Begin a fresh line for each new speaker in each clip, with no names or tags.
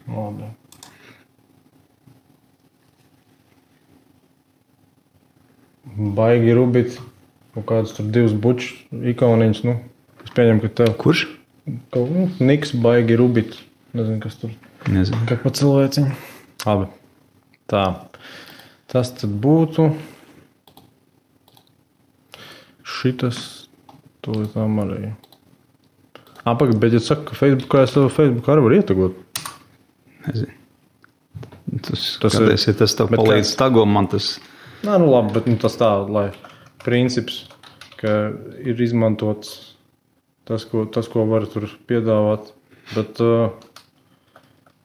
Labi. Baigi rubīt. Kaut kāds tur 2 bučs ikoniņas. Nu, es pieņemu, ka tev.
Kurš?
Niks baigi rubīt. Nezinu, kas tur.
Nezinu.
Kā pa cilvēciņu. Labi. Tā. Tas tad būtu. Šitas. Tūlītām arī. Pagaid, bet ja saka, ka Facebookā es tev Facebookā arī var ietagot.
Nezinu. Tas tev palīdz tago, man tas...
Nē, nu labi, bet tas tā, lai princips, ka ir izmantots tas, ko var tur piedāvāt. Bet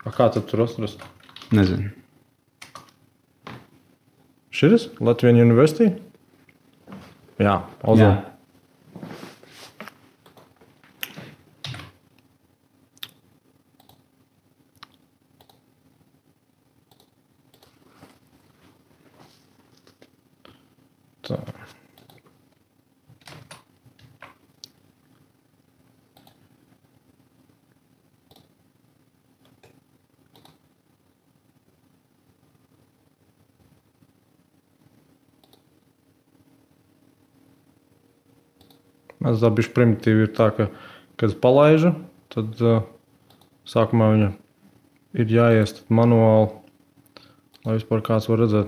kā tad tur atrast?
Nezinu.
Šitas? Latvijas University? Jā, Ozon. Tā. Mēs tā bišķi primitīvi ir tā, ka, kad es palaižu, tad sākumā viņa ir jāiest manuāli, lai vispār kāds var redzēt.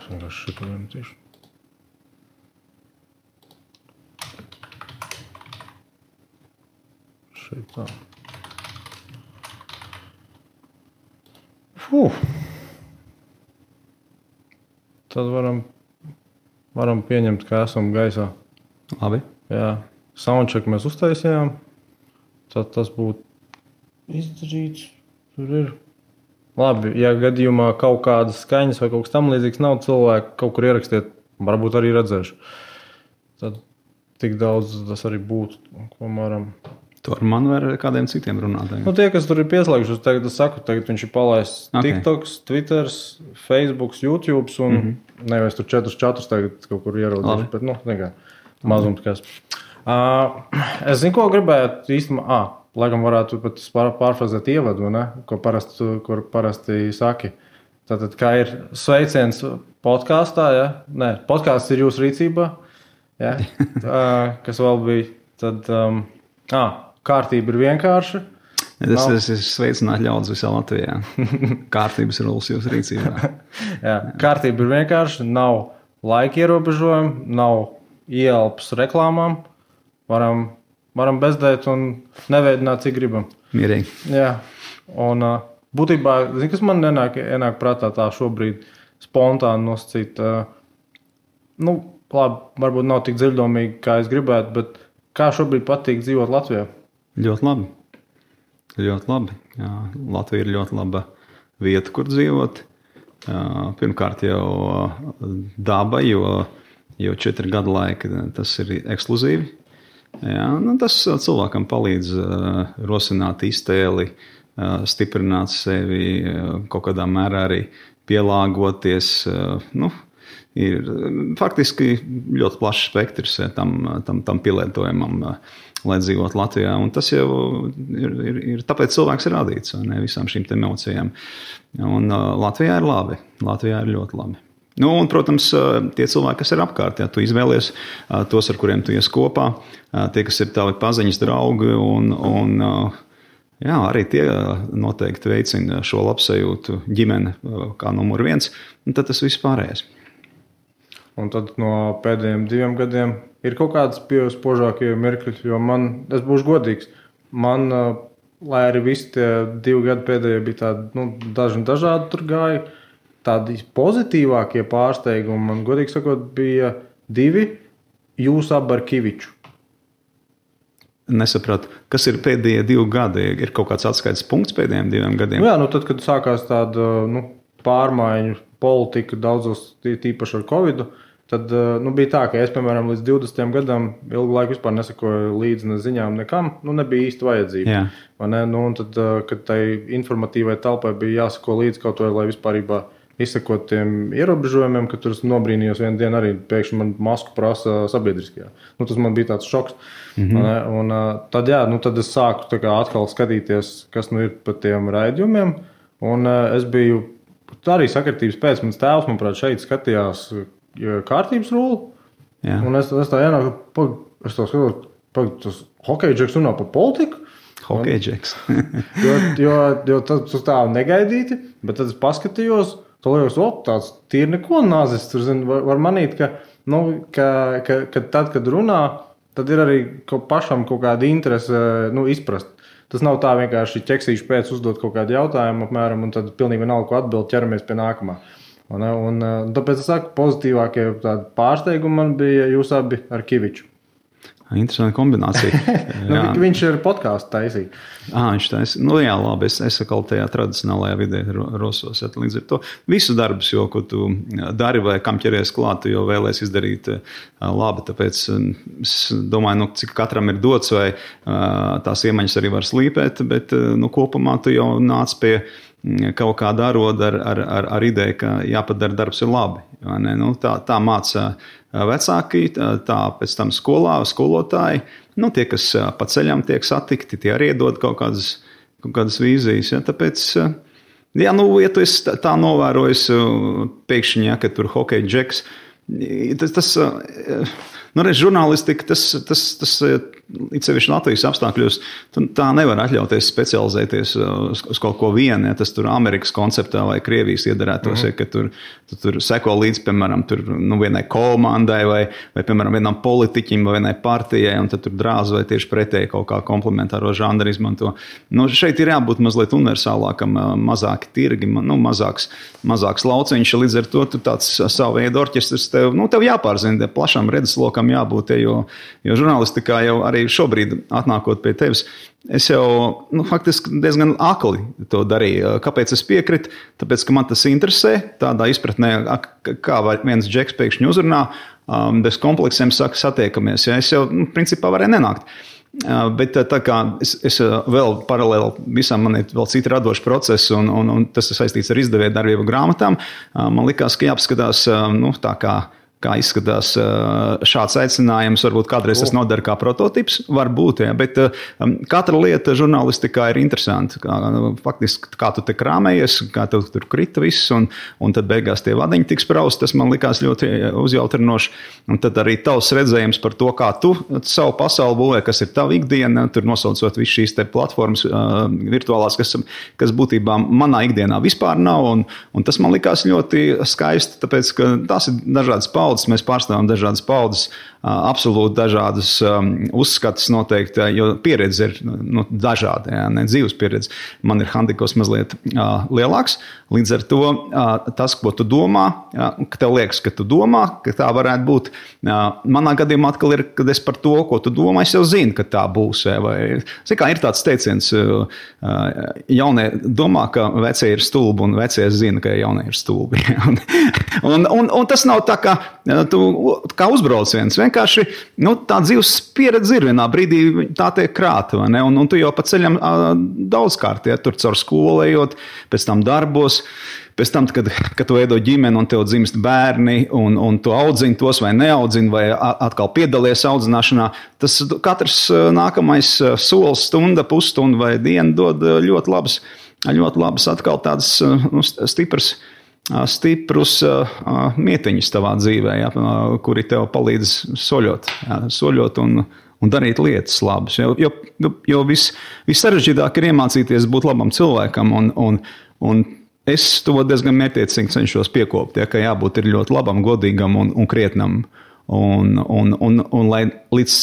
Es vienkārši šito iemetīšu. Šeit tā. Tad varam pieņemt, ka esam gaisā.
Labi.
Jā. Soundcheck mēs uztaisījām. Tad tas būtu izdarīts. Tur ir. Labi, ja gadījumā kaut kādas skaņas vai kaut kas tam līdzīgs nav, cilvēki kaut kur ierakstiet, varbūt arī redzēšu. Tad tik daudz tas arī būtu, ko varam.
Tu ar mani vai ar kādiem citiem runātājiem?
Nu, tie, kas tur ir pieslēgušies, tagad es saku, tagad viņš ir palaists TikToks, Twitters, Facebooks, YouTubes un nevis tur 4 tagad kaut kur ierodīšu, bet, nu, nekā, mazums kas. Es zinu, ko gribētu īstenībā, laikam varētu pat pārfrazēt ievadu, ne? Kur parasti saki. Tātad, kā ir sveiciens podkāstā, ja? Nē, podkāsts ir jūsu rīcībā, ja? Kas vēl bija, tad, kārtība ir vienkārša.
Tas ir sveicināt ļaudis visā Latvijā. Kārtības rulas jūsu rīcībā.
Jā, kārtība ir vienkārša, nav laika ierobežojumi, nav ieelpas reklāmām. Varam bezdēt un neveidināt, cik gribam.
Mierīgi.
Jā, un būtībā, zini, kas man ienāk prātā tā šobrīd spontāni nosacīt. Nu, labi, varbūt nav tik dziļdomīgi, kā es gribētu, bet kā šobrīd patīk dzīvot Latvijā?
Ļoti labi. Ļoti labi. Jā, Latvija ir ļoti laba vieta, kur dzīvot. Pirmkārt jau daba, jo 4 gadu laika tas ir ekskluzīvi. Jā, nu tas cilvēkam palīdz rosināt iztēli, stiprināt sevi, kaut kādā mērā arī pielāgoties. Nu, ir faktiski ļoti plašs spektrs tam pielietojumam, lai dzīvot Latvijā. Un tas jau ir tāpēc cilvēks ir radīts, ne visām šīm emocijām. Un Latvijā ir labi. Latvijā ir ļoti labi. Nu, un, protams, tie cilvēki, kas ir apkārt, ja tu izvēlies tos, ar kuriem tu ies kopā, tie, kas ir tavi paziņas draugi, un jā, arī tie noteikti veicina šo labsajūtu ģimene kā numur 1, un tad tas viss pārējais.
Un tad no pēdējiem 2 gadiem ir kaut kādas spožākie mirkļi, jo es būšu godīgs, lai arī visi tie 2 gadi pēdējie bija tādi, dažādi tur gāja, tādi pozitīvākie pārsteigumi, man godīgi sakot, bija 2 jūs abi ar Kiviču.
nesapratu, kas ir pēdējie 2 gadi. Ir kaut kāds atskaites punkts pēdējiem 2 gadiem?
Jā, tad, kad sākās tāda pārmaiņu politika daudzos, tīpaši ar Covidu, tad bija tā, ka es, piemēram, līdz 20 gadam ilgu laiku vispār nesakoju līdzi ne ziņām nekam, nebija īsti vajadzība. Un tad, kad tai informatīvai telpai bija jāsako līdzi kaut vai, lai vispārībā izsakot tiem ierobežojumiem, ka tur es nobrīnījos vienu dienu arī pēkšņi man masku prasa sabiedriskajā. Tas man bija tāds šoks. Un tad, tad es sāku atkal skatīties, kas ir pa tiem raidījumiem. Un es biju arī sakritības pēc, mans tēvs, manuprāt, šeit skatījās kārtības rulli. Un es tā ienāku, es tā skatos, tas hokeja džeks runā par politiku.
Hokeja džeks.
jo tas tā negaidīti, bet tad es paskatījos, tāds tīri neko nazis. Tur var manīt, ka tad, kad runā, tad ir arī pašam kaut kāda interese izprast. Tas nav tā vienkārši ķeksīšu pēc uzdot kaut kādu jautājumu apmēram, un tad pilnīgi vienalga, ko atbild, ķeramies pie nākamā. Un tāpēc es saku, pozitīvākie tādi pārsteigumi man bija jūs abi ar Kiviču.
Interesanta kombinācija.
Viņš ir podkāstu taisīt.
Viņš taisīt. Jā, labi, es atkal tajā tradicionālajā vidē rosos. Līdz ar to visu darbus, ko tu dari vai kam ķeries klāt, tu jau vēlies izdarīt labi. Tāpēc es domāju, cik katram ir dots vai tās iemaņas arī var slīpēt, bet kopumā tu jau nāc pie kaut kāda aroda ar ideju, ka jāpadara darbs ir labi. Tā māca vecāki, tā pēc tam skolā, skolotāji. Tie, kas pa ceļam tiek satikti, tie arī iedod kaut kādas vīzijas. Tāpēc, ja tu esi tā novērojis pēkšņi, ka tur hokeja džeks, tas žurnālistika, tas it sevišķi Latvijas apstākļos, tā nevar atļauties specializēties uz kaut ko vienu, tas tur Amerikas konceptā vai Krievijas iedarētos, ka tur seko līdz, piemēram, vienai komandai vai, piemēram, vienam politiķim vai vienai partijai, un tad tur drāz vai tieši pretēji kaut kā komplementāro žanru izmanto. Šeit ir jābūt mazliet universālākam, mazāki tirgi, mazāks lauciņš, līdz ar to tu tāds savu veidu orķestris tev jāpārzina, plašam redzeslokam jābūt, jo žurnālistikā jau arī šobrīd atnākot pie tevis, es jau faktiski diezgan akli to darīju. Kāpēc es piekritu? Tāpēc, ka man tas interesē, tādā izpratnē, kā viens džeks pēkšņi uzrunā, bez kompleksiem saka satiekamies. Es jau, principā, varēju nenākt. Bet tā kā es vēl paralēli visam man ir vēl citi radoši procesi, un tas ir saistīts ar izdevēju darbību grāmatām, man likās, ka jāapskatās, tā kā izskatās šāds aicinājums, varbūt kādreiz tas nodara kā prototips, varbūt, bet katra lieta žurnālistikā ir interesanta. Faktiski, kā tu te krāmējies, kā tev tur krita viss, un tad beigās tie vadiņi tiks praust, tas man likās ļoti uzjautrinoši. Un tad arī tavs redzējums par to, kā tu savu pasauli būvē, kas ir tava ikdiena, tur nosaucot visu šīs te platformas virtuālās, kas būtībā manā ikdienā vispār nav, un tas man likās ļoti skaisti, tāpēc, ka tās ir dažādas paudzes, mēs pārstāvam dažādas paudzes, absolūti dažādas uzskatas noteikti, jo pieredze ir dažāda, ne dzīves pieredze. Man ir handikops mazliet lielāks, līdz ar to tas, ko tu domā, ka tev liekas, ka tu domā, ka tā varētu būt. Manā gadījumā atkal ir, kad es par to, ko tu domā, es jau zinu, ka tā būs. Kā ir tāds teiciens, jaunie domā, ka vecie ir stulbi, un vecie zina, ka jaunie ir stulbi. un tas nav tā, tu kā uzbrauc viens. Vienkārši tā dzīves pieredze ir vienā brīdī, tā tiek krāta, vai ne? Un tu jau pa ceļam daudzkārt, tur caur skolu ejot, pēc tam darbos, pēc tam, kad tu veido ģimeni un tev dzimst bērni, un tu audzini tos vai neaudzini, vai atkal piedalies audzināšanā, tas katrs nākamais solis, stunda, pusstunda vai diena dod ļoti labas atkal tādas stiprus mietiņus tavā dzīvē, kuri tev palīdz soļot un darīt lietas labas. Jo vissarežģītāk ir iemācīties būt labam cilvēkam, un es to diezgan mērķiecīgi cenšos piekopt, ka jābūt ir ļoti labam, godīgam un krietnam. Un lai līdz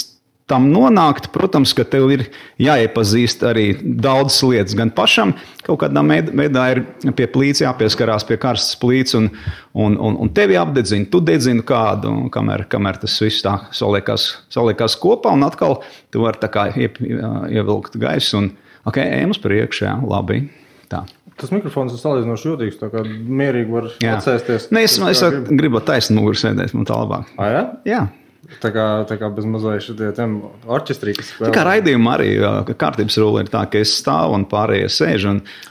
tam nonākt, protams, ka tev ir jāiepazīst arī daudzas lietas. Gan pašam kaut kādā veidā ir pie plīts jāpieskarās pie karstas plīts un tevi apdedzina, tu dedzini kādu, kamēr tas viss tā saliekās kopā un atkal tu vari tā kā ievilkt gaisu un ejam uz priekšu, jā, labi, tā.
Tas mikrofons ir salīdzinoši jūtīgs, tā kā mierīgi var atsēsties.
Ne, es gribu taisnu muguru sēdēt, man tā labāk.
Jā?
Jā.
Tā kā bez mazliet šitie orķestrī, kas spēlē.
Tā kā raidījumā arī kārtības rula ir tā, ka es stāvu un pārējie sēž,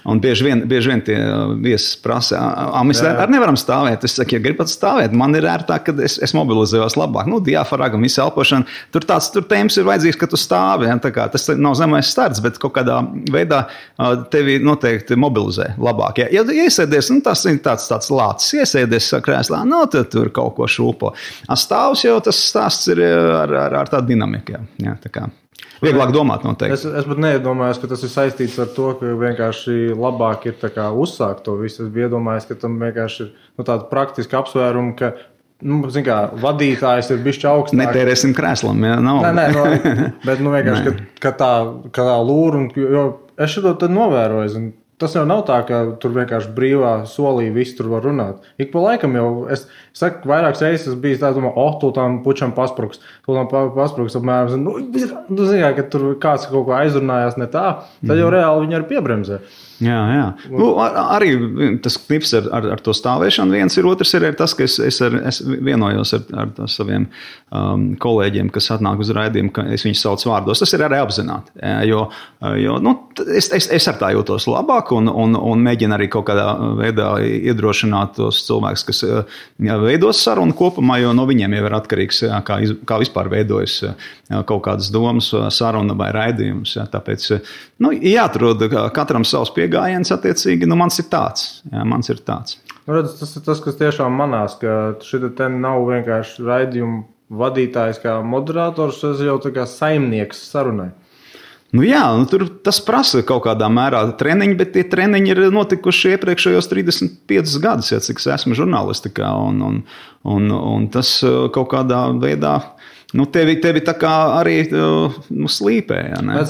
un bieži vien tie viesis prasa, mēs arī nevaram stāvēt. Es saku, ja gribat stāvēt, man ir ērtāk, kad es mobilizējos labāk. Diafragma, visa elpošana, tur tēmas ir vajadzīgs, ka tu stāvi. Ja? Tā kā tas nav zemais starts, bet kaut kādā veidā tevi noteikti mobilizē labāk. Ja iesēdies, tas ir tāds lācis, iesēdies krēslā, tad tur kaut ko šūpo. Stāvs jau tas stāsts ir ar tādu dinamiku. Jā, tā kā vieglāk domāt noteikti.
Es pat neiedomājos, ka tas ir saistīts ar to, ka vienkārši labāk ir tā kā uzsākt to visu. Es biju iedomājies, ka tam vienkārši ir tāda praktiska apsvēruma, ka vadītājs ir bišķi augstāk.
Netērēsim krēslam, jā, nav.
Nē, bet vienkārši, ka tā lūra, jo es šo tad novēroju, tas jau nav tā, ka tur vienkārši brīvā solī viss tur var runāt. Ik pa laikam jau, es saku, vairākas reizes bijis tā, domāju, tu tām pučam paspruks apmēram, tu zini, ka tur kāds kaut ko aizrunājās ne tā, tad jau reāli viņi arī piebremzē.
Jā. Arī tas knips ar to stāvēšanu viens ir, otrs ir tas, ka es vienojos ar saviem kolēģiem, kas atnāk uz raidījumu, ka es viņus saucu vārdos. Tas ir arī apzināti, jo es ar tā jūtos labāk un mēģinu arī kaut kādā veidā iedrošināt tos cilvēkus, kas veidos sarunu kopumā, jo no viņiem jau ir atkarīgs, kā vispār veidojas kaut kādas domas, saruna vai raidījums. Tāpēc jāatrod katram savs piegājiens attiecīgi, mans ir tāds. Jā, mans ir tāds.
Redz, tas ir tas, kas tiešām manās, ka šita te nav vienkārši raidījuma vadītājs kā moderators, tas jau tā kā saimnieks sarunai.
Tur tas prasa kaut kādā mērā treniņi, bet tie treniņi ir notikuši iepriekšējos 35 gadus, cik es esmu žurnālistikā, un tas kaut kādā veidā tevi tā kā arī slīpē. Ja, ne?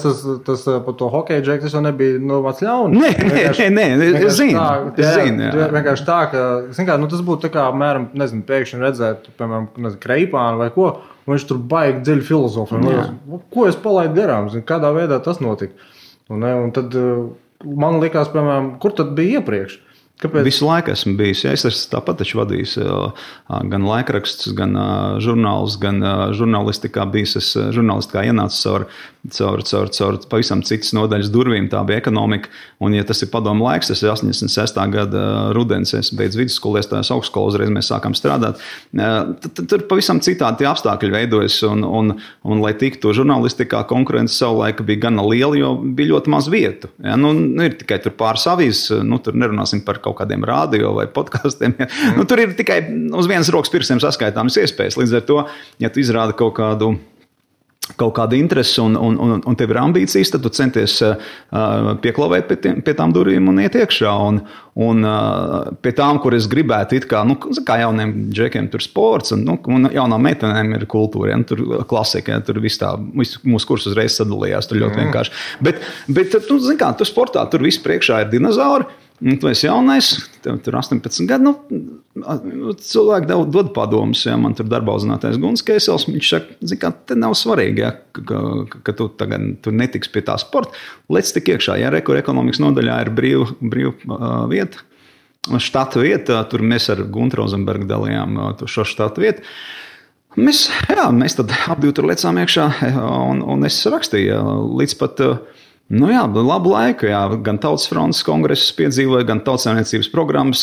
Tas par to hokeju džeku, tas jau nebija vats ļauns.
Nē, es zinu.
Vienkārši tā, ka tas būtu tā kā, mēram, pēkšņi redzēt, piemēram, Kreipānu vai ko, un viņš tur baigi dziļi filozofiju. Ko es palaidu garām? Kādā veidā tas notika? Un tad man likās, piemēram, kur tad bija iepriekš? Kāpēc?
Visu laiku esmu bijis. Ja, es esmu tāpat vadījis gan laikrakstus, gan žurnālus, gan žurnālistikā bijis. Es žurnālistikā ienācu caur pavisam citas nodaļas durvīm. Tā bija ekonomika. Un, ja tas ir padomu laiks, tas ir 86. gada rudens, es beidzu vidusskolu, iestājos augstskolu, uzreiz mēs sākām strādāt. Tur pavisam citādi tie apstākļi veidojas. Un lai tiktu žurnālistikā, konkurence savulaik bija gana liela, jo bija ļoti maz vietu. Ja, ir tikai tur pāris avīzes, tur nerunāsim par kaut kādiem radio vai podkastiem. Ja. Tur ir tikai uz vienas rokas pirkstiem saskaitāmas iespējas. Līdz ar to, ja tu izrādi kaut kādu interesi un tev ir ambīcijas, tad tu centies pieklavēt pie tām durvīm un iet iekšā. Un pie tām, kur es gribētu it kā jauniem džekiem tur sports un jaunām meitenēm ir kultūra, ja, tur klasika, ja, tur mūsu kurs uzreiz sadalījās, tur ļoti vienkārši. Bet tu sportā, tur viss priekšā ir dinozauri. Tu esi jaunais, tev tur 18 gadi, cilvēki dod padomus, ja, man tur darbā uzzinātais Guns Keisels, viņš saka, te nav svarīgi, ja, ka tu tagad tur netiks pie tā sporta, lec tik iekšā, ja ekonomikas nodaļā ir brīva vieta, štata vieta, tur mēs ar Guntu Rozenbergu dalījām šo štata vietu. Mēs tad abi tur lecām iekšā, un es rakstīju līdz pat labu laiku, jā, gan Tautas frontes kongresus piedzīvoja, gan tautsaimniecības programmas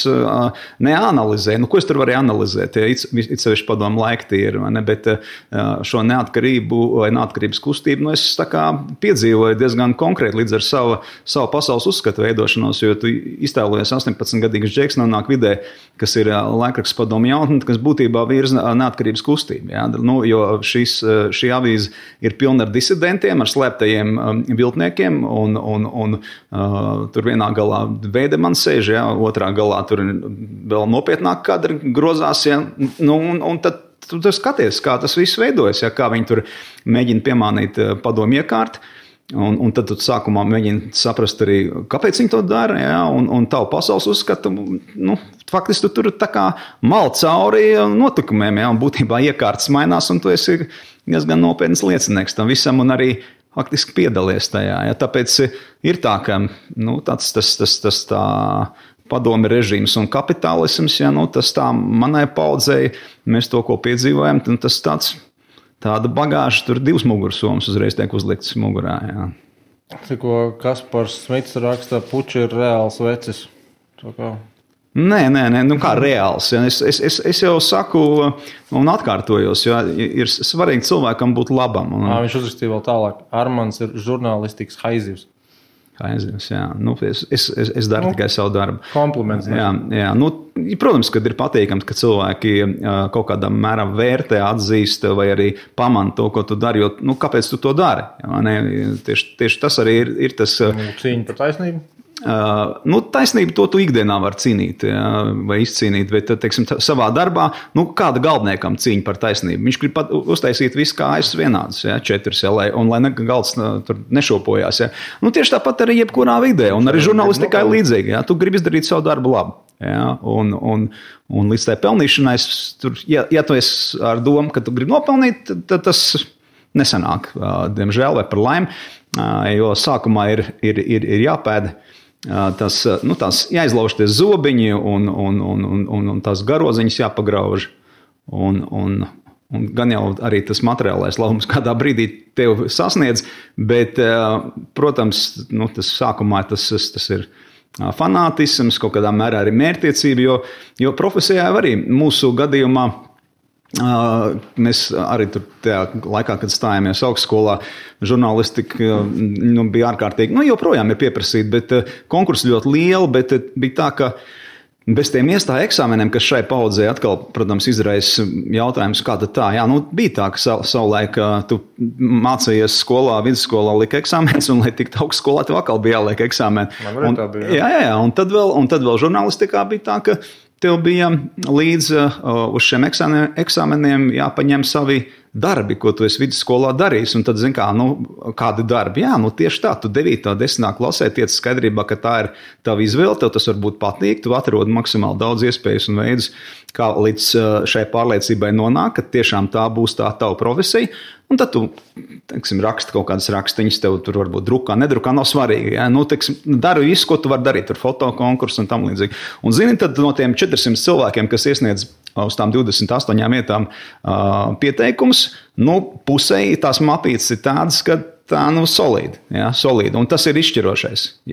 neanalizēja. Ko es tur varēju analizēt? It sevišķi padomu laika tie ir, ne? Bet šo neatkarību vai neatkarības kustību es tā kā piedzīvoju diezgan konkrēti līdz ar savu pasaules uzskatu veidošanos, jo tu iztēlojies 18-gadīgs džeks nonāk vidē, kas ir laikraksts padomu jaunatne, kas būtībā virza neatkarības kustību. Jā? Jo šī avīze ir pilna ar disidentiem, ar slēptajiem viltniekiem, un tur vienā galā Veidemans sēž, ja, otrā galā tur vēl nopietnāk kadri grozās, ja, un tad tu skaties, kā tas viss veidojas, ja, kā viņi tur mēģina piemānīt padomu iekārt. Un tad tu sākumā mēģini saprast arī, kāpēc viņi to dara, ja, un tavu pasaules uzskatu, faktiski tu tur tā kā mal cauri notikumiem, ja, un būtībā iekārtas mainās, un tu esi diezgan nopietnas liecinieks tam visam, un arī faktiski piedalies tajā, ja, tāpēc ir tā, ka, tas tā padomi režīms un kapitālisms, ja, tas tā manai paudzei, mēs to, ko piedzīvojam, tas tāda bagāža, tur 2 mugursomas uzreiz tiek uzliktas mugurā. Jā.
Tikko Kaspars Smits raksta, puči ir reāls vecis.
Nē, kā reāls. Ja? Es jau saku un atkārtojos, ja ir svarīgi cilvēkam būt labam.
Viņš uzrakstīja vēl tālāk. Armands ir žurnālistikas haizivs.
Jā. Es daru tikai savu darbu.
Kompliments.
Jā. Protams, kad ir patīkams, ka cilvēki kaut kādā mērā vērtē, atzīst vai arī pamana to, ko tu dari, jo kāpēc tu to dari? Tieši tas arī ir tas...
Cīņa par taisnību?
Taisnība to tu ikdienā var cīnīt, ja, vai izcīnīt, bet, teiksim, savā darbā, kāda galveniekam cīņa par taisnību? Viņš grib uztaisīt visu kājas vienādas, ja, 4, ja, un lai galds tur nešopojās. Ja. Tieši tāpat arī jebkurā vidē, un arī žurnālistikai līdzīgi, ja, tu gribi izdarīt savu darbu labi. Ja, un līdz tai pelnīšanai, ja tu esi ar domu, ka tu gribi nopelnīt, tad tas nesanāk, diemžēl, vai par laimi, jo sākumā ir jāpēda. Tās jāizlauž tie zobiņi un tās garoziņas jāpagrauž. Un gan jau arī tas materiālais labums kādā brīdī tev sasniedz, bet, protams, tas sākumā tas ir fanātisms, kaut kādā mērā arī mērķtiecība, jo profesijā arī mūsu gadījumā mēs arī tur tajā laikā, kad stājāmies augstskolā, žurnālistika bija ārkārtīgi, joprojām ir pieprasīta, bet konkursi ļoti lieli, bet bija tā, ka bez tiem iestāja eksāmeniem, kas šai paudzē atkal, protams, izraisa jautājums, kā tad tā, bija tā, ka savulaik tu mācījies skolā, vidusskolā lika eksāmenis, un lai tiktu augstskolā, tev atkal bija jāliek eksāmeni. Jā, un tad vēl žurnālistikā bija tā, ka tev bija līdz uz šiem eksāmeniem jāpaņem savi darbi, ko tu esi vidusskolā darījis. Un tad, kādi darbi? Jā, tieši tā, tu 9. 10. klasē tiec skaidrībā, ka tā ir tava izvēle, tev tas varbūt patīk, tu atrodi maksimāli daudz iespējas un veidus, kā līdz šai pārliecībai nonāk, ka tiešām tā būs tā tava profesija. Un tad tu, raksti kaut kādas rakstiņas, tev tur varbūt drukā, nedrukā, nav svarīgi. Ja? Dari visu, ko tu vari darīt, tur fotokonkursu un tam līdzīgi. Un zini, tad no tiem 400 cilvēkiem, kas iesniedz uz tām 28 vietām pieteikums, pusēji tās mapītes ir tādas, ka tā solīdi. Ja? Solīdi. Un tas ir izšķirošais.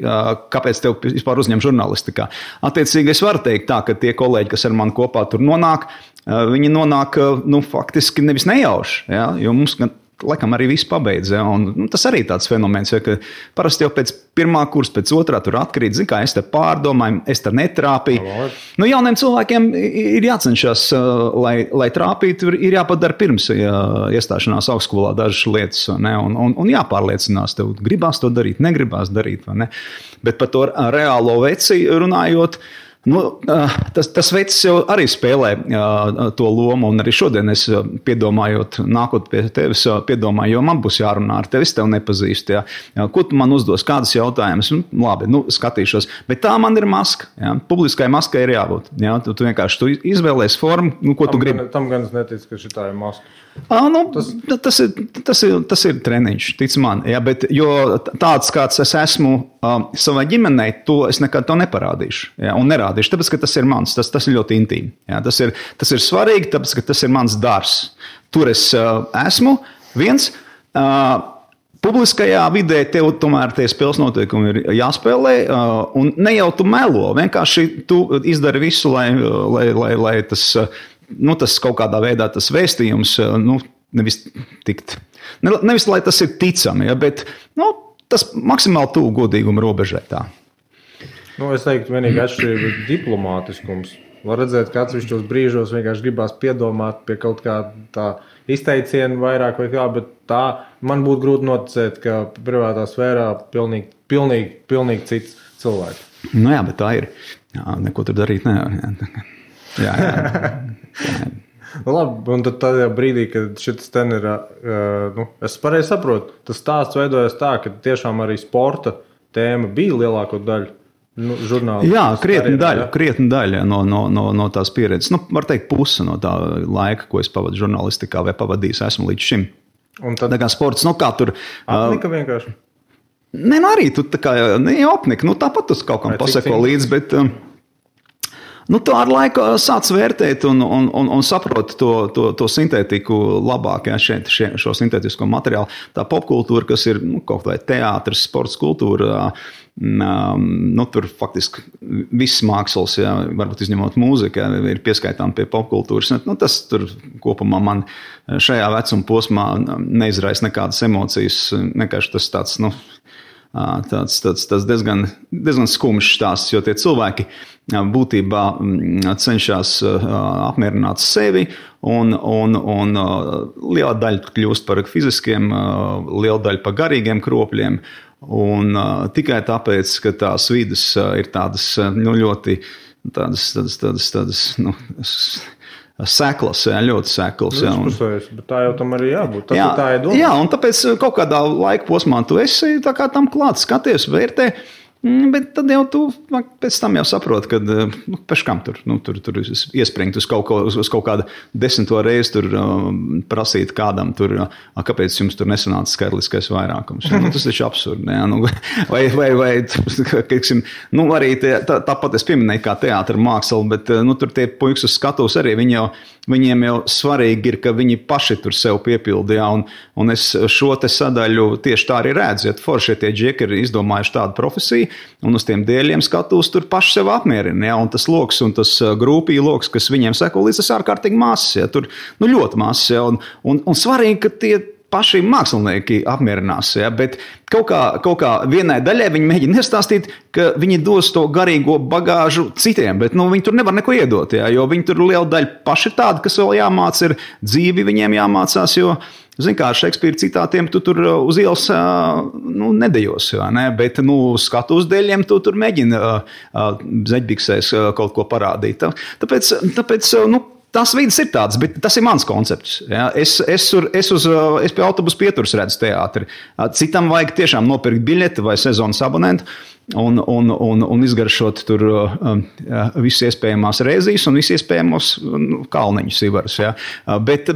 Kāpēc tev vispār uzņem žurnālistikā? Attiecīgi es varu teikt tā, ka tie kolēģi, kas ar mani kopā tur nonāk, viņi nonāk, faktiski nevis nejauši, ja? Jo mums laikam arī viss pabeidz. Ja? Un tas arī tāds fenomens, ja, ka parasti jau pēc 1. kursa, pēc 2. tur atkrīt, kā es te pārdomāju, es te netrāpīju. Jauniem cilvēkiem ir jācenšas, lai trāpītu, ir jāpadara pirms iestāšanās augstskolā dažas lietas, ne? Un jāpārliecinās, tev gribās to darīt, negribās darīt, vai ne? Bet par to reālo veci runājot, tas vecs jau arī spēlē to lomu, un arī šodien es piedomājot, nākot pie tevis, piedomāju, jo man būs jārunā ar tevi, es tev nepazīstu. Ja. Ko tu man uzdos, kādas jautājumas? Labi, skatīšos. Bet tā man ir maska. Ja. Publiskai maskai ir jābūt. Ja. Tu vienkārši izvēlēs formu, ko tu gribi.
Tam gan es neticu, ka šitā ir maska.
Tas ir treniņš, tic man. Ja, bet, jo tāds, kāds es esmu savai ģimenei, to es nekad to neparādīšu. Ja, un nerādīšu, tāpēc, ka tas ir mans, tas ir ļoti intīmi. Ja, tas ir svarīgi, tāpēc, ka tas ir mans darbs. Tur es esmu viens. Publiskajā vidē tev tomēr tie spēles noteikumi ir jāspēlē, un ne jau tu melo, vienkārši tu izdari visu, lai tas... tas kaut kādā veidā tas vēstījums, nevis lai tas ir ticami, ja, bet tas maksimāli tuvu godīguma robežai tā.
Es teiktu, vienīgi atšķirība ir diplomātiskums. Var redzēt, ka atsevišķos brīžos vienkārši gribās piedomāt pie kaut kā tā izteiciena vairāk vai kā, bet tā man būtu grūti noticēt, ka privātā sfērā pilnīgi cits cilvēks.
Jā, bet tā ir. Jā, neko tur darīt nevar. Jā.
Labi, un tad tajā brīdī, kad šis ten ir, es pareizi saprotu, tas stāsts veidojas tā, ka tiešām arī sporta tēma bija lielāko daļu. Žurnāli.
Jā, krietni daļa no tās pieredzes. Var teikt, puse no tā laika, ko es pavadu žurnālistikā vai pavadījis esmu līdz šim. Un tad kā sports, kā tur...
Apnika vienkārši?
Nē, arī tu tā kā neapnika. Tāpat tu kaut kam pasako līdzi, bet... Tu ar laiku sāc vērtēt un saproti to sintētiku labāk, šo sintētisko materiālu. Tā popkultūra, kas ir kaut vai teātris, sports kultūra, tur faktiski viss mākslas, varbūt izņemot mūziku, ir pieskaitām pie popkultūras. Tas tur kopumā man šajā vecuma posmā neizraisa nekādas emocijas, vienkārši tas tāds, tāds diezgan skumjš stāsts, jo tie cilvēki būtībā cenšas apmierināt sevi, un liela daļa kļūst par fiziskiem, liela daļa par garīgiem kropļiem, un tikai tāpēc, ka tās vidas ir tādas ļoti seklas, ļoti seklas.
Bet tā jau tam arī jābūt. Tā ir doma.
Jā, un tāpēc kaut kādā laika posmā tu esi tā kā tam klāt, skaties, vērtē, bet tad jau tu pēc tam jau saproti, ka pēc kam tur iespringt uz kaut kādu 10. reizi tur prasīt kādam tur, kāpēc jums tur nesanāca skaitliskais vairākums. Tas taču absurdi. Vai teiksim, arī tāpat es pieminēju kā teātra māksla, bet tur tie puikas uz skatuves arī, viņiem jau svarīgi ir, ka viņi paši tur sev piepildīja, un es šo te sadaļu tieši tā arī redzu, ja forši tie džeki ir izdomājuši tādu profesiju, un uz tiem dēļiem skatos tur paši sev apmierina, un tas loks un tas grupī loks, kas viņiem seko līdz tas ārkārtīgi mazs, tur ļoti mazs, un svarīgi, ka tie paši mākslinieki apmierinās, bet kaut kā vienai daļai viņi mēģina iestāstīt, ka viņi dos to garīgo bagāžu citiem, bet viņi tur nevar neko iedot, jo viņi tur liela daļa paši tādi, kas vēl jāmāc, ir dzīvi viņiem jāmācās, jo zini kā, ar Šekspīra citātiem tu tur uz ielas nedejos, bet skatu uz dēļiem tu tur mēģini zeķbiksēs kaut ko parādīt. Tāpēc tās vidas ir tādas, bet tas ir mans koncepts. Ja? Es pie autobusu pieturas redzu teātri. Citam vajag tiešām nopirkt biļeti vai sezonas abonentu un izgaršot tur visus iespējamās reizes un visus iespējamos kalniņus ivarus. Ja? Bet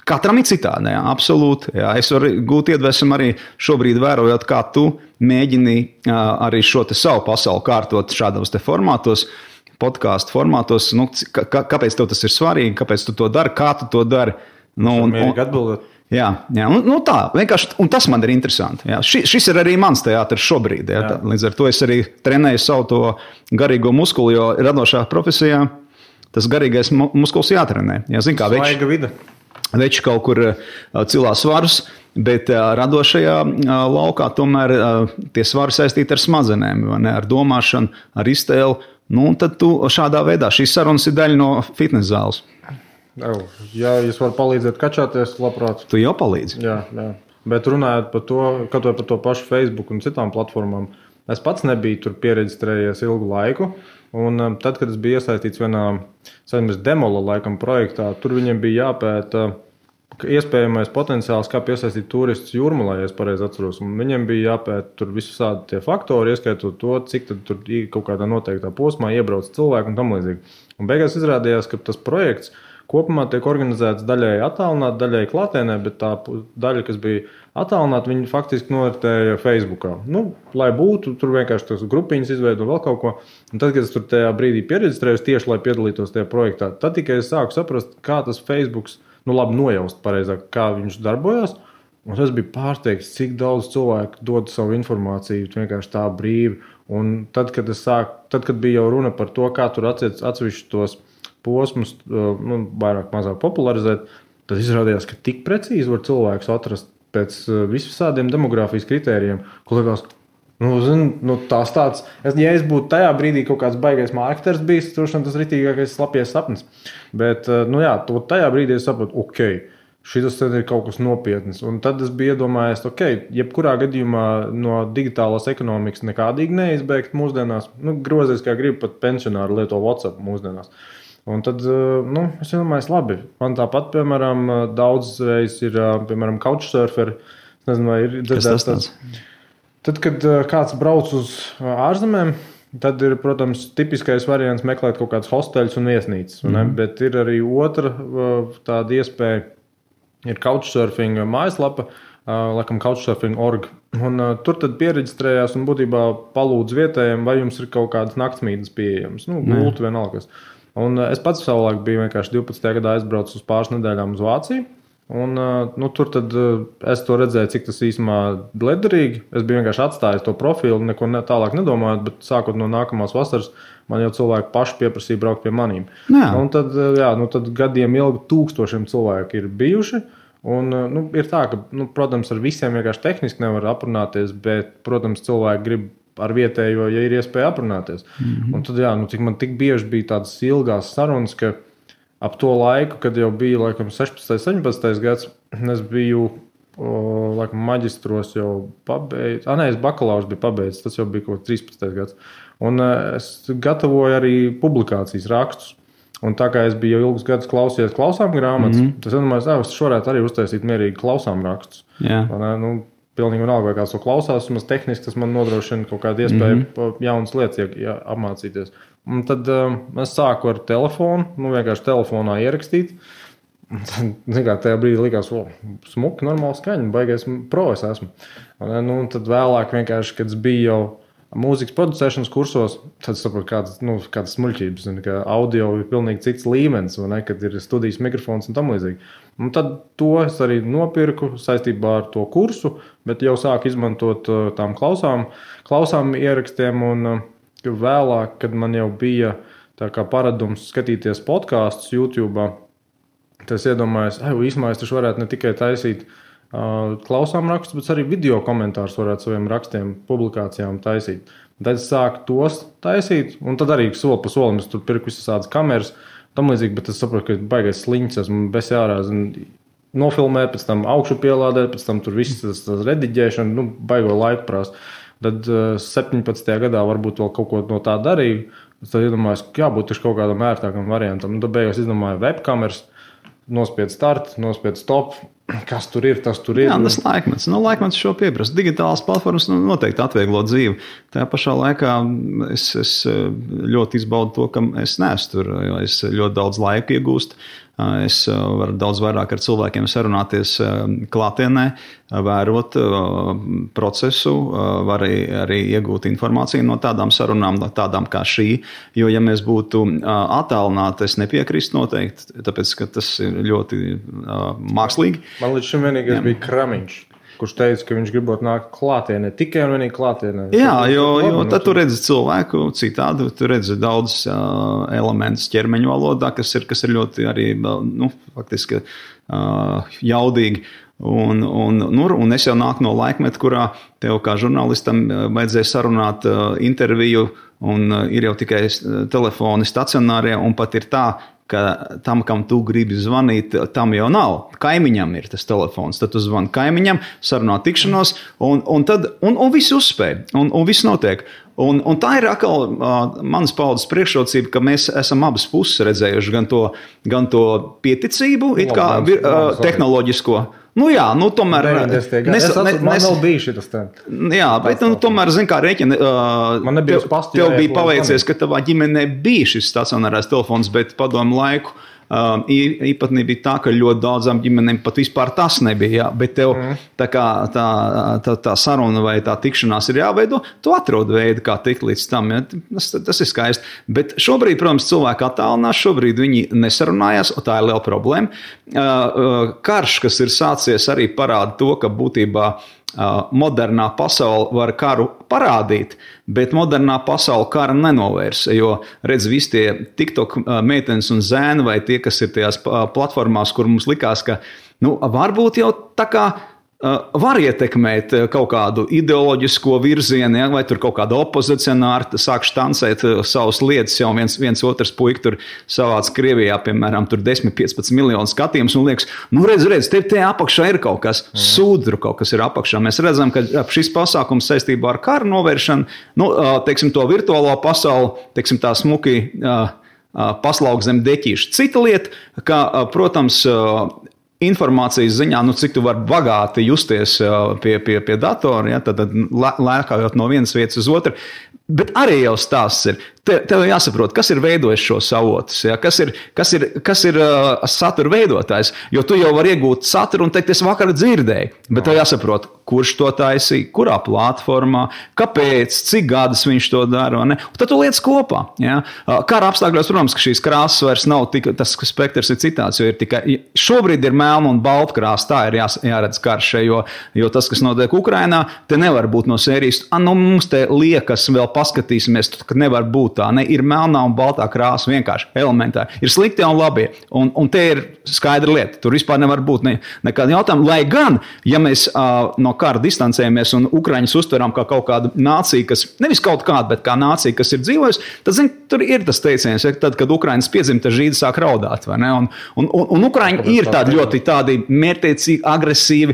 katram ir citādi, jā, absolūti. Jā. Es varu gūt iedvesmu arī šobrīd vērojot, kā tu mēģini arī šo te savu pasauli kārtot šādos te formātos, podkāstu formātos. Kāpēc tev tas ir svarīgi, kāpēc tu to dari, kā tu to dari?
Mierīgi atbildēt.
Jā, tā, vienkārši, un tas man ir interesanti. Jā. Šis ir arī mans teātris šobrīd. Jā. Līdz ar to es arī trenēju savu to garīgo muskuli, jo radošā profesijā tas garīgais muskulis jātrenē. Jā, zin, kā
svaiga vida.
Veči kaut kur cilā svarus, bet radošajā laukā tomēr tie svari saistīti ar smadzenēm, ar domāšanu, ar iztēli. Tad tu šādā veidā, šīs sarunas ir daļa no fitnes zāles.
Ja jūs varat palīdzēt kačāties, labprāt.
Tu jau palīdzi.
Jā. Bet runājot par to, kaut vai par to pašu Facebook un citām platformām, es pats nebiju tur pieregistrējies ilgu laiku. Un tad, kad es biju iesaistīts vienā demola laikam projektā, tur viņiem bija jāpēta iespējamais potenciāls, kā piesaistīt turistus Jūrmalā, ja es pareizi atceros. Un viņiem bija jāpēta tur visādi tie faktori, ieskaitot to, cik tad tur kaut kādā noteiktā posmā iebrauc cilvēku un tam līdzīgi. Un beigās izrādījās, ka tas projekts kopumā tiek organizēts daļai attālināti, daļai klātienē, bet tā daļa, kas bija attālināti, viņi faktiski noritēja Facebookā. Lai būtu, tur vienkārši tas grupiņas izveido vēl kaut ko. Un tad, kad es tur tajā brīdī pieregistrējos tieši, lai piedalītos tajā projektā, tad tikai es sāku saprast, kā tas Facebooks, labi nojaust pareizāk, kā viņš darbojās. Un es biju pārsteigts, cik daudz cilvēku dod savu informāciju vienkārši tā brīvi. Un tad, kad bija jau runa par to, kā tur atsevišķi tos posmus vairāk mazāk popularizēt, tad izrādījās, ka tik precīzi var cilvēks atrast pēc visādiem demogrāfijas kritērijiem, ko liekas, tās tāds, ja es būtu tajā brīdī kaut kāds baigais mārketers bijis, tas ritīgākais slapies sapnis. Bet, tajā brīdī es sapratu, šis ir kaut kas nopietns. Un tad es biju iedomājies, jebkurā gadījumā no digitālās ekonomikas nekādīgi neizbēgt mūsdienās. Grozies, kā grib, pat pensionāri lieto WhatsApp mūsdienās. Un tad, es domāju, labi. Man tāpat, piemēram, daudzreiz ir, piemēram, couchsurferi. Es nezinu, vai ir dzirdēts tāds. Tad, kad kāds brauc uz ārzemēm, tad ir, protams, tipiskais variants meklēt kaut kādus hosteļus un viesnīcas. Bet ir arī otra tāda iespēja. Ir couchsurfing mājaslapa, laikam couchsurfing.org. Un tur tad pieregistrējās un būtībā palūdz vietējiem, vai jums ir kaut kādas naktsmītnes pieejamas. Gultu vienalgas. Un es pats savulaik biju vienkārši 12. gadā aizbraucis uz pāris nedēļām uz Vāciju. Un tur tad es to redzēju, cik tas īstenībā liederīgi. Es biju vienkārši atstājis to profilu, neko tālāk nedomājot, bet sākot no nākamās vasaras, man jau cilvēki paši pieprasīja braukt pie manīm. Un tad, tad gadiem ilgi tūkstošiem cilvēku ir bijuši. Un, ir tā, ka, protams, ar visiem vienkārši tehniski nevar aprunāties, bet, protams, cilvēki grib ar vietējo, ja ir iespēja aprunāties. Un tad, cik man tik bieži bija tādas ilgās sarunas, ka ap to laiku, kad jau bija, laikam, 16. 17. gads, es biju, laikam, maģistros jau pabeidzis. Es bakalaurs biju pabeidzis, tas jau bija kaut 13. gads. Un es gatavoju arī publikācijas rakstus. Un tā kā es biju jau ilgus gadus klausījies klausām grāmatas, tas domāju, es varētu arī uztaisīt mierīgi klausām rakstus. Pilnīgi vienalga, vai kāds to klausās, vismaz tehniski tas man nodrošina kaut kādu iespēju jaunas lietas apmācīties. Un tad es sāku ar telefonu, vienkārši telefonā ierakstīt. Tajā brīdī likās, smuki, normāli skaņa, baigais pro es esmu. Un tad vēlāk vienkārši, kad es biju jau mūzikas producēšanas kursos, tad saprotu, kādas smuļķības, ka audio ir pilnīgi cits līmenis, kad ir studijas mikrofons un tam līdzīgi. Un tad to es arī nopirku saistībā ar to kursu, bet jau sāku izmantot tām klausām ierakstiem, un vēlāk, kad man jau bija tā kā paradums skatīties podkastus YouTube, tad es iedomājos, īsumā es taču varētu ne tikai taisīt klausām rakstus, bet arī video komentārus varētu saviem rakstiem, publikācijām taisīt. Tad es sāku tos taisīt, un tad arī soli pa solim es tur pirku visas kameras, tam līdzīgi, bet es saprotu, ka baigais sliņķis, esmu bez jārāz nofilmēt, pēc tam augšu pielādēt, pēc tam tur viss tas rediģēšana, baigo laiku prāst. Tad 17. gadā varbūt vēl kaut ko no tā darīju, tad iedomājos, ka jābūt taču kaut kādam ērtākam variantam. Tad beigās izdomāju webkameras, nospied start, nospied stop. Kas tur ir, tas tur ir.
Tas laikmets. Laikmets šo pieprasa. Digitālās platformas noteikti atvieglo dzīvi. Tajā pašā laikā es ļoti izbaudu to, ka es neesmu tur, jo es ļoti daudz laika iegūstu. Es varu daudz vairāk ar cilvēkiem sarunāties klātienē, vērot procesu, var arī iegūt informāciju no tādām sarunām, tādām kā šī. Jo, ja mēs būtu attālināti, es nepiekrīstu noteikti, tāpēc, ka tas ir ļoti mākslīgi.
Man līdz šim vienīgais bija Kramiņš, kurš teica, ka viņš gribot nākt klātienē, tikai un vienīgi klātienē.
Jā, jo tad tu redzi cilvēku citādi, tu redzi daudz elementus ķermeņa valodā, kas ir ļoti arī, faktiski jaudīgi. Un es jau nāku no laikmeta, kurā tev kā žurnālistam vajadzēja sarunāt interviju, un ir jau tikai telefoni stacionārie, un pat ir tā, ka tam, kam tu gribi zvanīt, tam jau nav. Kaimiņam ir tas telefons. Tad tu zvani kaimiņam, sarunā tikšanos, un viss uzspēj, un viss notiek. Un tā ir atkal manas paudzes priekšrocība, ka mēs esam abas puses redzējuši gan to pieticību, it kā tehnoloģisko.
Tomēr... Man vēl bija šitas tā.
Jā, bet tomēr, kā rēķina, tev bija paveicies, ka tavā ģimenē bija šis stacionārais telefons, bet padomu laiku īpatnība bija tā, ka ļoti daudzām ģimenēm pat vispār tas nebija. Jā, bet tev tā saruna vai tā tikšanās ir jāveido, tu atrod veidu, kā tikt līdz tam. Ja? Tas ir skaisti. Bet šobrīd, protams, cilvēki attālinās, šobrīd viņi nesarunājās, un tā ir liela problēma. Karš, kas ir sācies, arī parāda to, ka būtībā modernā pasaule var karu parādīt, bet modernā pasaule kara nenovērs, jo redz visi tie TikTok meitenes un zēni vai tie, kas ir tajās platformās, kur mums likās, ka varbūt jau tā kā var ietekmēt kaut kādu ideoloģisko virzienu, ja, vai tur kaut kāda opozicionāra sāk štancēt savas lietas, jau viens otrs puika tur savāc Krievijā, piemēram, tur 10-15 miljonu skatījumus, un liekas, redz, te apakšā ir kaut kas, sūdru kaut kas ir apakšā. Mēs redzam, ka šis pasākums saistībā ar karu novēršanu, teiksim, to virtuālo pasauli, teiksim, tā smuki paslauka zem deķīša. Cita lieta, ka, protams, informācijas ziņā, cik tu vari bagāti justies pie datora, ja, tad lēkājot no vienas vietas uz otru. Bet arī jau stāsts ir. Tev jāsaprot, kas ir veidojis šos avotus, ja? Kas ir satura veidotājs. Jo tu jau vari iegūt saturu un teikt, es vakar dzirdēju. Bet tev jāsaprot, kurš to taisīja, kurā platformā, kāpēc, cik gadus viņš to dara. Un tad tu lietas kopā. Ja? Kara apstākļos, protams, ka šīs krāsas vairs nav tik, tas spektrs ir citāds, jo ir tikai, šobrīd ir melna un balta krāsa, tā ir jāredz karš, jo tas, kas notiek Ukrainā, te nevar būt no sērijas, mums te liekas, vēl paskatīsimies, ka nevar būt tā, ne, ir melnā un baltā krāsa vienkārši elementāri. Ir sliktie un labie, un te ir skaidra lieta, tur vispār nevar būt nekāda jautājuma, lai gan, ja mēs no kara distancējamies un Ukraiņus uztveram kā kaut kādu nāciju, kas, nevis kaut kādu, bet kā nācija, kas ir dzīvojusi, tad, tur ir tas teiciens, ja, tad, kad Ukraiņas piedzimta žīdi sāk raudāt, vai ne? Un Ukraiņi ir tādi ļoti tādi mērķtiecīgi, agresīvi,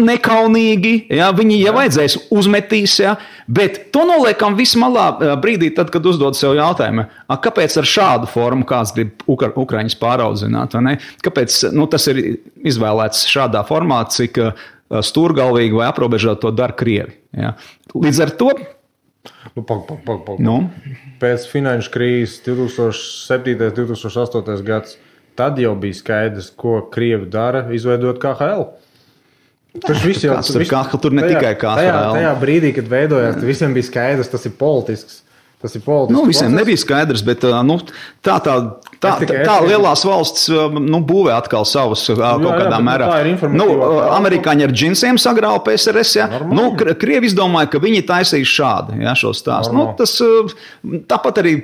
nekaunīgi, ja, viņi, ja vajadzēs, uzmetīs, ja, bet to noliekam vismalā brīdī, tad, kad uzdod sev jautājumu, kāpēc ar šādu formu kāds grib Ukraiņus pāraudzināt, vai ne? Kāpēc tas ir izvēlēts šādā formā, cik stūrgalvīgi vai aprobežot to dara Krievi. Ja? Līdz ar to...
Pēc finanšu krīzes 2007. 2008. gads, tad jau bija skaidrs, ko Krievi dara, izveidot KHL.
Tur ne tikai KHL.
Tajā brīdī, kad veidojās, visiem bija skaidrs, tas ir politisks.
Visiem nebija skaidrs, bet tā lielās valsts būvē atkal savus kaut kādā mērā. Amerikāņi ar džinsiem sagrāva PSRS, ja? Krievi izdomāja, ka viņi taisīs šādi, ja, šo stāstu. Tāpat arī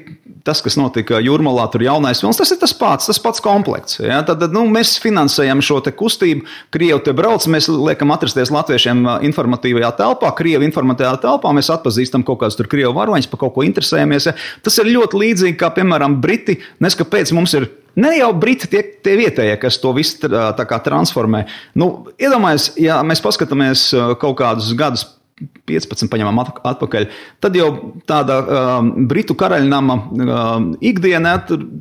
tas, kas notika Jūrmalā, tur jaunais films, tas ir tas pats komplekts. Ja? Tad mēs finansējam šo te kustību, Krievi te brauc, mēs liekam atrasties latviešiem informatīvajā telpā, Krievi informatīvajā telpā, mēs atpazīstam kaut kāds tur Krievu varoņus, pa kaut ko interesējamies. Ja? Tas ir ļoti līdzīgi, kā, piemēram, Briti, kāpēc mums ir ne jau Briti tie vietējie, kas to visu tā kā transformē. Iedomājies, ja mēs paskatāmies kaut kādus gadus 15 paņemam atpakaļ, tad jau tāda Britu karaļnama ikdienā,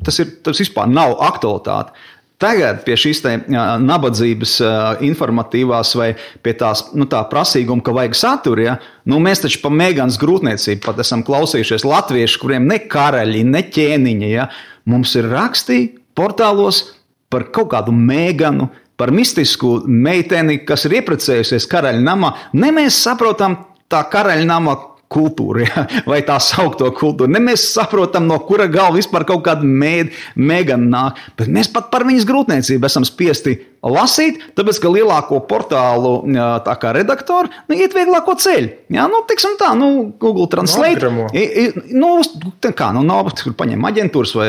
tas vispār nav aktualitāte. Tagad pie šīs nabadzības informatīvās vai pie tās, tā prasīguma, ka vajag saturu, ja? Mēs taču pa Megans grūtniecību pat esam klausījušies latvieši, kuriem ne karaļi, ne ķēniņi, ja? Mums ir rakstī portālos par kaut kādu Meganu, par mistisku meiteni, kas ir ieprecējusies karaļnamā. Ne mēs saprotam tā karaļnama kultūru, ja? Vai tā saukto kultūru. Ne mēs saprotam, no kura galva vispār kaut kāda Megana nāk. Bet mēs pat par viņas grūtniecību esam spiesti lasīt, tāpēc, ka lielāko portālu tā kā redaktori iet vieglāko ceļu. Ja? Tiksim tā, Google Translate. Paņem aģentūras vai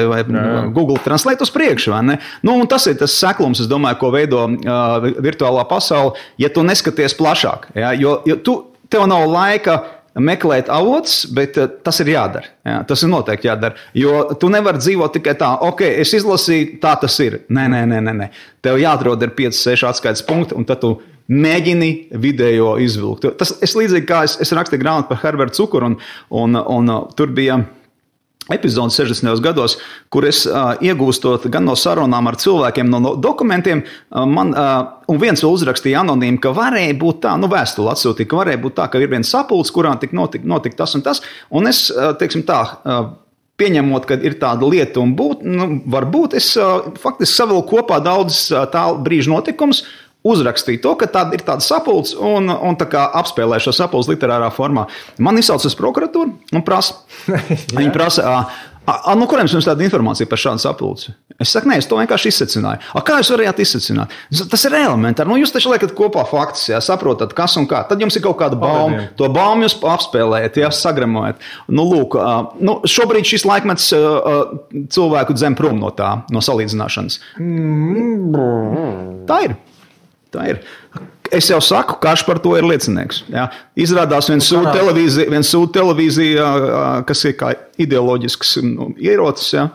Google Translate uz priekšu, vai ne? Un tas ir tas seklums, es domāju, ko veido virtuālā pasaule, ja tu neskaties plašāk. Ja? Jo tev nav laika meklēt avots, bet tas ir jādara. Ja? Tas ir noteikti jādara. Jo tu nevari dzīvot tikai tā, es izlasīju, tā tas ir. Nē. Tev jāatrod ir 5-6 atskaites punkti, un tad tu mēģini video izvilkt. Es līdzīgi kā es rakstīju grāmatu par Herbertu Cukuru, un tur bija epizodes 60. gados, kur es iegūstot gan no sarunām ar cilvēkiem, no dokumentiem, un viens vēl uzrakstīja anonīmi, ka varēja būt tā, vēstuli atsūtīja, ka varēja būt tā, ka ir viens sapulcs, kurā tik notika tas un tas, un es, teiksim tā, pieņemot, ka ir tāda lieta un varbūt es faktiski savilku kopā daudz tā brīža notikums, uzrakstīja to, ka ir tāda sapulce un tā kā apspēlē šo sapulci literārā formā. Man izsauc uz prokuratūru un prasa. Viņi prasa, no kuriem jums tāda informācija par šādu sapulci? Es saku, nē, es to vienkārši izsecināju. Kā jūs varējāt izsecināt? Tas ir elementāri. Jūs taču liekat kopā faktus, ja, saprotat, kas un kā. Tad jums ir kaut kāda bauma. To baumu jūs apspēlējat, ja, sagramojat. Šobrīd šis laikmets cilvēku dzem prom no tā, no salīdzināšanas. Tā ir. Es jau saku, karš par to ir liecinieks. Ja. Izrādās viens sūta televīzija, kas ir kā ideoloģisks ierocis. Ja.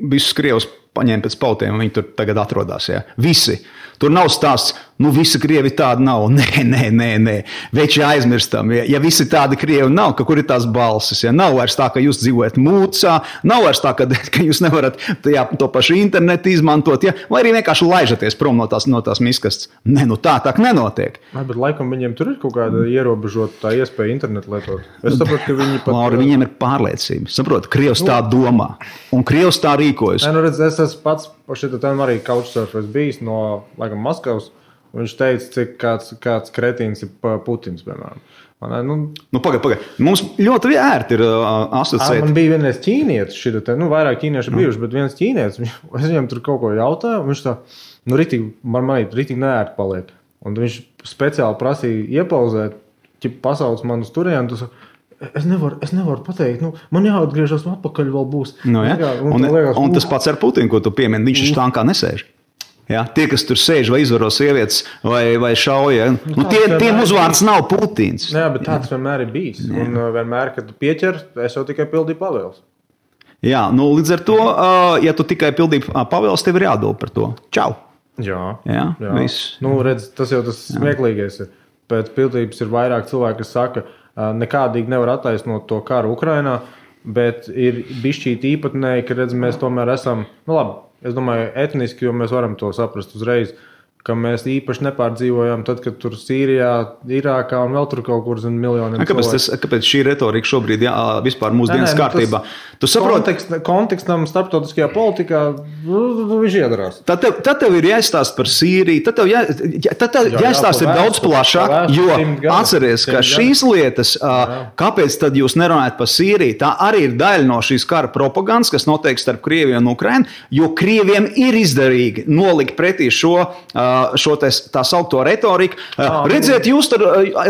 Visus krievus paņēma pēc pautiem, un viņi tur tagad atrodas. Ja. Visi. Tur nav stāsts, Nu, visi krievi tādi nav. Nē. Veči aizmirstam. Ja visi tādi krievi nav, ka kur ir tās balsis? Ja? Nav vairs tā, ka jūs dzīvojat mūcā, nav vairs tā, ka jūs nevarat to pašu internetu izmantot, ja? Vai arī vienkārši laižaties prom no tās miskastes. Nē, nu tā nenotiek.
Bet laikam viņiem tur ir kaut kāda ierobežota tā iespēja internetu lietot. Es saprotu, ka viņi pat...
Lauri, viņiem ir pārliecība. Saprotu, Krievs tā domā. Un Krievs tā rīkojas.
Nu, redz, es esmu pats šeit arī couchsurfers bijis no, laikam, Maskavas. Viņš teica, cik kāds kretīns ir Putins, piemēram.
Nu, pagaid. Mums ļoti ērti ir asociēt.
Man bija vienreiz ķīnietis šitā, vairāk ķīnieši bijuši, bet viens ķīnietis, es viņam tur kaut ko jautāju, un viņš tā, ritīgi neērti paliek. Un viņš speciāli prasīja iepauzēt, pasauc man uz turienu, tu saka, es nevaru pateikt, man jāatgriežas atpakaļ vēl būs.
Un tas pats ar Putinu, ko tu piemini, viņš štānkā nesēž. Ja, tie, kas tur sēž vai izvaro sievietes vai šauja, tiem uzvārds nav Putins.
Jā, bet tāds vienmēr ir bijis. Un vienmēr, kad tu pieķer, es jau tikai pildīju pavēles.
Jā, līdz ar to, ja tu tikai pildīji pavēles, tev ir jāatbild par to. Čau!
Jā.
Viss.
Redz, tas jau tas smieklīgais ir. Pēc pildības ir vairāk cilvēki, kas saka, nekādīgi nevar attaisnot to karu Ukrainā, bet ir bišķīt īpatnēji, ka redz, mēs tomēr esam, labi, es domāju, etniski, jo mēs varam to saprast uzreiz, ka mēs īpaši nepārdzīvojam tad, kad tur Sīrijā, Irākā un vēl tur kaut kur zin miljoniem cilvēku.
Kāpēc šī retorika šobrīd vispār mūsdienas kārtībā? Tu saproti?
Kontekstam starptautiskajā politikā viņš iedarās.
Tad tev ir jāizstāst par Sīriju, tad tev jāizstāst ir daudz plašāk, jo atceries, ka šīs lietas, kāpēc tad jūs nerunājat par Sīriju, tā arī ir daļa no šīs kara propagandas, kas notiek starp Krieviju un Ukrainu, jo Krieviem ir izdarīgi nolikt pretī šo tā saukto retoriku. Redziet, jūs tur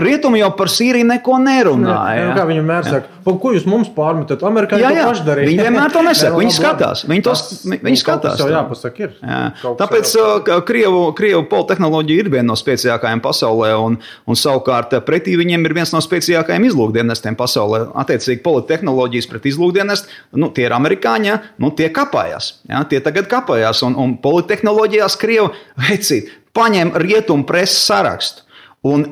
rietumi jau par Sīriju neko nerunāja.
Kā viņi mēr saka, ko jūs mums pārmetat? Amerikāņi to paši darīja.
Viņi vienmēr to nesaka, viņi skatās. Viņi skatās.
Tas jau jāpasaka ir.
Tāpēc Krievu politehnoloģija ir viena no spēcīgākajām pasaulē, un savukārt pretī viņiem ir viens no spēcīgākajiem izlūkdienestiem pasaulē. Attiecīgi politehnoloģijas pret izlūkdienestu, tie ir amerikāņi, tie kapājās. Tie tagad kapājās, un politehnoloģijās Krievu vecīt. Paņem rietumu preses sarakstu un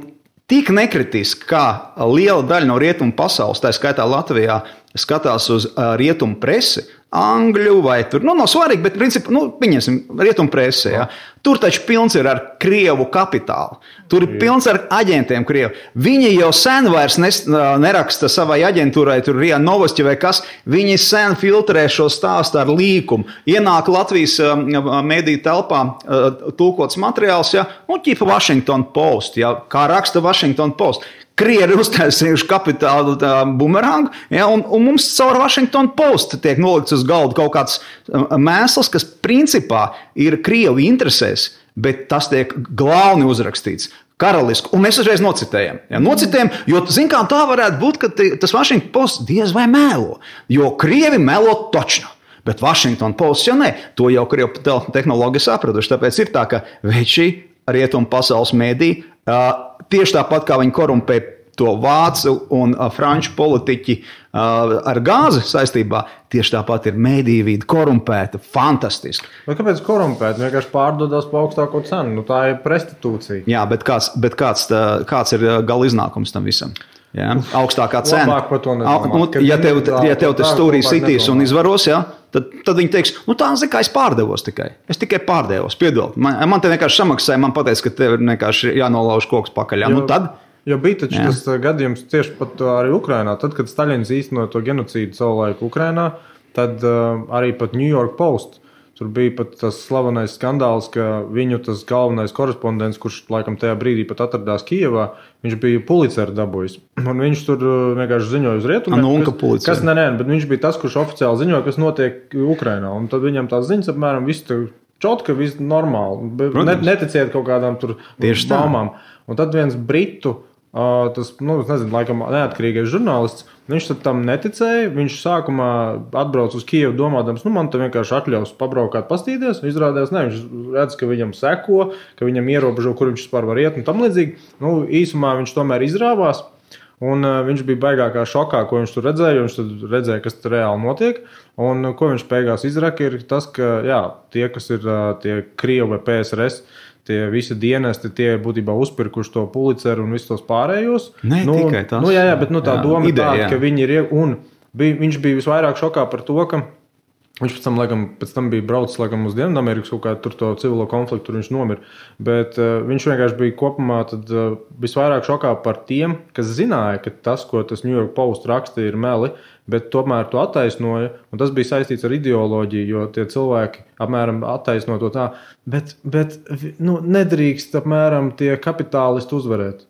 tik nekritiski, kā liela daļa no rietumu pasaules, tā skaitā Latvijā, skatās uz rietumu presi, angļu vai tur, nav svarīgi, bet principā, pieņemsim, rietumu presi, ja. Tur taču pilns ir ar Krievu kapitālu. Tur ir pilns ar aģentiem Krievu. Viņi jau sen vairs neraksta savai aģentūrai, tur RIA Novosti vai kas, viņi sen filtrē šo stāstu ar līkumu. Ienāk Latvijas mediju telpā tulkots materiāls, ja, ķipa Washington Post, ja, kā raksta Washington Post. Krievi ir uztaisījuši kapitālu bumerangu, ja, un mums caur Washington Post tiek nolikts uz galda kaut kāds mēsls, kas principā ir Krievu interesēs, bet tas tiek glauni uzrakstīts. Karaliski, un mēs uzreiz nocitējam. Ja, jo, zin kā, tā varētu būt, ka tas Washington Post diez vai melo, jo Krievi melo točno. Bet Washington Post jau ne, to jau Krievu tehnologi sapratuši, tāpēc ir tā, ka veči rietumu pasaules mediji, tieši tāpat kā viņi korumpē to vācu un franču politiķi ar gāzi saistībā, tieši tāpat ir mediju vide korumpēta, fantastiski.
Bet kāpēc korumpēta? Vienkārši pārdodās pa augstāko cenu, tā ir prestitūcija.
Jā, bet kāds ir gala iznākums tam visam? Ja? Augstākā cena. Ja tev tas stūrī sitīs un izvaros, ja? Tad viņi teiks, tā es pārdevos tikai. Es tikai pārdevos, piedod. Man te vienkārši samaksāja, man pateica, ka tev ir vienkārši jānolauž koks pakaļ. Tad?
Jo bija taču tas gadījums tieši pat arī Ukrainā. Tad, kad Staļins īstenoja to genocīdu savulaik Ukrainā, tad arī pat New York Post. Tur bija pat tas slavenais skandāls, ka viņu tas galvenais korespondents, kurš laikam tajā brīdī pat atradās Kijevā, viņš bija Puliceru dabūjis. Un viņš tur vienkārši ziņoja uz rietumiem. Bet viņš bija tas, kurš oficiāli ziņoja, kas notiek Ukrainā. Un tad viņam tās ziņas apmēram viss čotka, viss normāli. Neticiet kaut kādām tur baumām. Un tad viens britu, laikam neatkarīgais žurnālists, viņš tam neticēja. Viņš sākumā atbrauc uz Kijevu domādams, man te vienkārši atļaus pabraukāt, pastīties. Izrādās, viņš redz, ka viņam seko, ka viņam ierobežo, kur viņš vispār var iet un tam līdzīgi. Īsumā viņš tomēr izrāvās. Un viņš bija baigākā šokā, ko viņš tur redzēja, jo viņš tur redzēja, kas tur reāli notiek. Un ko viņš beigās izraka, ir tas, ka tie, kas ir tie Krievi vai PSRS, tie visi dienesti, tie būtībā uzpirkuši to Pulitzeru un visus tos pārējos.
Ne, tikai tas.
Bet tā doma ir tāda, ka viņi ir, un viņš bija visvairāk šokā par to, ka viņš pēc tam bija braucis uz Dienvidamerikas kaut kādu tur to civilo konfliktu, tur viņš nomira. Bet viņš vienkārši bija kopumā visvairāk šokā par tiem, kas zināja, ka tas, ko tas New York Post raksta, ir meli, bet tomēr to attaisnoja. Un tas bija saistīts ar ideoloģiju, jo tie cilvēki apmēram attaisno to tā. Bet nedrīkst apmēram tie kapitālisti uzvarēt.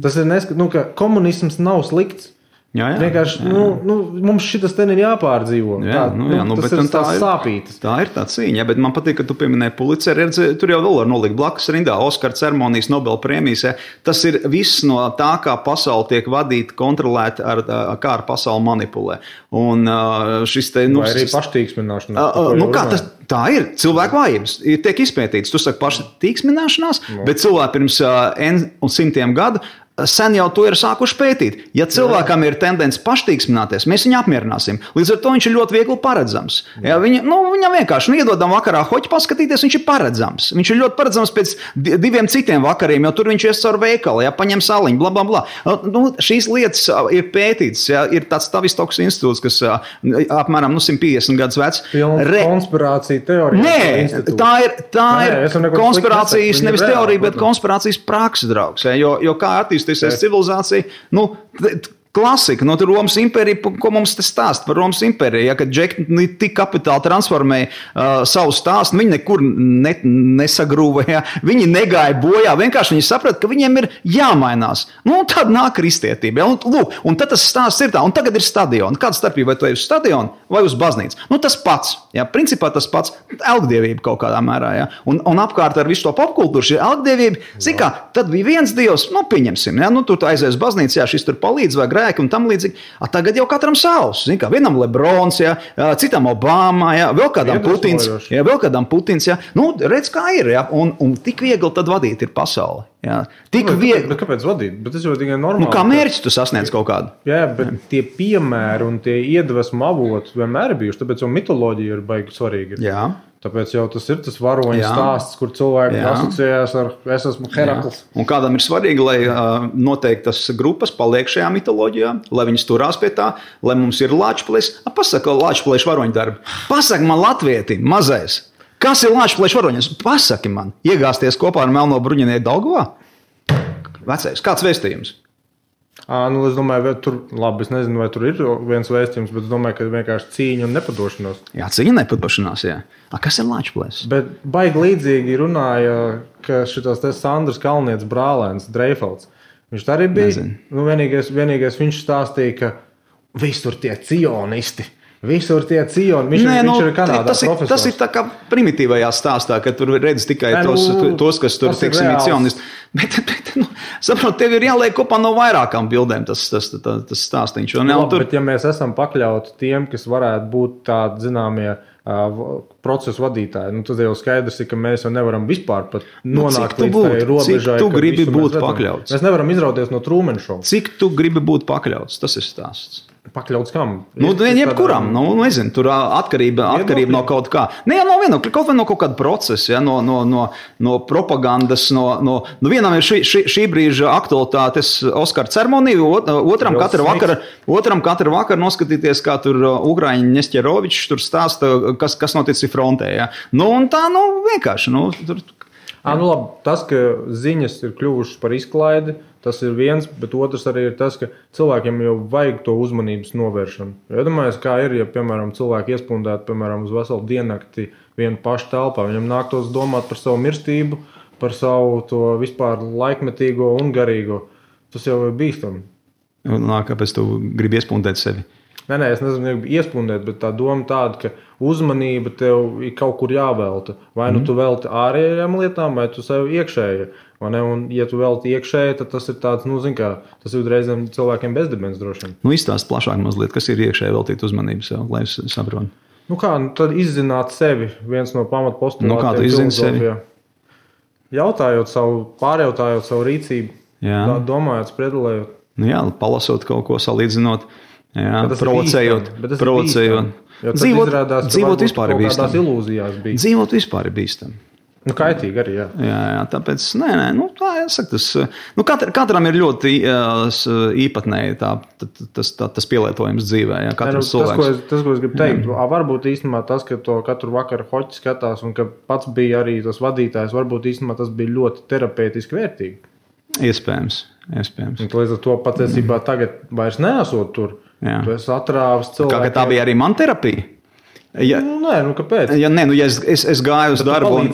Tas ir ka komunisms nav slikts.
Jā.
Vienkārši mums šitas ten ir jāpārdzīvo. Tas ir tās sāpītas.
Tā ir tā cīņa, bet man patīk, ka tu pieminēji Pulitzeru. Tur jau vēl var nolikt blakus rindā Oskara ceremonijas, Nobela prēmijas. Tas ir viss no tā, kā pasaule tiek vadīta, kontrolēta, kā ar pasauli manipulē. Un šis te...
Vai arī paštīksmināšanās.
Tā ir cilvēku vājības. Tiek izpētīts. Tu saki paštīksmināšanās, bet cilvēki pirms simtiem gadu sen jau to ir sākuši pētīt. Ja cilvēkam ir tendence paštīksmināties, mēs viņu apmierināsim. Līdz ar to viņš ir ļoti viegli paredzams. Ja viņam vienkārši iedodam vakarā hoķi paskatīties, viņš ir paredzams. Viņš ir ļoti paredzams pēc 2 citiem vakariem, jo tur viņš ies caur veikalu, paņem saliņu, bla, bla, bla. Šīs lietas ir pētītas. Ir tāds Tavistoks institūts, kas apmēram 150 gadus vecs.
Konspirācija teorija.
Nē, tā ir konspirācijas, nevis teorija, bet konspirācijas praksa, draugs. Jo kā attīstīsies civilizācija, klasika, tur Romas impērija, ko mums te stāst par Romas impēriju, kad džekni tik kapitāli transformēja savu stāstu, viņi nekur nesagrūvēja, viņi negāja bojā, vienkārši viņi saprata, ka viņiem ir jāmainās. Tad nāk kristietība. Un tad tas stāsts ir tā, un tagad ir stadioni. Kāda starpība, vai tu ej uz stadionu vai uz baznīcu? Tas pats. Principā tas pats elgdievība kaut kādā mērā. Un apkārt ar visu to popkultūru šī elgdievība, tad bija viens dievs, pieņemsim, tu aizies uz baznīcu, šis tur palīdz vai grēki un tam līdzīgi. Tagad jau katram savs. Vienam Lebrons, citam Obama, vēl kādam Putins. Redz, kā ir. Un tik viegli tad vadīt ir pasauli. Tik viegli.
Bet kāpēc vadīt? Bet tas jau tikai normāli.
Kā mērķi tu sasniedz kaut kādu?
Jā, bet tie piemēri un tie iedvesmu avoti vienmēr ir bijuši, tāpēc jau mitoloģija ir baigi svarīga.
Jā.
Tāpēc jau tas ir tas varoņu stāsts, kur cilvēki asociējās ar es esmu Herakls.
Un kādam ir svarīgi, lai noteiktas grupas paliek šajā mitoloģijā, lai viņas turās pie tā, lai mums ir Lāčplēs. Pasaka Lāčplēšu varoņu darbi. Pasaka man latvietim, mazais. Kas ir Lāčplēšu varoņas? Pasaki man. Iegāsties kopā ar melno bruņinieku Daugavā? Vecais, kāds vēstījums?
Es domāju, es nezinu, vai tur ir viens vēstījums, bet es domāju, ka vienkārši cīņa un nepadošanās.
Jā, cīņa un nepadošanās, jā. Kas ir Lāčplēs?
Bet baigi līdzīgi runāja, ka šitos te Sandrs Kalnietis brālēns, Dreifelds. Viņš tā arī bija. Vienīgais viņš stāstīja, ka visur tie cionisti. Visur tie cioni. Viņš ir Kanādā profesors.
Tas ir tā kā primitīvajā stāstā, ka tur redz tikai tos, kas tur, teiksim, ir cionisti. Bet saprot, tev ir jāliek kopā no vairākām bildēm tas stāstiņš.
Bet ja mēs esam pakļauti tiem, kas varētu būt tādi zināmie procesu vadītāji, tad jau skaidrs ir, ka mēs jau nevaram vispār pat nonākt līdz tai robežai.
Cik tu gribi būt pakļauts?
Mēs nevaram izrauties no Truman Show.
Cik tu gribi būt pakļauts? Tas ir stāsts.
Pakļauts kam?
Jebkuram. Nezinu, tur atkarība no kaut kā. Kaut vai no kaut kāda procesa, no propagandas, vienam ir šī brīža aktualitātes Oskara ceremonija, otram katru vakaru noskatīties, kā tur Ugrāņi Nesterovičs tur stāsta, kas noticis frontē. Vienkārši.
Labi, tas, ka ziņas ir kļuvušas par izklaidi, tas ir viens, bet otrs arī ir tas, ka cilvēkiem jau vajag to uzmanības novēršanu. Iedomājies, kā ir, ja, piemēram, cilvēki iespundētu, piemēram, uz veselu diennakti vienu pašu telpā. Viņam nāktos domāt par savu mirstību, par savu to vispār laikmetīgo un garīgo. Tas jau ir bīstami.
Kāpēc tu gribi iespundēt sevi?
Nē, es nezinu, iespundēt, bet tā doma tāda, ka uzmanība tev ir kaut kur jāvelta. Vai tu velti ārējām lietām, vai tu sev iekšēji. Un, ja tu velti iekšēji, tad tas ir tāds, tas ir reizēm cilvēkiem bezdibens droši.
Izstāst plašāk mazliet, kas ir iekšēji veltīt uzmanību sev, lai es saprotu.
Tad izzināt sevi, viens no pamatpostulātiem.
Kā tu izzini sevi?
Pārjautājot savu rīcību, domājot, spredelējot.
Palasot kaut ko, salīdzinot. Provocējot.
Dzīvot vispār ir bīstami.
Dzīvot vispār ir bīstami.
Kaitīgi arī, jā.
Jā, tāpēc, tā jāsaka, katram ir ļoti īpatnēji tas pielietojums dzīvē, jā, katrs cilvēks.
Tas, ko es gribu teikt, varbūt īstenībā tas, ka to katru vakaru hoķi skatās un ka pats bija arī tas vadītājs, varbūt īstenībā tas bija ļoti terapeitiski vērtīgi.
Iespējams.
Līdz ar to patiesībā tagad vairs neesot tur. Jā. Tu esi atrāvis cilvēkiem.
Kā tā bija arī man terapija?
Kāpēc?
Ja es gāju uz darbu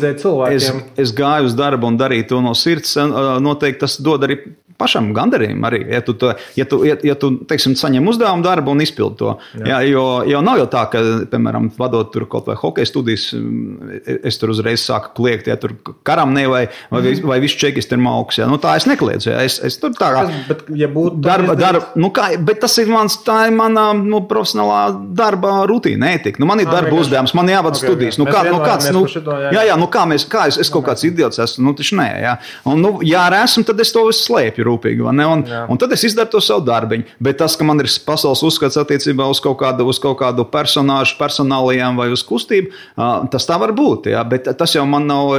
es gāju uz darbu un darīju to no sirds, noteikti tas dod arī pašam gandarījumu arī, ja tu teiksim, saņem uzdevumu darbu un izpildi to. Jā, jo nav jau tā, ka, piemēram, vadot tur kaut vai hokeja studijas, es tur uzreiz sāku kliegt, ja tur karam vai visu čekisti ir mauks. Ja. Tā es nekliedzu. Ja. Es tur tā kā...
Bet, ja būtu...
Bet tas ir tā ir mana profesionālā darba rutīna, ētika. Man ir darba uzdevums, man jāvada studijas. Kā es kaut kāds idiots esmu? Taču nē, ja. Un, ja arī esmu, tad es to visu slēpju rūpīgi, un tad es izdaru to savu darbiņu. Bet tas, ka man ir pasaules uzskats attiecībā uz kaut kādu personāžu, personālijām vai uz kustību, tas tā var būt, ja? Bet tas jau man nav,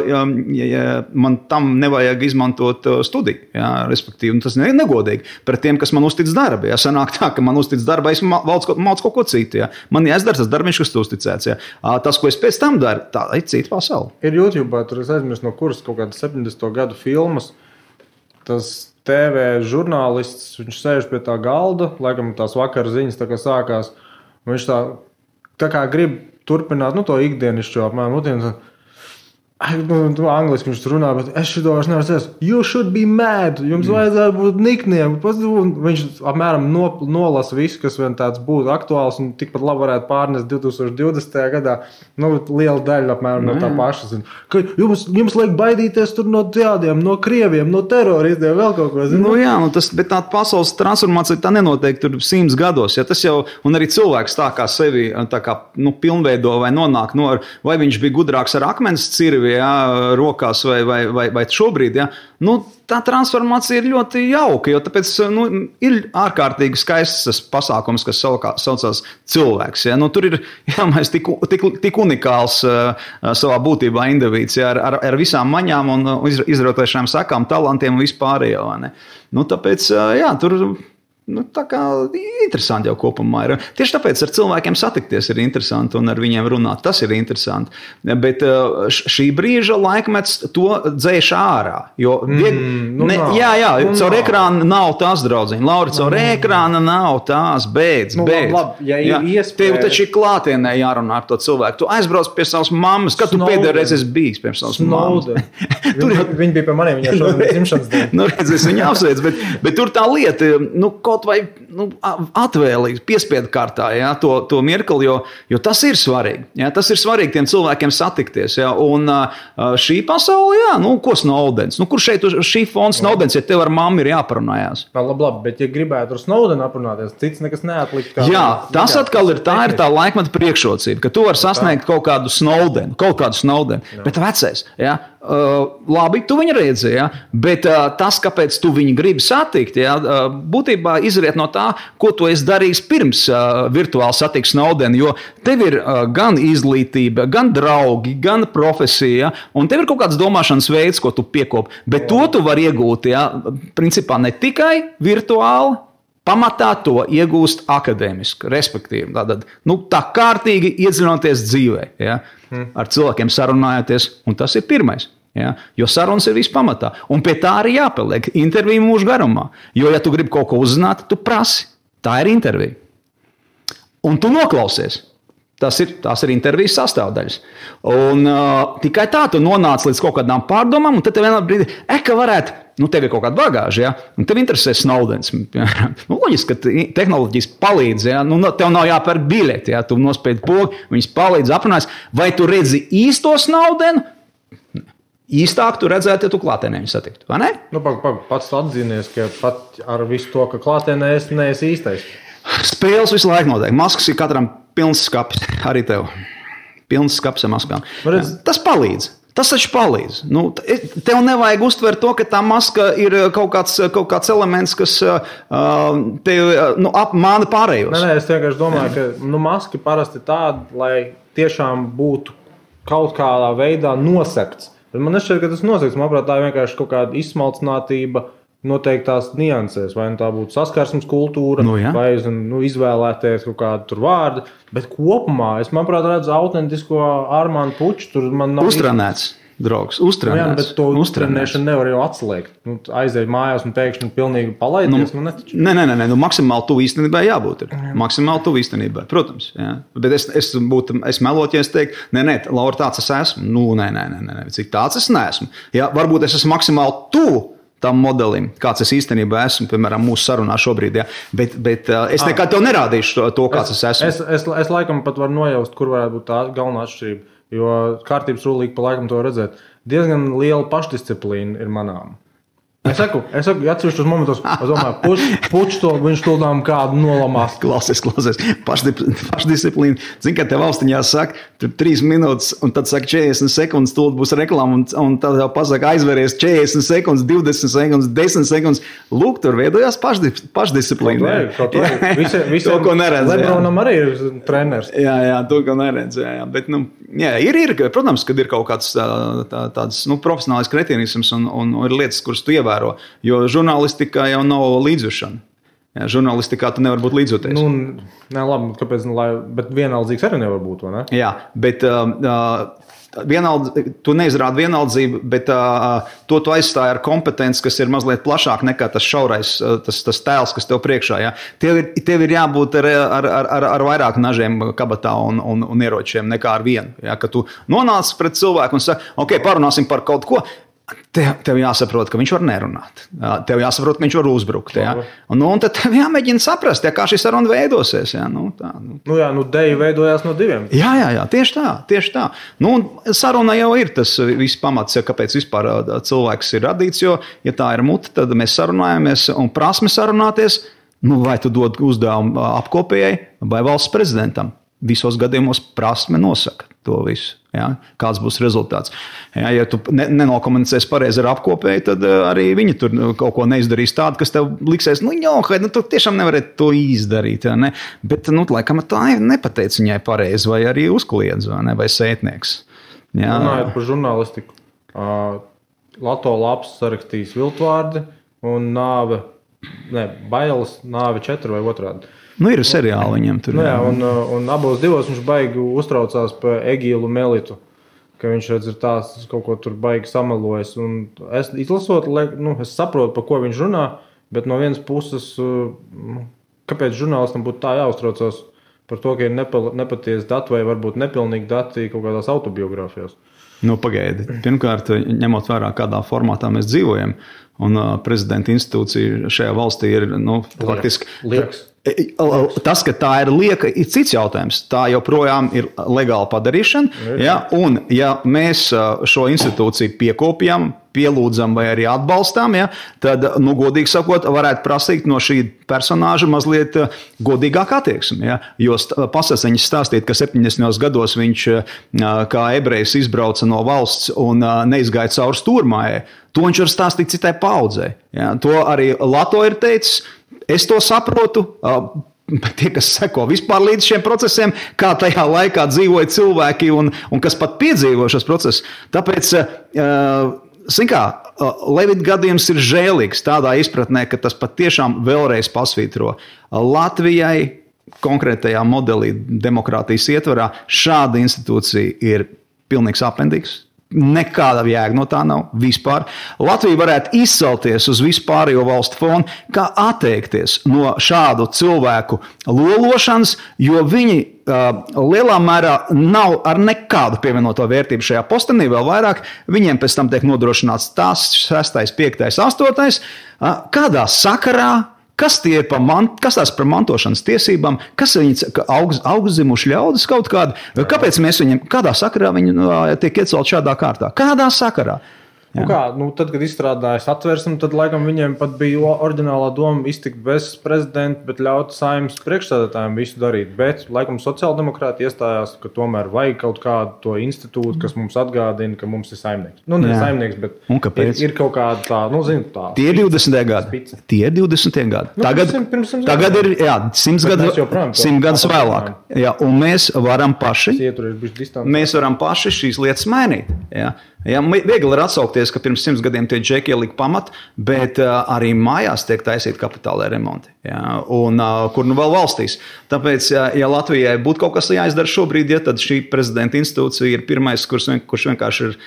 man tam nevajag izmantot studiju, ja? Respektīvi, tas ir negodīgi pret tiem, kas man uztic darbu. Ja? Sanāk tā, ka man uztic darbu, es mācu kaut ko citu. Ja? Man jāizdara tas darbiņš, kas tu uzticēts. Ja? Tas, ko es pēc tam daru, tā ir cita pasaule.
Ir YouTube, tur es aizmirstu no kuras kaut kādas 70. gadu filmas, tas TV žurnālists, viņš sēž pie tā galda, laikam tās vakara ziņas tā kā sākās, un viņš tā kā grib turpināt, to ikdienišķo apmēram, angliski viņš runā, bet es šito vairs nevaru sēst. You should be mad, jums vajadzētu būt nikniem. Viņš apmēram nolasa visu, kas vien tāds būtu aktuāls un tikpat labi varētu pārnest 2020. gadā. Liela daļa apmēram no tā paša. Ka jums liek baidīties tur no tādiem, no krieviem, no teroristiem, vēl kaut ko.
Bet tā pasaules transformācija tā nenotiek tur 100 gados. Ja, tas jau, un arī cilvēks tā kā sevi tā kā, pilnveido vai nonāk, vai viņš bija gudrāks ar akmens cirvi, ja, rokās vai šobrīd, ja, tā transformācija ir ļoti jauka, jo tāpēc ir ārkārtīgi skaists pasākums, kas saucās cilvēks. Ja. Tur ir mēs tik unikāls savā būtībā indivīds, ja, ar visām maņām un izrotējušām sakām, talantiem un vispārējo. Tāpēc, jā, tur... tā kā interesanti jau kopumā ir. Tieši tāpēc ar cilvēkiem satikties ir interesanti un ar viņiem runāt. Tas ir interesanti. Bet šī brīža laikmets to dzēš ārā. Jo caur ekrānu nav tās, draudziņi. Lauri, caur ekrānu nav tās, beidz.
Labi, ja ir iespēja...
Tev taču ir klātienē jārunā ar to cilvēku. Tu aizbrauc pie savas mammas. Kad tu pēdējo reizi esi bijis pie savas mammas?
Viņi bija pie maniem, viņā šodien dzimšanas diena.
Es viņu apsveicu, bet tur tā lieta, kaut vai atvēlīgi, piespiedu kārtā, ja, to mirkli, jo tas ir svarīgi. Ja, tas ir svarīgi tiem cilvēkiem satikties. Ja, un šī pasaule, jā, ko Snowdens? Kur šeit šī fona Snowdens, ja tev ar mammu ir jāparunājās?
Labi, bet ja gribētu ar Snowdenu aprunāties, cits nekas neatlikt.
Jā, tas atkal ir tā laikmeta priekšrocība, ka tu vari sasniegt kaut kādu Snowdenu, bet vecais, ja, labi, tu viņu redzi, ja, bet tas, kāpēc tu viņu gribi satikt, ja, būtībā izriet no tā, ko tu esi darījis pirms virtuāli satikt Snowdenu, jo tev ir gan izglītība, gan draugi, gan profesija, un tev ir kaut kāds domāšanas veids, ko tu piekopi, bet to tu vari iegūt, ja, principā ne tikai virtuāli, pamatā to iegūst akadēmiski, respektīvi. Tā kārtīgi iedziļinoties dzīvē, ja, ar cilvēkiem sarunājoties, un tas ir pirmais. Ja, jo sarunas ir viss pamatā. Un pie tā arī jāpaliek interviju mūžu garumā. Jo, ja tu gribi kaut ko uzzināt, tu prasi. Tā ir intervija. Un tu noklausies. Tās ir intervijas sastāvdaļas. Un tikai tā tu nonāc līdz kaut kādām pārdomām, un tad tev vienā brīdī, ka varētu, tev ir kaut kāda bagāža, ja, un tev interesē Snowdens. Loģiski, ka tehnoloģijas palīdz, ja, tev nav jāpērk biļeti, ja, tu nospiedi pogu, viņas palīdz aprunājas. Vai tu redzi īsto Snowdenu? Īstāk tu redzētu, ja tu klātienē viņu satiktu, vai ne?
Pats atzinies, ka pat ar visu to, ka klātienē es neesi īstais.
Spēles visu laiku notiek. Maskas ir katram pilns skapis, arī tev. Pilns skapis ar maskām. Tas palīdz. Tas taču palīdz. Tev nevajag uztvert to, ka tā maska ir kaut kāds elements, kas tev apmāna pārējos.
Nē, es vienkārši domāju, ka maska parasti tāda, lai tiešām būtu kaut kādā veidā nosekts. Bet man nešķiet, ka tas nozīmē, manuprāt, tā ir vienkārši kaut kāda izsmalcinātība noteiktās niansēs. Vai tā būtu saskarsmes kultūra, vai izvēlēties kaut kādu tur vārdu. Bet kopumā es, manuprāt, redzu autentisko Armānu Puču. Tur man nav
uztrenēts. Draugs, uztrenēts.
Jā, bet to uztrenēšanu nevar jau atslēgt. Aiziet mājās un pēkšņi pilnīgi palaidies.
Nē, maksimāli tuvu īstenībai jābūt. Maksimāli tuvu īstenībai, protams. Jā. Bet es melotu, ja es teiktu, nē, Laura, tāds es esmu. Nē, cik tāds es neesmu. Jā, varbūt es esmu maksimāli tuvu tam modelim, kāds es īstenībā esmu, piemēram, mūsu sarunā šobrīd. Jā. Bet es nekad tev nerādīšu to, kāds es esmu. Es laikam pat varu nojaust, kur varētu būt tā galvenā atšķirība. Jo kārtības rulīgi pa laikam to redzēt. Diezgan liela pašdisciplīna ir manām. Es saku, atsevišķos momentos, es domāju, puč to, viņš tūlām kādu nolamās. Klausies. Pašdisciplīna. Zini, kā te valstiņā saka, tur 3 minūtes, un tad saka 40 sekundes, tūlīt būs reklāma, un tad jau pasaka aizveries 40 sekundes, 20 sekundes, 10 sekundes. Lūk, tur veidojās pašdisciplīna.
Kaut visi,
to, ko neredz.
Lebronam arī ir treneris.
Jā, to, ko neredz. Jā. Bet, ir, protams, kad ir kaut kāds tāds profesionālais kretīnisms un ir lietas, kuras tu ievēro. Jo žurnālistikā jau nav līdzjūšana. Jā, žurnālistikā tu nevar būt līdzjūties.
Nē, labi, kāpēc, bet vienaldzīgs arī nevar būt, vai ne?
Jā, bet tu neizrādi vienaldzību, bet to tu aizstāji ar kompetenci, kas ir mazliet plašāk nekā tas šaurais, tas tēls, kas tev priekšā. Jā. Tev ir jābūt ar vairāk nažiem kabatā un ieročiem nekā ar vienu. Jā, ka tu nonāc pret cilvēku un saki, ok, parunāsim par kaut ko. Tev jāsaprot, ka viņš var nerunāt. Tev jāsaprot, ka viņš var uzbrukt. Ja? Un tad tev jāmēģina saprast, kā šī saruna veidosies. Ja?
Deja veidojās no 2.
Jā, tieši tā. Saruna jau ir tas viss pamats, kāpēc vispār cilvēks ir radīts, jo, ja tā ir mute, tad mēs sarunājamies un prasme sarunāties, vai tu dod uzdevumu apkopējai vai valsts prezidentam. Visos gadījumos prasme nosaka to visu. Ja? Kāds būs rezultāts. Ja tu nenokomunicēsi pareizi ar apkopēju, tad arī viņi tur kaut ko neizdarīs tādu, kas tev liksies, tu tiešām nevarētu to izdarīt. Ja, ne? Bet, laikam, tā nepateica viņai pareizi, vai arī uzkliedz, vai sētnieks. Ja?
Runājot par žurnālistiku, Lato Laps sarakstījis viltvārdi un bailes, nāve 4 vai otrādi.
Ir seriāli viņam tur.
Un abos divos viņš baigi uztraucās par Egīlu Melitu, ka viņš redz ir tās kaut ko tur baigi samelojas. Un es izlasot, es saprotu, par ko viņš runā, bet no vienas puses, kāpēc žurnālistam būtu tā jāuztraucās par to, ka ir nepatiesi dati vai varbūt nepilnīgi dati kaut kādās autobiogrāfijās.
Pagaidi. Pirmkārt, ņemot vērā, kādā formātā mēs dzīvojam, un prezidenta institūcija šajā valstī ir, faktiski...
Lieks.
Tas, ka tā ir lieka, ir cits jautājums. Tā joprojām ir legāla padarīšana. Ja? Un, ja mēs šo institūciju piekopjam, pielūdzam vai arī atbalstām, ja? Tad, godīgi sakot, varētu prasīt no šī personāža mazliet godīgāk attieksmi. Ja? Jo pasaciņas stāstīt, ka 70. gados viņš kā ebrejs izbrauca no valsts un neizgāja cauri stūrmājai, to viņš var stāstīt citai paudzei. Ja? To arī Lato ir teicis. Es to saprotu, tie, kas seko vispār līdz šiem procesiem, kā tajā laikā dzīvoja cilvēki un kas pat piedzīvo šos procesus. Tāpēc, Levita gadījums ir žēlīgs tādā izpratnē, ka tas pat tiešām vēlreiz pasvītro Latvijai konkrētajā modelī demokrātijas ietvarā šāda institūcija ir pilnīgs apendīgs. Nekāda jēga no tā nav vispār. Latvija varētu izcelties uz vispārējo valstu fonu, kā atteikties no šādu cilvēku lološanas, jo viņi lielā mērā nav ar nekādu pievienoto vērtību šajā postenī, vēl vairāk. Viņiem pēc tam tiek nodrošināts tās 6., 5., 8. Kādā sakarā? Kas tās par mantošanas tiesībām? Kas viņi augstzimuši ļaudis kaut kādi? Kāpēc mēs viņiem, kādā sakarā viņi tiek iecelt šādā kārtā? Kādā sakarā?
Tad, kad izstrādājas atversmi, tad laikam viņiem pat bija oriģinālā doma iztikt bez prezidenta, bet ļaut Saeimas priekšsēdētājiem visu darīt. Bet laikam sociāldemokrāti iestājās, ka tomēr vajag kaut kādu to institūtu, kas mums atgādina, ka mums ir saimnieks. Ne saimnieks, bet ir kaut kāda tā, tā.
Tie ir 20. gadi. Tie ir 20. gadi. Tagad ir 100 gadus vēlāk. Jā, un mēs varam paši šīs lietas mainīt. Jā. Ja, viegli ir atsaukties, ka pirms 100 gadiem tie džeki ielika pamatu, bet arī mājās tiek taisīti kapitālai remonti. Ja, un kur nu vēl valstīs. Tāpēc, ja Latvijai būtu kaut kas jāizdara šobrīd, ja, tad šī prezidenta institūcija ir pirmais, kurš vienkārši ir,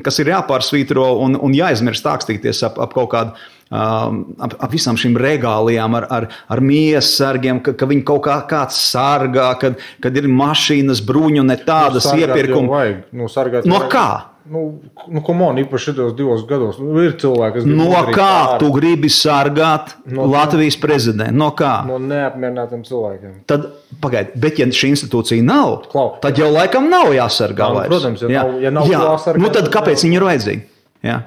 kas ir jāpārsvītro un jāizmirst tākstīties ap kaut kādu, ap visām šīm regālijām ar miesas sargiem, ka viņi kaut kāds sargā, kad ir mašīnas, bruņu, ne tādas iepirkuma. No kā?
Komon, īpaši šitos 2 gados. Ir cilvēki, kas
no kā tu gribi sargāt Latvijas prezidentu? No kā?
No neapmierinātiem cilvēkiem.
Tad, pagaidi, bet ja šī institūcija nav, tad jau laikam nav jāsargā vairs.
Protams, ja nav jāsargā.
Tad kāpēc viņi ir vajadzīgi? Jā.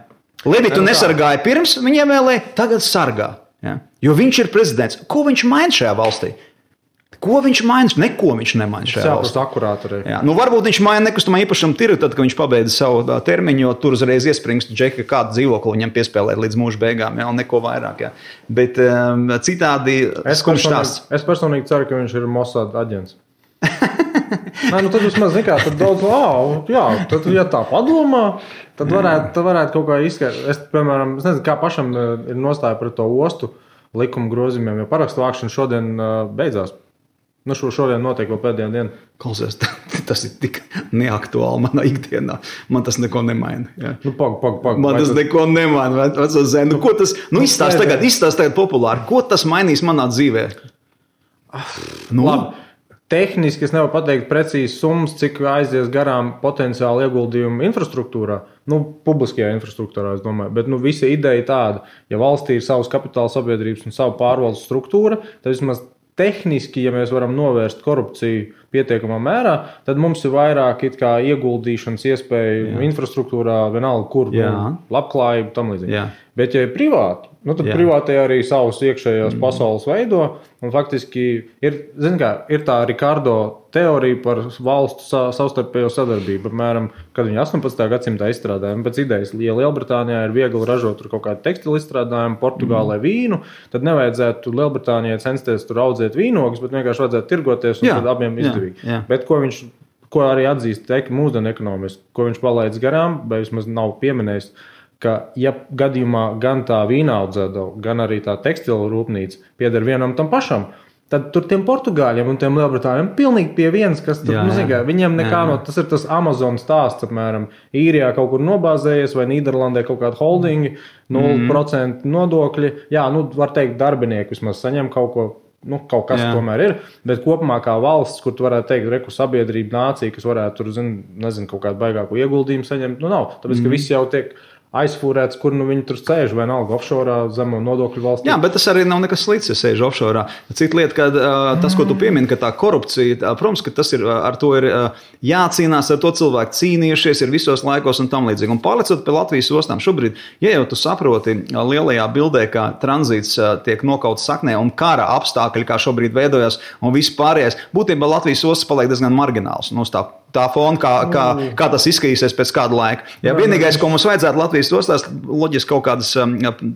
Levitu nesargāja pirms, viņiem vēlēja, tagad sargā. Ja? Jo viņš ir prezidents. Ko viņš maina šajā valstī? Ko viņš maina? Neko viņš nemaina šajā valstī.
Akurāti.
Ja? Varbūt viņš maina nekustamā īpašuma tirgu, tad, kad viņš pabeidza savu termiņu, jo tur uzreiz iespringst džeki, kādu dzīvokli viņam piespēlēt līdz mūža beigām, ja? Un neko vairāk. Ja? Bet citādi skumjš stāsts.
Es personīgi ceru, ka viņš ir Mossad aģents. Tad vismaz nekā, tad daudz, tad, ja tā padomā, tad varētu kaut kā izskaidrot. Es, piemēram, nezinu, kā pašam ir nostāja pret to ostu likuma grozījumiem, jo parakstu vākšana šodien beidzās. Šodien notiek vēl pēdējā diena.
Klausies, tas ir tik neaktuāli manā ikdienā. Man tas neko nemaina. Ja. Man tas neko nemaina. Ko tas, izstāst tagad populāri. Ko tas mainīs manā dzīvē?
Labi. Tehniski es nevaru pateikt precīzi summas, cik aizies garām potenciāli ieguldījumu infrastruktūrā. Publiskajā infrastruktūrā, es domāju. Bet visa ideja tāda, ja valstī ir savas kapitāla sabiedrības un savu pārvaldes struktūra, tad vismaz tehniski, ja mēs varam novērst korupciju pietiekamā mērā, tad mums ir vairāk ieguldīšanas iespēju infrastruktūrā, vienalga kur, labklājību, tam līdzīgi. Bet, ja ir privāti, tad privātie arī savus iekšējās pasaules veido, un faktiski ir tā Ricardo teorija par valstu savstarpējo sadarbību. Apmēram, kad viņi 18. gadsimtā izstrādājumi pēc idejas, ja Lielbritānijā ir viegli ražot tur kaut kādu tekstilu izstrādājumu, Portugālē vīnu, tad nevajadzētu Lielbritānijai censties tur audzēt vīnogus, bet vienkārši vajadzētu tirgoties un tad abiem izdevīgi. Bet ko arī atzīst mūsdienu ekonomisti, ko viņš palaidz garām, vai vismaz nav pieminējis, ka, ja gadījumā gan tā vīna audzētava, gan arī tā tekstila rūpnīca pieder vienam tam pašam, tad tur tiem Portugāļiem un tiem Lielbritāņiem pilnīgi pie vienas, kas tur, viņiem nekā tas ir tas Amazon stāsts, apmēram, Īrijā kaut kur nobāzējies vai Nīderlandē kaut kāda holdingi, 0% nodokļi, var teikt, darbinieki vismaz saņem kaut ko, kaut kas tomēr ir, bet kopumā kā valsts, kur tu varētu teikt, sabiedrība, nācija, kas varētu tur, nezinu, kaut kādu baigāku ieguldījumu saņemt, nav, tāpēc, ka viss jau tiek aizfūrēts, kur viņi tur sēž, vai nalga offshore zemo nodokļu valstī.
Jā, bet tas arī nav nekas slikts, ja sēž offshore. Cita lieta, ka tas, ko tu piemini, ka tā korupcija, protams, ka tas ir, ar to ir jācīnās, ar to cilvēku cīnījušies ir visos laikos un tam līdzīgi. Un pārlecot pie Latvijas ostām šobrīd, ja jau tu saproti lielajā bildē, kā tranzīts tiek nokauts saknē un kara apstākļi, kā šobrīd veidojas un viss pārējais, būtībā Latvijas ostas paliek diezgan margināls. Tā fona, kā tas izskatīsies pēc kāda laika. Ja vienīgais, ko mums vajadzētu Latvijas ostās, loģiski kaut kādas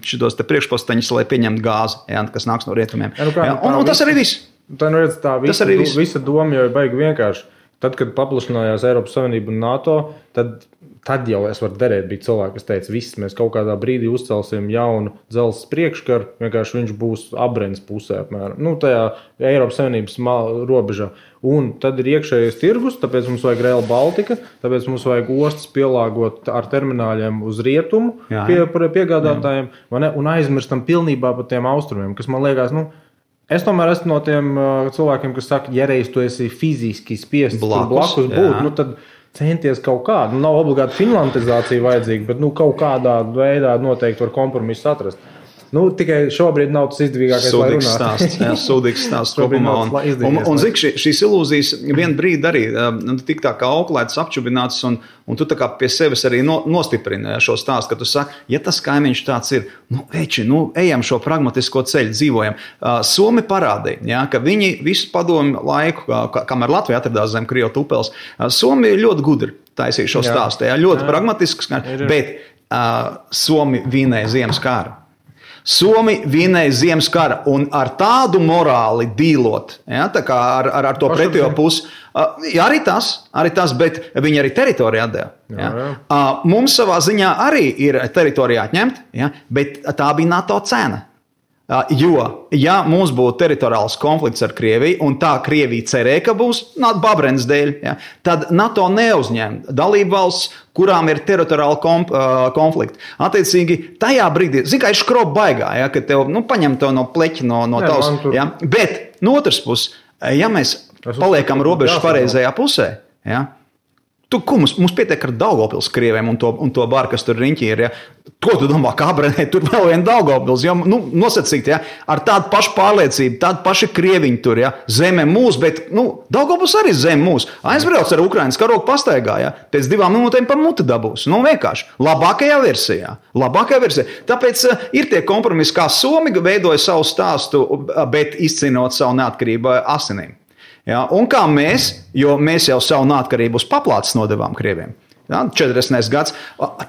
šitos te priekšposteņus, lai pieņemtu gāzi, kas nāks no rietumiem. Un tas arī viss.
Tā visa doma jau ir baigi vienkārši. Tad, kad paplašinājās Eiropas Savienība un NATO, tad jau es varu derēt, bija cilvēki, kas teica, viss mēs kaut kādā brīdī uzcelsim jaunu dzelzs priekškaru, vienkārši viņš būs abrens pusē, apmēram, tajā Eiropas Savienības robežā. Un tad ir iekšējais tirgus, tāpēc mums vajag Rail Baltica, tāpēc mums vajag ostas pielāgot ar termināļiem uz rietumu piegādātājiem, un aizmirstam pilnībā par tiem austrumiem, kas man liekas, es tomēr esmu no tiem cilvēkiem, kas saka, ja reiz tu esi fiziski spiests blakus būt, tad centies kaut kādu. Nav obligāti finlandizācija vajadzīga, bet kaut kādā veidā noteikti var kompromisu atrast. Tikai šobrīd nav tas izdevīgākais, lai runātu.
Sūdīgs stāsts kopumā. Un zik, šīs ilūzijas vien brīdi arī tik tā kā auklētas, apčubinātas, un tu tā kā pie sevis arī nostiprini šo stāstu, ka tu saki, ja tas kaimiņš tāds ir, ejam šo pragmatisko ceļu, dzīvojam. Somi parādīja, ka viņi visu padomu laiku, kamēr Latvija atradās zem Krievu tupels, Somi ļoti gudri taisīja šo stāstu, ļoti pragmatisks, bet Somi vinēja ziemas kāru. Somi vinēja Ziemas kara un ar tādu morāli dīlot, ja, tā kā ar to pretējo pusi. Arī tas, bet viņi arī teritoriju atdeva. Ja. Mums savā ziņā arī ir teritorija atņemt, ja, bet tā bija NATO cena. Jo, ja mums būtu teritoriāls konflikts ar Krieviju, un tā Krievija cerēja, ka būs Babrenes dēļ, ja, tad NATO neuzņem dalību valsts, kurām ir teritoriāli konflikti. Attiecīgi, tajā brīdī, kā ir škroba baigā, ja, kad tev paņem tev no pleķa, no tavs. Ja, bet no otras puses, ja mēs paliekam robežas pareizajā pusē, ja, mums pietiek ar Daugavpils krieviem un to baru, kas tur riņķī ir. Ja? Ko tu domā, kā Abrenē, tur vēl viena Daugavpils? Ja? Nosacīt, ja? Ar tādu pašu pārliecību, tādu pašu krieviņu tur, ja? Zeme mūs, bet Daugavpils arī zeme mūs. Aizbrauc ar Ukrainas karogu pastaigā, ja? Pēc 2 minūtēm pa muti dabūs. Vienkārši. Labākajā versijā. Tāpēc ir tie kompromisi, kā Somi veidoja savu stāstu, bet izcīnot savu neatkarību asinīm. Ja, un kā jo mēs jau savu neatkarību uz paplātes nodevām Krieviem. Ja, 40. gads.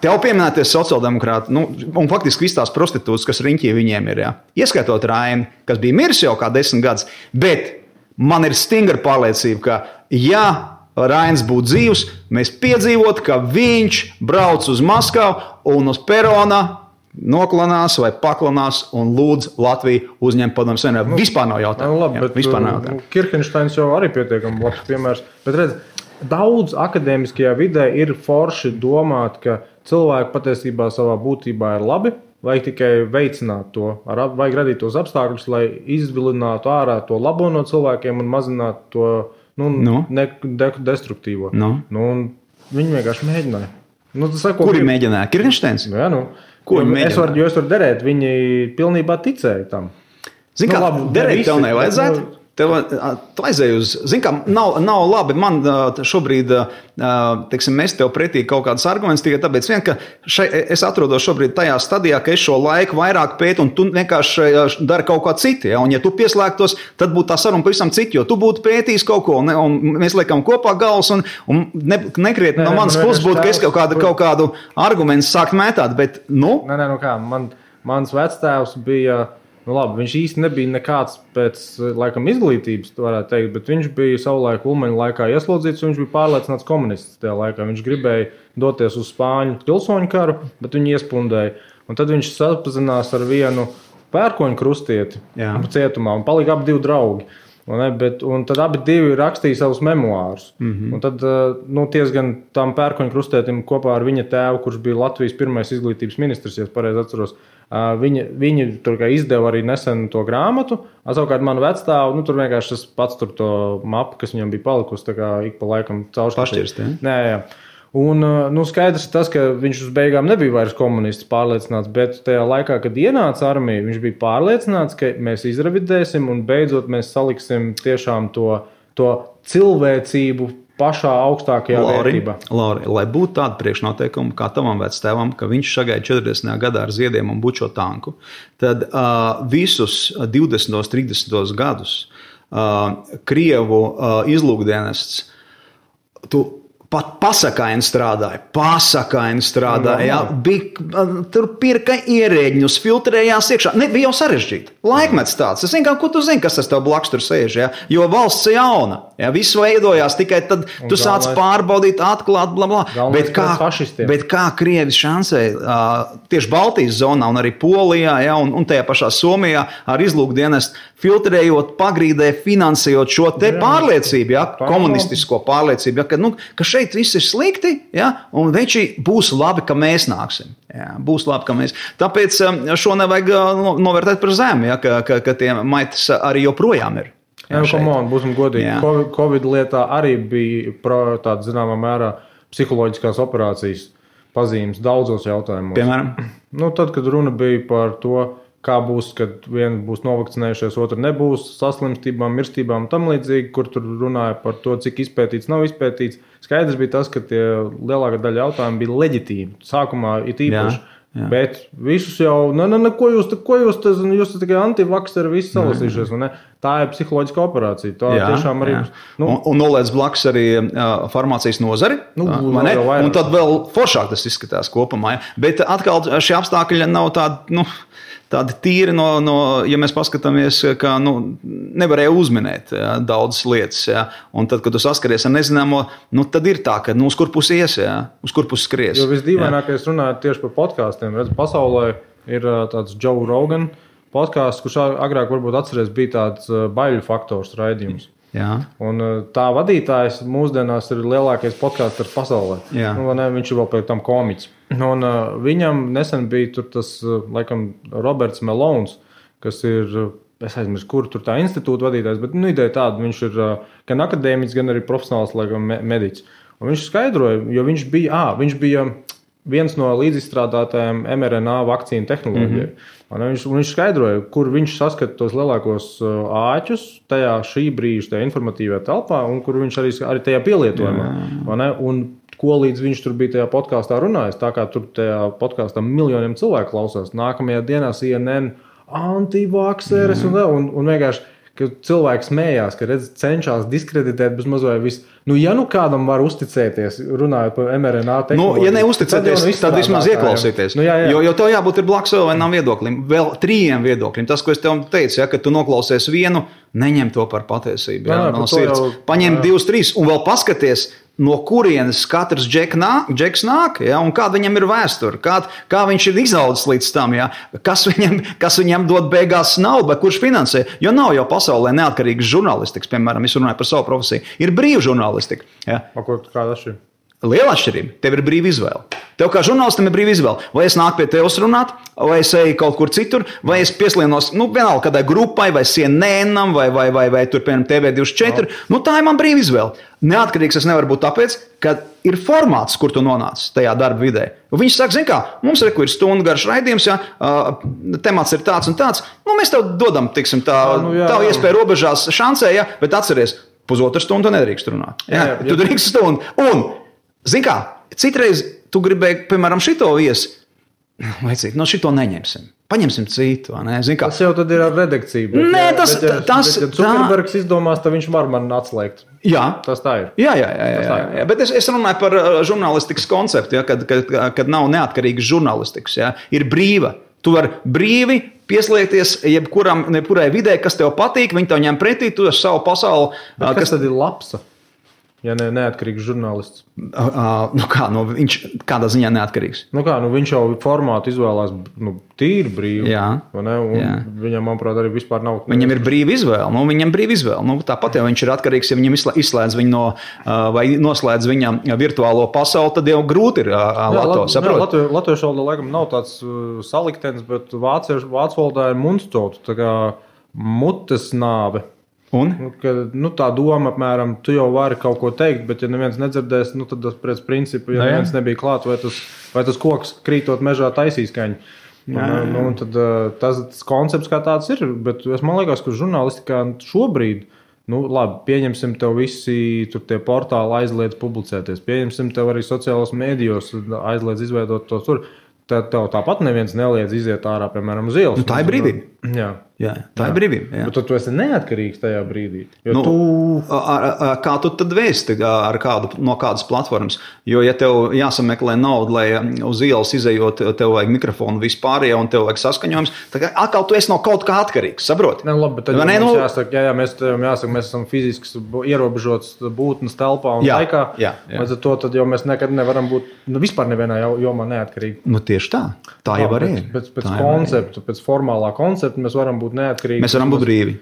Tev pieminēties sociāldemokrāti, un faktiski viss tās prostitūtas, kas riņķī viņiem ir. Ja. Ieskaitot Raini, kas bija miris jau kā 10 gadus. Bet man ir stingra pārliecība, ka ja Rainis būtu dzīvs, mēs piedzīvotu, ka viņš brauc uz Maskavu un uz perona noklanās vai paklanās un lūdz Latviju uzņemt padomu savienību. Vispār nav jautājumu.
Kirkenšteins jau arī pietiekami labs piemērs. Bet redz, daudz akadēmiskajā vidē ir forši domāt, ka cilvēki patiesībā savā būtībā ir labi, vajag tikai veicināt to, vajag radīt tos apstākļus, lai izvilinātu ārā to labo no cilvēkiem un mazinātu to destruktīvo. Un viņi vienkārši mēģināja.
Kuri mēģināja? Kirkenšteins?
Jā, es varu derēt, viņi pilnībā ticēja tam.
Zini, kā derēt tev nevajadzētu? Tu aizēji uz, zini, kā nav labi, man šobrīd, mēs tev pretī kaut kādas argumentus, tikai tāpēc ka es atrodos šobrīd tajā stadijā, ka es šo laiku vairāk pētu un tu vienkārši dari kaut kā citu, ja? Un ja tu pieslēgtos, tad būtu tā saruna pavisam cita, jo tu būtu pētījis kaut ko, un mēs liekam kopā galvas, un nekrietni no manas puses būtu, ka es kaut kādu argumentu sākt mētāt, bet,
mans vectēvs bija... viņš īsti nebija nekāds pēc laikam izglītības, varētu teikt, bet viņš bija savulaik Ulmaņa laikā ieslodzīts, un viņš bija pārliecināts komunists tajā laikā. Viņš gribēja doties uz Spāņu pilsoņu karu, bet viņu iespundēja. Un tad viņš sapazinās ar vienu pērkoņu krustieti cietumā, un palika abi 2 draugi. Un tad abi 2 rakstīja savus memoārus. Un tad tiesgan tam pērkoņu krustietim kopā ar viņa tēvu, kurš bija Latvijas pirmais izglītības ministrs, ja es pareizi atceros, viņi tur izdeva arī nesen to grāmatu. Savukārt manu vecstāvu, tur vienkārši tas pats tur to mapu, kas viņam bija palikusi, tā kā ik pa laikam caurskatījis. Jā. Un skaidrs ir tas, ka viņš uz beigām nebija vairs komunists pārliecināts, bet tajā laikā, kad ienāca armija, viņš bija pārliecināts, ka mēs izrevidēsim un beidzot mēs saliksim tiešām to cilvēcību pašā augstākajā vērtībā.
Lauri, lai būtu tāda priekšnoteikuma kā tavam vectēvam, ka viņš šagāja 40. gadā ar ziediem un bučo tanku, tad visus 20. 30. gadus Krievu izlūkdienests pat pasakaini strādāja. Jā, tur pirka ierēģņus, filtrējās iekšā. Bija jau sarežģīti. Laikmets tāds. Es zinu, ko tu zini, kas tas tev blakus tur sēž. Ja? Jo valsts ir jauna. Ja? Viss veidojās, tikai tad tu sāc pārbaudīt, atklāt, blablabla. Bet kā Krievi šansēja tieši Baltijas zonā un arī Polijā, ja? un tajā pašā Somijā ar izlūkdienestu filtrējot, pagrīdē, finansējot šo te pārliecību, ja? Komunistisko pārliecību, ja? Ka šeit viss ir slikti, ja? Un veči būs labi, ka mēs nāksim. Ja? Būs labi, ka mēs. Tāpēc šo nevajag novērtēt par zemi, ja? ka tie maitas arī joprojām ir.
Jā, būsim godīgi. Covid lietā arī bija tāda zināmā mērā psiholoģiskās operācijas pazīmes daudzos jautājumos.
Piemēram?
Tad, kad runa bija par to, kā būs, kad viens būs novakcinējušies, otru nebūs, saslimstībām, mirstībām un tam līdzīgi, kur tur runāja par to, cik izpētīts, nav izpētīts. Skaidrs bija tas, ka tie lielākā daļa jautājumu bija leģitīvi. Sākumā it īpaši. Jā. Bet visus jau, ko jūs tikai antivakseri visi salasījušies, ne? Tā ir psiholoģiska operācija. Tā tiešām arī.
Un noliec blakus arī farmācijas nozari. Un tad vēl foršāk tas izskatās kopumā. Ja? Bet atkal šie apstākļi nav tādi, tādi tīri ja mēs paskatāmies, ka nevarēja uzminēt daudzas lietas. Ja? Un tad, kad tu saskaries ar nezināmo, tad ir tā, ka uz kur pusi ies, uz kur pusi skries.
Jo visdīvainākais runājot tieši par podkāstiem. Redz, pasaulē ir tāds Joe Rogan podkāsts, kurš agrāk varbūt atceries bija tāds baiļu faktors raidījums.
Jā.
Un tā vadītājs mūsdienās ir lielākais podkāsters pasaulē. Viņš ir vēl pēc tam komiķis. Un viņam nesen bija tur tas, laikam, Roberts Melons, kas ir, es aizmirsu, kur tur tā institūta vadītājs, bet ideja tāda, viņš ir gan akadēmiķis, gan arī profesionāls, laikam, mediķis. Un viņš skaidroja, jo viņš bija viens no līdzizstrādātājiem mRNA vakcīnu tehnoloģijai. Viņš skaidroja, kur viņš saskata tos lielākos āķus šī brīža tajā informatīvajā telpā, un kur viņš arī tajā pielietojumā. Un ko līdz viņš tur bija tajā podkāstā runājis, tā kā tur tajā podkāstā miljoniem cilvēku klausās. Nākamajā dienā CNN antivakseres un vienkārši, ka cilvēki smējās, ka cenšas diskreditēt bez mazliet visu. Ja kādam var uzticēties, runājot par mRNA tehnoloģiju.
Ja neuzticēties, tad vismaz ieklausīties.
Jā.
Jo tev jābūt ir blakus vēl vienam viedoklim, vēl 3 viedokļiem. Tas, ko es tev teicu, ka tu noklausies vienu, neņem to par patiesību. No sirds. Paņem 2, 3 un vēl paskaties, no kurienes katrs džeks nāk, un kāda viņam ir vēsture, kā viņš ir izaudzis līdz tam, kas viņam dod beigās naudu, kurš finansē. Jo nav jau pasaulē neatkarīgas žurnālistikas, piemēram, es runāju par savu profesiju, ir brīva žurnālistika.
Kāda šī?
Liela atšķirība. Tev ir brīva izvēle. Tev kā žurnālistam ir brīva izvēle. Vai es nāku pie tevis runāt, vai es eju kaut kur citur, vai es pieslienos, vienalga kādai grupai, vai CNN-am, vai tur, piemēram, TV24. Tā ir man brīva izvēle. Neatkarīgs es nevaru būt tāpēc, ka ir formāts, kur tu nonāc tajā darba vidē. Viņš saka, zini kā, mums ir stundu garš raidījums, temats ir tāds un tāds. Mēs tev dodam, tiksim, tavu iespēju robežās šancē, bet atceries, 1,5 stundu nedrīkst runāt. Tu drīkst stundu. Un, zini kā, citreiz tu gribēji, piemēram, šito viesi, šito neņemsim. Paņemsim citu.
Tas jau tad ir ar redakciju. Ja Zuckerbergs izdomās, tad viņš var man atslēgt.
Jā.
Tas tā ir.
Jā. Bet es runāju par žurnālistikas konceptu, kad nav neatkarīgas žurnālistikas. Ir brīva. Tu vari brīvi pieslēgties jebkurai vidē, kas tev patīk, viņi tev ņem pretī, tu esi savu pasauli.
Kas tad ir labs? Ja neatkarīgs žurnālists.
Viņš kādā ziņā neatkarīgs.
Viņš jau formātu izvēlās tīri brīvi. Viņam, manuprāt, arī vispār nav.
Viņam ir brīva izvēle. Tāpat jau viņš ir atkarīgs, ja viņam izslēdz viņu vai noslēdz viņam virtuālo pasauli, tad jau grūti ir
Latviešu valodā laikam nav tāds saliktenis, bet vācu valodā ir mundstot, tā kā mutes nāve. Tā doma, apmēram, tu jau vari kaut ko teikt, bet ja neviens nedzirdēs, tad pēc principu, ja neviens nebija klāt, vai tas koks krītot mežā taisīs kaņu. Tad tas koncepts kā tāds ir, bet man liekas, ka žurnālistikā šobrīd, labi, pieņemsim tev visi tur tie portāli aizliedz publicēties, pieņemsim tev arī sociālos mēdījos aizliedz izveidot to tur. Tev tāpat neviens neliedz iziet ārā, piemēram, uz ielas.
Tā ir brīvība. Jā, tā ir brīvība.
Bet tu esi neatkarīgs tajā brīdī.
Kā tu tad vēsti no kādas platformas? Jo, ja tev jāsameklē nauda, lai uz ielas izejot, tev vajag mikrofonu vispārējā un tev vajag saskaņojums, tad atkal tu esi no kaut kā atkarīgs, saproti?
Labi, bet tad mums jāsaka, mēs esam fiziski ierobežots būtnes telpā un laikā. Līdz ar to tad jau mēs nekad nevaram būt vispār nevienā jomā neatkarīgi.
Tieši tā. Tā jau var ir.
Pēc formālā koncepta mēs varam būt neatkarīgi.
Mēs varam būt brīvi.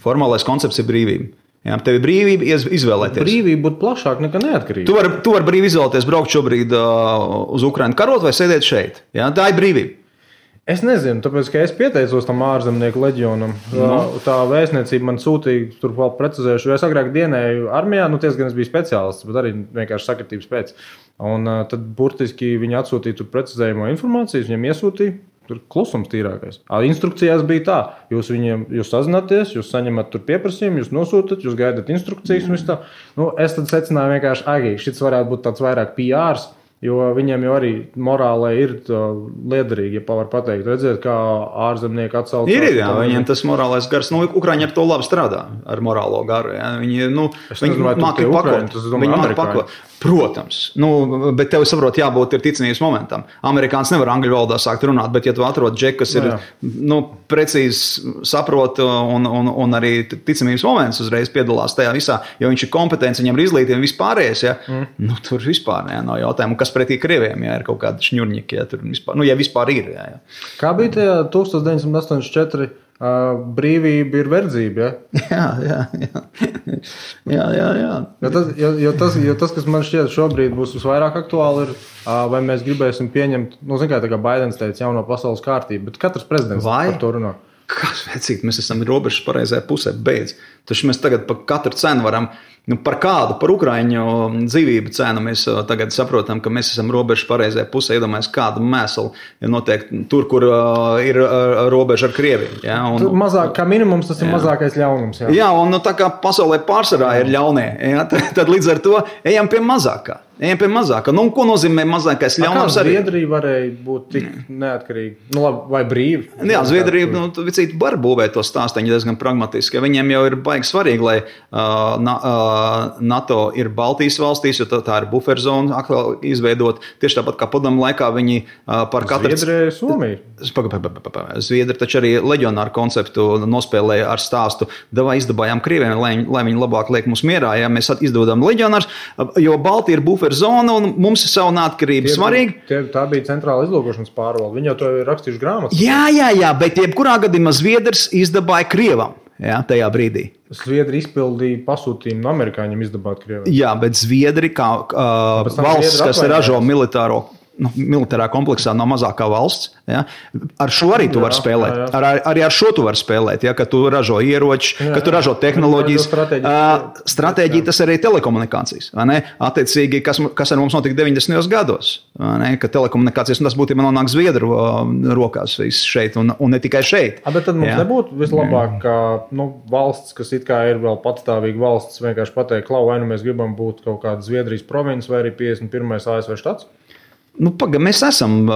Formālais koncepts ir brīvība. Tev ir brīvība izvēlēties.
Brīvība būtu plašāk nekā neatkarība.
Tu vari brīvi izvēlēties braukt šobrīd uz Ukrainu karot vai sēdēt šeit. Tā ir brīvība.
Es nezinu, tāpēc, ka es pieteicos tam ārzemnieku leģionam. Tā vēstniecība man sūtīja, tur vēl precizējuši, jo es agrāk dienēju armijā, gan es biju speciālists, bet arī vienkārši sakritības pēc. Un tad burtiski viņi atsūtīja tur precizējumu informāciju, viņiem iesūtīja. Tur klusums tīrākais. Instrukcijās bija tā, jūs sazināties, jūs saņemat tur pieprasījumu, jūs nosūtat, jūs gaidat instrukcijas un viss tā. Es tad secināju vienkārši, šis varētu būt tāds vairāk PRs, Jo viņiem jau arī morālē ir liederīgi, ja var pateikt. Redziet, kā ārzemnieki atsaucās.
Jā, viņiem tas morālais gars, Ukraiņi ar to labi strādā, ar morālo garu. Jā. Viņi māki pakot. Protams, bet tev, saprot, jābūt ir ticamības momentam. Amerikāns nevar angļu valodā sākt runāt, bet ja tu atrod džeku, kas ir precīzi saprot un arī ticamības moments uzreiz piedalās tajā visā, jo viņš ir kompetents, viņam ir izglītība vispārējais, tur vispār nav jautājumu. Kas pretī krieviem, ir kaut kādi šņurņiki, tur vispār, ja vispār ir. Jā.
Kā bija tajā 1984? Brīvība ir verdzība, Jo tas, kas man šķiet šobrīd būs visvairāk aktuāli, ir, vai mēs gribēsim pieņemt, kā Baidens teica, jauno pasaules kārtību, bet katrs prezidents par to runā.
Kas vecīt, mēs esam robežas pareizajā pusē, beidz. Taču mēs tagad par katru cenu varam, par kādu, par Ukraiņu dzīvību cenu mēs tagad saprotam, ka mēs esam robežas pareizajā pusē, iedomājamies kādu mēslu, ja notiek tur, kur ir robeža ar Krieviju. Ja,
mazāk, kā minimums tas ir mazākais ļaunums.
Jā, un tā kā pasaulē pārsvarā ir ļaunie, tad līdz ar to ejam pie mazākā. Ko nozīmē mazākais ļaunums?
Zviedrija varēja būt tik neatkarīga, vai brīva?
Jā, Zviedrija var būvēt to stāsteņu diezgan pragmatiski. Viņiem jau ir baigi svarīgi, lai NATO ir Baltijas valstīs, jo tā ir buferzona atkal izveidot. Tieši tāpat kā padomu laikā viņi par katru...
Zviedrija ir Somija.
Zviedri taču arī leģionāru konceptu nospēlēja ar stāstu. Izdabājām Krieviem, lai viņi labāk liek mums mierā. Ja mēs izdodam leģionārus, jo Baltija ir buferzona un mums ir savu neatkarību svarīgi.
Tā bija centrāla izlūkošanas pārvalde. Viņi jau to ir rakstījuši grāmatas.
Jā, bet jebkurā gadījumā Zviedrs izdabāja Krievam. Jā, tajā brīdī.
Zviedri izpildīja pasūtījumu amerikāņiem izdabāt Krieviju.
Jā, bet Zviedri kā valsts, kas ražo militārā kompleksā nav mazākā valsts. Ja? Ar šo arī tu vari spēlēt. Arī ar šo tu vari spēlēt, ja? Ka tu ražo ieroči, ka tu ražo tehnoloģijas. Stratēģija tas arī telekomunikācijas. Attiecīgi, kas ar mums notika 90. gados. Ka telekomunikācijas, un tas būtībā nonāk Zviedru rokās šeit, un ne tikai šeit.
Bet tad mums nebūtu vislabāk, ka valsts, kas it kā ir vēl patstāvīga valsts, vienkārši pateikt, vai nu mēs gribam būt kaut kāda Zviedrijas provinces vai arī 51. ASV štats?
Mēs esam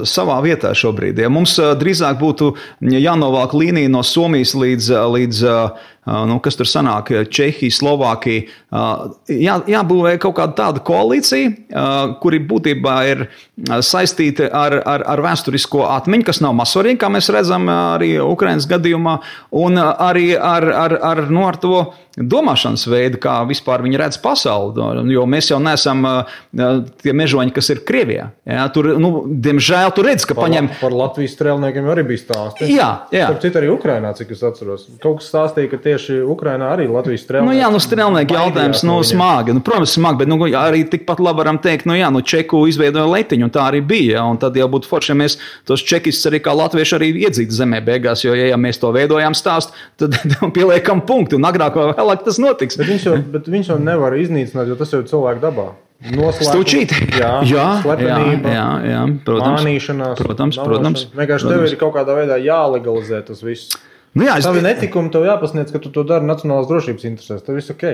savā vietā šobrīd. Ja mums drīzāk būtu jānovāk līnija no Somijas līdz kas tur sanāk, Čehija, Slovākija. Jābūvē kaut kāda tāda koalīcija, kuri būtībā ir saistīti ar vēsturisko atmiņu, kas nav mazsvarīgi, kā mēs redzam arī Ukrainas gadījumā, un arī ar to domāšanas veidu, kā vispār viņi redz pasauli, jo mēs jau neesam tie mežoņi, kas ir Krievijā. Ja, tur, diemžēl, tu redz, ka paņem...
Par Latvijas strēlniekiem arī bija stāsti.
Jā.
Starp citu arī Ukrainā, cik es atceros. Kaut kas stāstīja, ka tieši Ukrainā arī Latvijas strēlnieki...
Strēlnieki jautājums, smagi. Protams, smagi, bet arī tikpat labi varam teikt, Čeku izveidoja letiņu, un tā arī bija. Un tad jau būtu forši, ja mēs tos čekistus arī kā latvieši arī iedzītu zemē beigās, jo, ja mēs to veidojām stāstu, tad pieliekam punktu, un agrāk vai vēlāk tas notiks.
Bet viņš jau nevar iznīcināt, jo tas jau ir cilvēku dabā.
Stūčīt.
Slepenība,
protams.
Mānīšanās.
Protams.
Vienkārši tev ir kaut kādā veidā jālegalizē tas viss. Tavi netikumi tev jāpasniedz, ka tu to dari nacionālās drošības interesēs. Tev viss ok.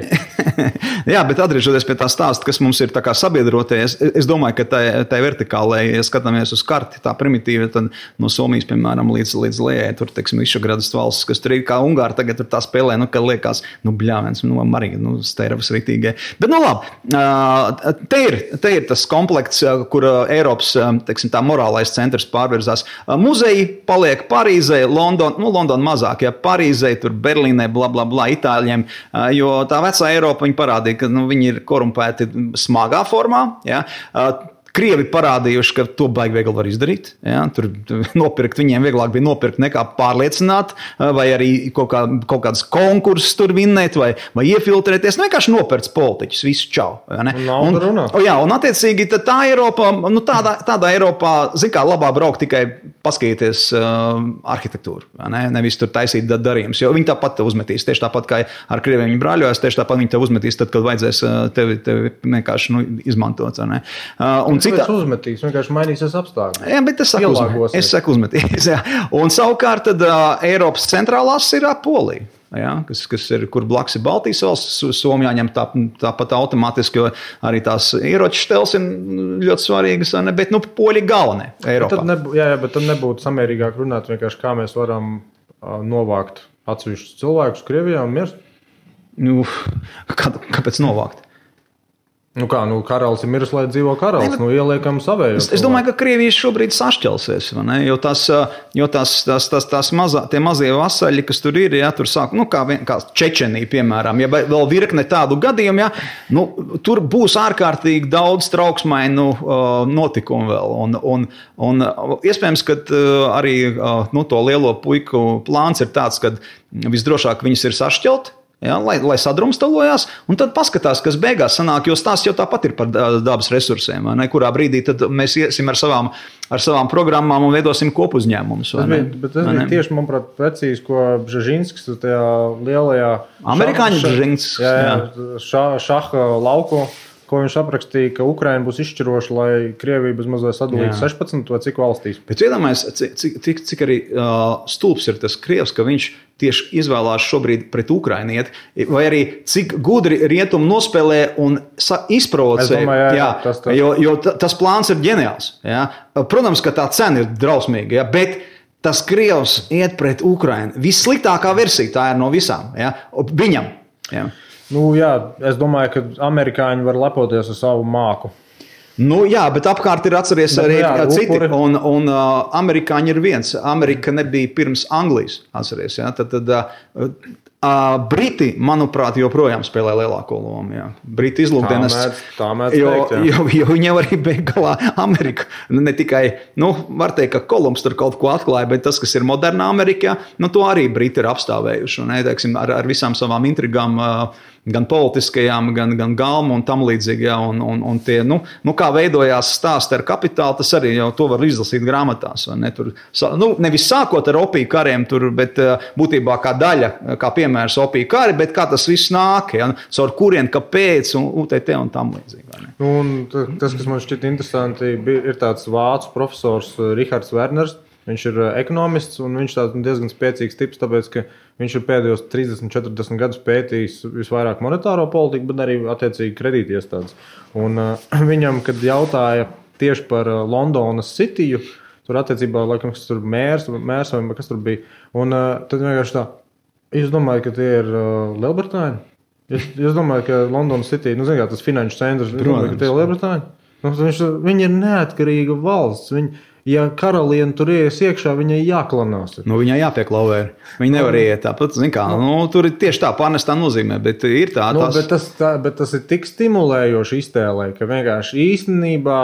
Jā, bet atgriežoties pie tā stāsta, kas mums ir tā kā sabiedroties, es domāju, ka tā vertikālē, ja skatāmies uz karti, tā primitīva, tad no Somijas, piemēram, līdz Lējai, tur, teiksim, Višegradas valsts, kas tur ir kā Ungāri, tagad tur tā spēlē, ka liekas, bļāvens, Marija, steiravas ritīgai. Bet, labi, te ir tas komplekts, kur Eiropas, teiksim, tā morālais centrs pārvirzās. Muzeji paliek Parīzē, London mazāk. Ja Parīzē, tur Berlīnē, Itāļiem, jo tā vecā Eiropa viņi parādīja, ka viņi ir korumpēti smagā formā. Ja? Krievi parādījuši, ka to baigi viegli var izdarīt. Ja? Tur nopirkt, viņiem vieglāk bija nopirkt nekā pārliecināt, vai arī kaut kādas konkursus tur vinnēt, vai iefiltrēties. Vienkārši nopirkt politiķus, visu čau. Ja, un attiecīgi tā Eiropā, tādā Eiropā, labā braukt tikai paskatīties arhitektūru. Ja, nevis tur taisīt darījumus, jo viņi tāpat te uzmetīs. Tieši tāpat kā ar Krieviem viņi brāļojas, tieši tāpat viņi te uzmetīs, tad, kad vajadzēs tevi vienkārši izmantot. Ja, un
citā uzmetīs, vienkārši mainīsies apstākļi.
Jā, bet es saku uzmetīs. Jā. Un savukārt tad Eiropas centrālās ir Polija. ja, kas ir, kur blakus ir Baltijas valsts, Somijā ņem tāpat automātiski, jo arī tās ieroču štels ir ļoti svarīgas, bet poļi galvenie Eiropā.
Bet tad nebūtu samērīgāk runāt vienkārši, kā mēs varam novākt atsevišķus cilvēkus Krievijā un mirst.
Kāpēc novākt?
Karalis ir miris, lai dzīvo karalis. Ieliekam savējos.
Es domāju, ka Krievija šobrīd sašķelsies, vai ne? Jo tie mazie vasaļi, kas tur ir, ja, tur sāk, kā Čečenija, piemēram, ja vēl virkne tādu gadījumu, ja, tur būs ārkārtīgi daudz trauksmainu notikumu vēl. Un iespējams, ka arī to lielo puiku plāns ir tāds, ka visdrošāk viņus ir sašķelt. Ja, lai sadrumstalojās, un tad paskatās, kas beigās sanāk, jo stāsts jau tāpat ir par dabas resursiem, ne? Kurā brīdī tad mēs iesim ar savām programmām un veidosim kopuzņēmumus.
Bet tas bija tieši, manuprāt, precīzi, ko Bžežinskis tajā lielajā
amerikāņu Bžežinskis
šaha lauku, ko viņš aprakstīja, ka Ukraina būs izšķiroša, lai Krievija bez mazliet sadalītu 16 vai cik valstīs.
Bet iedomājies, cik arī stulbs ir tas Krievs, ka viņš tieši izvēlās šobrīd pret Ukrainu iet, vai arī cik gudri rietumi nospēlē un izprovocē. Jo tas plāns ir ģeniāls. Ja? Protams, ka tā cena ir drausmīga, ja? Bet tas Krievs iet pret Ukrainu. Vissliktākā versija tā ir no visām. Ja? Viņam. Ja?
Es domāju, ka amerikāņi var lepoties ar savu māku.
Bet apkārt ir atceries arī citi, un amerikāņi ir viens. Amerika nebija pirms Anglijas, atceries. Ja? Tad Briti, manuprāt, joprojām spēlē lielāko lomu. Ja? Briti izlūkdienas, jo viņi jau arī beig galā Ameriku. Ne tikai, var teikt, ka Kolumbs tur kaut ko atklāja, bet tas, kas ir modernā Amerikā, to arī Briti ir apstāvējuši. Un, teiksim, ar visām savām intrigām, gan politiskajām, gan galmu un tam līdzīgi. Ja, un tie, kā veidojās stāsti ar kapitālu, tas arī jau to var izlasīt grāmatās. Ne? Tur, nevis sākot ar opiju kariem, bet būtībā kā daļa, kā piemērs opiju kari, bet kā tas viss nāk, ja? Caur kurien, kāpēc, un UTT un tam līdzīgi.
Tas, kas man šķiet interesanti, ir tāds vācu profesors Rihards Werners. Viņš ir ekonomists, un viņš tāds diezgan spēcīgs tips, tāpēc, ka viņš ir pēdējos 30-40 gadus pētījis visvairāk monetāro politiku, bet arī attiecīgi kredītiestādes. Un viņam, kad jautāja tieši par Londonas Cityju, tur attiecībā, laikam, kas tur mērs vai kas tur bija, un tad vienkārši tā, jūs domājat, ka tie ir Lielbritāņi? Jūs domājat, ka Londonas City, tas finanšu centrs, jūs domājat, ka tie ir Lielbritāņi? Viņi ir neatkarīga valsts, ja karaliene tur ies iekšā, viņai jāklanās.
Viņai jāpieklauvē. Viņa nevar iet tāpat, tur ir tieši tā pārnestā nozīmē, bet ir tā.
Bet tas ir tik stimulējoši iztēlē, ka vienkārši īstenībā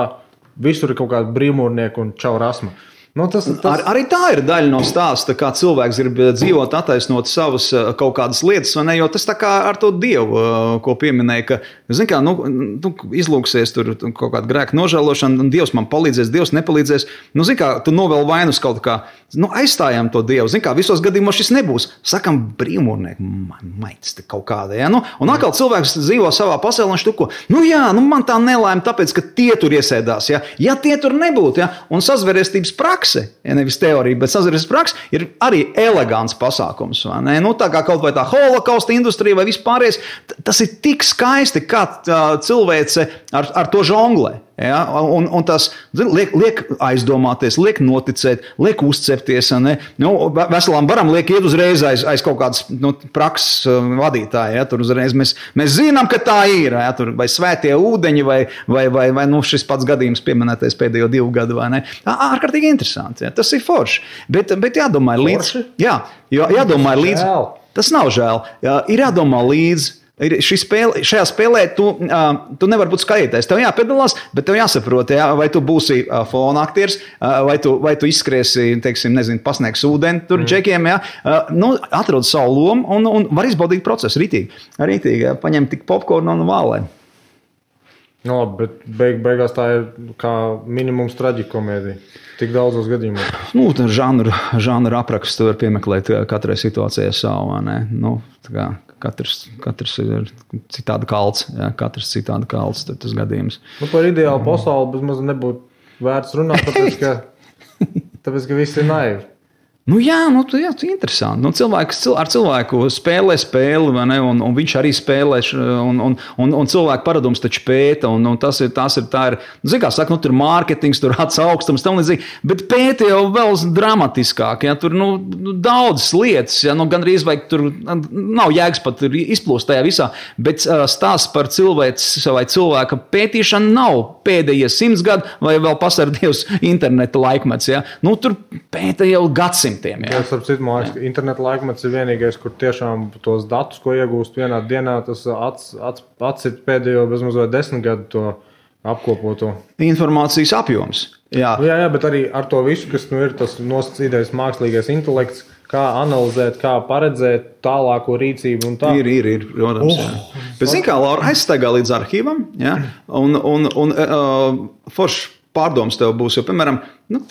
visur ir kaut kāda brīvmūrnieka un čau rasma.
Arī tā ir daļa no stāsta, kā cilvēks grib dzīvot, attaisnot savas kaut kādas lietas, vai ne? Jo tas tā kā ar to Dievu, ko pieminēja, ka, izlūksies tur kaut kāda grēka nožēlošana, un Dievs man palīdzēs, Dievs nepalīdzēs. Tu novēl vainus kaut kā, aizstājam to Dievu. Visos gadījumos šis nebūs. Sakam, brīvmūrnieki, maitis te kaut kāda, ja? Un atkal cilvēks dzīvo savā pasaulē, un štuko, man tā nelēma, tāpēc, ka tie tur iesēdās, ja? Ja tie tur nebūtu, ja? Un sazvērestības prakse, ja nevis teorija, bet sazvērestības prakse ir arī elegants pasākums. Tā kā kaut vai tā holokausta industrija vai vispārējais, tas ir tik skaisti, kā cilvēce ar to žonglē. Ja? Un tas liek aizdomāties, liek noticēt, liek uzcepties. Veselām varam liek iet uzreiz aiz kaut kādas prakses vadītāja. Ja? Tur uzreiz mēs zinām, ka tā ir. Ja? Tur vai svētie ūdeņi, vai šis pats gadījums pieminētais pēdējo 2 gadu. Ārkārtīgi interesanti. Ja? Tas ir forši. Bet jādomā līdzi. Jādomā līdzi. Tas nav žēl. Ir jādomā līdzi. Šajā spēlē tu nevari būt skatītājs. Tev jāpiedalās, bet tev jāsaprot, vai tu būsi fona aktieris, vai tu izskriesi, pasniegs ūdeni tur džekiem. Atrod savu lomu un var izbaudīt procesu rītīgi. Paņem tik popkornu un vālē.
Bet beigās tā ir kā minimums traģikomēdija. Tik daudzos gadījumos.
Žanru aprakstu var piemeklēt katrai situācijai savu. Katrs ir citādi kalts. Katrs citādi kalts, tad tas gadījums.
Par ideālu pasauli bezmaz nebūtu vērts runāt, tāpēc, ka viss ir naivi.
Tu interesanti. Cilvēks ar cilvēku spēlē spēli, vai ne? Un viņš arī spēlē, un cilvēku paradums taču pēta, un tā ir, zin kā saka, tur mārketings, tur augstums, tam līdzīgi, bet pēta jau vēl dramatiskāk, ja, tur, daudzas lietas, ja, gandrīz vai tur nav jēgas pat izplūst tajā visā, bet stāsts par cilvēks vai cilvēka pētīšanu nav pēdējie 100 gadu, vai vēl pasardievs interneta laikmets, ja. Tur pēta jau gadsimtiem. Jā,
starp citu, man liekas, ka interneta laikmets ir vienīgais, kur tiešām tos datus, ko iegūst vienā dienā, tas atcīt pēdējo bezmazliet 10 gadu to apkopoto.
Informācijas apjoms. Jā,
bet arī ar to visu, kas ir tas nosacītais mākslīgais intelekts, kā analizēt, kā paredzēt tālāko rīcību un tā.
Ir, protams. Bet zin kā, Laura, aizstaigā līdz arhīvam, jā, un forši pārdoms tev būs, jo, piemēram,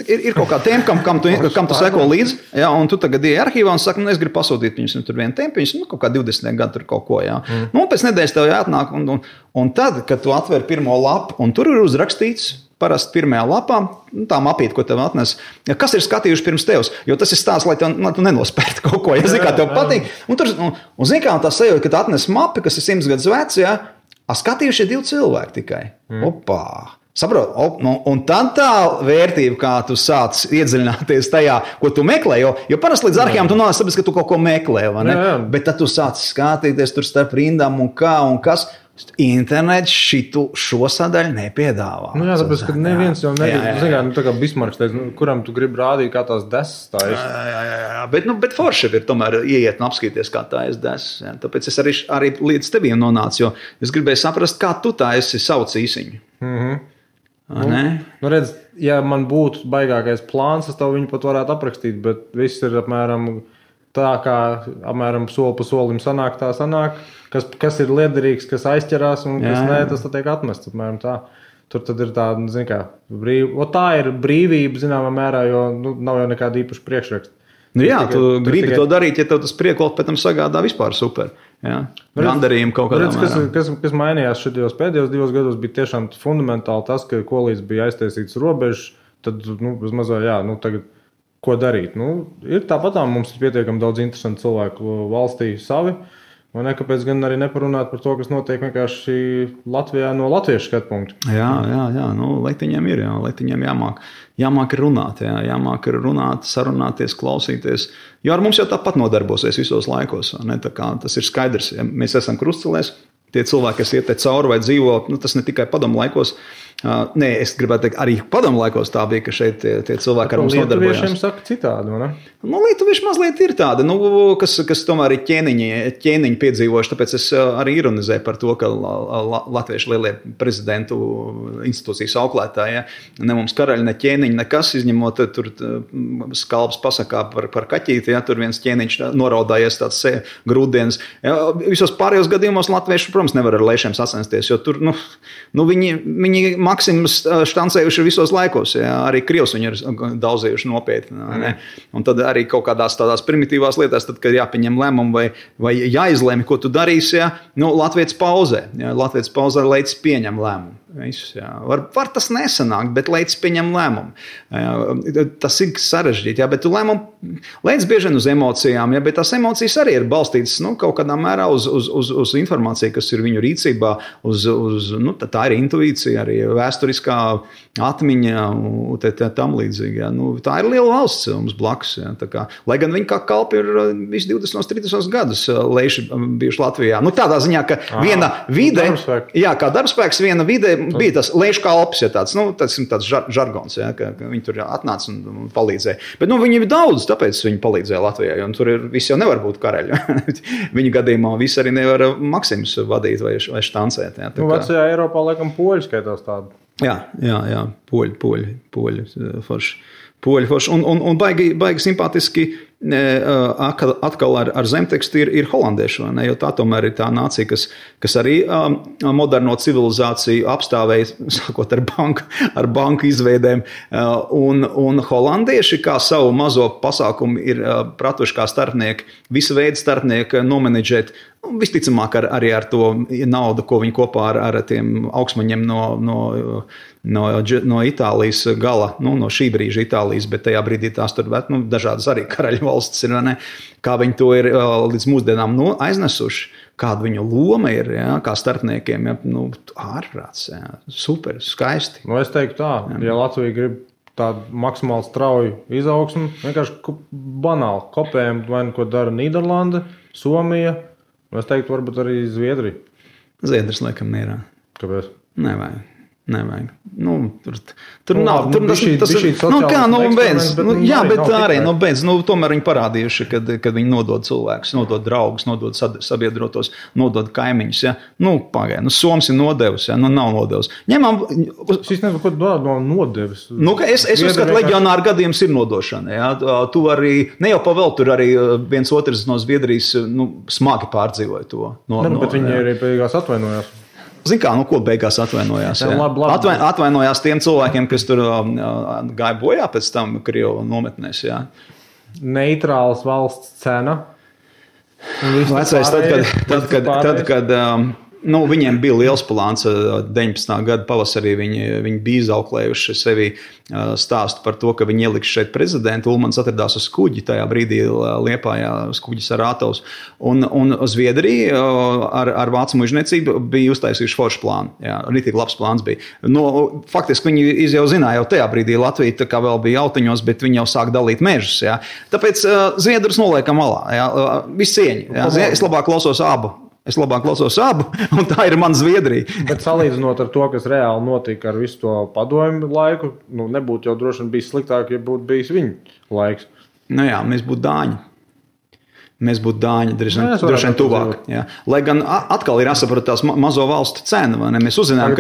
ir kaut kā tēma, kam tu seko līdzi, jā, un tu tagad ieej arhīvā un saki, es gribu pasūtīt viņus, tur vienu tēmu, viņus, kaut kā 20 gadu tur kaut ko, jā. Un pēc nedēļas tev jāatnāk, un tad, kad tu atver pirmo lapu, un tur ir uzrakstīts, parasti pirmajā lapā, tā mapīte, ko tev atnes, kas ir skatījuši pirms tevs, jo tas ir stāsts, lai tu nenospērti kaut ko, ja zin kā tev patīk, un zin kā tā sajūta, ka tu atnes mapi, kas ir 100 gadus vecs, jā, skatījuši 2 cilvēki tikai. Opā! Saprot, un tad tā vērtība, kā tu sāc iedziļināties tajā, ko tu meklē, jo parasti līdz arhīvam tu nonāc, tāpēc, ka tu kaut ko meklē, vai ne? Jā. Bet tad tu sāc skatīties tur starp rindām un kā un kas. Internets šo sadaļu nepiedāvā.
Jā, tāpēc, ka neviens jau negrib, tā kā Bismarks teica, kuram tu gribi rādīt, kā tās desas tā ir.
Jā, bet forši ir tomēr ieiet un apskatīties, kā tā ir desas. Jā. Tāpēc es arī līdz teviem nonācu, jo es gribēju saprast, kā tu tā esi sauc īsiņu.
Redz, ja man būtu baigākais plāns, es tev viņu pat varētu aprakstīt, bet viss ir apmēram tā, kā apmēram soli pa solim sanāk, kas ir liederīgs, kas aizķerās un kas nē, tas tiek atmests apmēram tā. Tur tad ir tāda, zin kā, tā ir brīvība, zināmā mērā, jo nav jau nekāda īpaša priekšraksta.
Tu gribi to darīt, ja tev tas priekolt pēc tam sagādā vispār super. Gandarījumu kaut kādā mērā.
Kas mainījās šajos pēdējos 2 gados, bija tiešām fundamentāli tas, ka kolīdz bija aiztaisīts robežas, tad, bezmazliet, tagad ko darīt. Ir tāpatām mums ir pietiekami daudz interesantu cilvēku valstī savi, un kāpēc gan arī neparunāt par to, kas notiek vienkārši Latvijā no latviešu skatpunktu.
Jā, Leitiņiem ir, Leitiņiem jāmāk runāt, jāmāk runāt, sarunāties, klausīties, jo ar mums jau tāpat nodarbosies visos laikos, ne? Tā kā tas ir skaidrs, ja mēs esam krustcelēs, tie cilvēki, kas iet te cauri vai dzīvo, tas ne tikai padomu laikos, es gribētu teikt, arī padomu laikos tā bija, ka šeit tie cilvēki ar mums nodarbojās.
Lietuviešiem saka citādi, vai ne?
Lietuvieši mazliet ir tādi, kas tomēr ir ķēniņi piedzīvojuši, tāpēc es arī ironizēju par to, ka latvieši lielie prezidentu institūcijas auklētāji, ne mums karaļi, ne ķēniņi, nekas, izņemot tur skalbs pasakā par kaķīti, tur viens ķēniņš noraudājies tāds grūtdienas. Visos pārējos gadījumos latvieši, protams, nevar ar lēšiem sacensties, jo tur, viņi maksimus štancējuši visos laikos, arī Krievs viņi ir daudzējuši nopietni, un tad arī kaut kādās tādās primitīvās lietās, tad, kad jāpieņem lēmumu vai jāizlēmi, ko tu darīsi, Latvijas pauzē, Latvijas pauzē leicis pieņem lēmumu. Visus, var tas nesanākt, bet leicis pieņem lēmumu. Tas ir sarežģīti, bet tu lēmumu leicis bieži vien uz emocijām, bet tās emocijas arī ir balstītas kaut kādā mērā uz informāciju, kas ir viņu rīcībā, tā ir intuīcija, arī vēsturiskā atmiņa tam līdzīgi. Tā ir liela valsts mums blakus. Lai gan viņi kā kalpi ir visi 20-30 gadus leiši bijuši Latvijā. Tādā ziņā, ka viena vide, kā darbspēks, viena vide bija tas leišu kalpis, tāds žargons, ka viņi tur atnāca un palīdzēja. Bet viņi ir daudz, tāpēc viņi palīdzēja Latvijā, jo tur visi jau nevar būt karaļi. Viņu gadījumā visi arī nevar Maksimus vadīt vai štancēt.
Vecajā Eiropā laikam poļi skaitās tādu.
Jā, poļi forši. Un baigi simpātiski atkal ar zemtekstu ir holandieši, jo tā tomēr ir tā nācija, kas arī moderno civilizāciju apstāvēja, sākot ar banku izveidēm, un holandieši kā savu mazo pasākumu ir pratuši kā starpnieki, visu veidu starpnieki nomenedžēt Visticamāk arī ar to naudu, ko viņi kopā ar tiem augstmaņiem no Itālijas gala, no šī brīža Itālijas, bet tajā brīdī tās tur dažādas arī karaļu valstis ir, vai ne? Kā viņi to ir līdz mūsdienām aiznesuši, kāda viņu loma ir, kā starpniekiem, ārprāts, super, skaisti.
Es teiktu tā, ja Latvija grib tādu maksimāli strauju izaugsmu, vienkārši banāli kopējam, vai ko dara Nīderlanda, Somija, es teiktu varbūt arī Zviedrija.
Zviedrijas laikam mierā.
Kāpēc?
Nevajag. Tur nav. Tomēr viņi parādījuši, kad viņi nodod cilvēkus, nodod draugus, nodod sabiedrotos, nodod kaimiņus. Ja? Pagaid, Soms ir nodevis, ja? Nav nodevis.
Es nezinu, ko no nodevis.
Es uzskatu, leģionāru gadījums ir nodošana. Ja? Tu arī, ne jau pavēl, tur arī viens otrs no Zviedrijas smagi pārdzīvoja to.
Bet viņi arī beigās atvainojās.
Zini kā, ko beigās atvainojās?
Labi.
Atvainojās tiem cilvēkiem, kas tur gāja bojā pēc tam Krievu nometnēs. Jā.
Neitrāls valsts cena.
Vecais, tad, kad viņiem bija liels plāns 19. gada pavasarī, viņi bija izauklējuši sevi stāstu par to, ka viņi ieliks šeit prezidentu. Ulmans atradās uz kuģi, tajā brīdī Liepājā uz kuģi Sarātovs. Un Zviedrija ar vācu mužniecību bija uztaisījuši foršu plānu. Jā, ritīgi labs plāns bija. Faktiski viņi jau zināja, jau tajā brīdī Latvija tā kā vēl bija autiņos, bet viņi jau sāk dalīt mežus. Jā. Tāpēc Zviedrus noliekam malā. Jā. Viss cieņi. Jā. Es labāk klausos abu, un tā ir mana Zviedrija.
Bet salīdzinot ar to, kas reāli notika ar visu to padomju laiku, nebūtu jau droši vien bijis sliktāk, ja būtu bijis viņu laiks.
Mēs būtu Dāņi. Mēs būtu Dāņi, droši vien tuvāk. Jā. Lai gan atkal ir jāsaprot tās mazo valstu cena. Mēs uzzinām,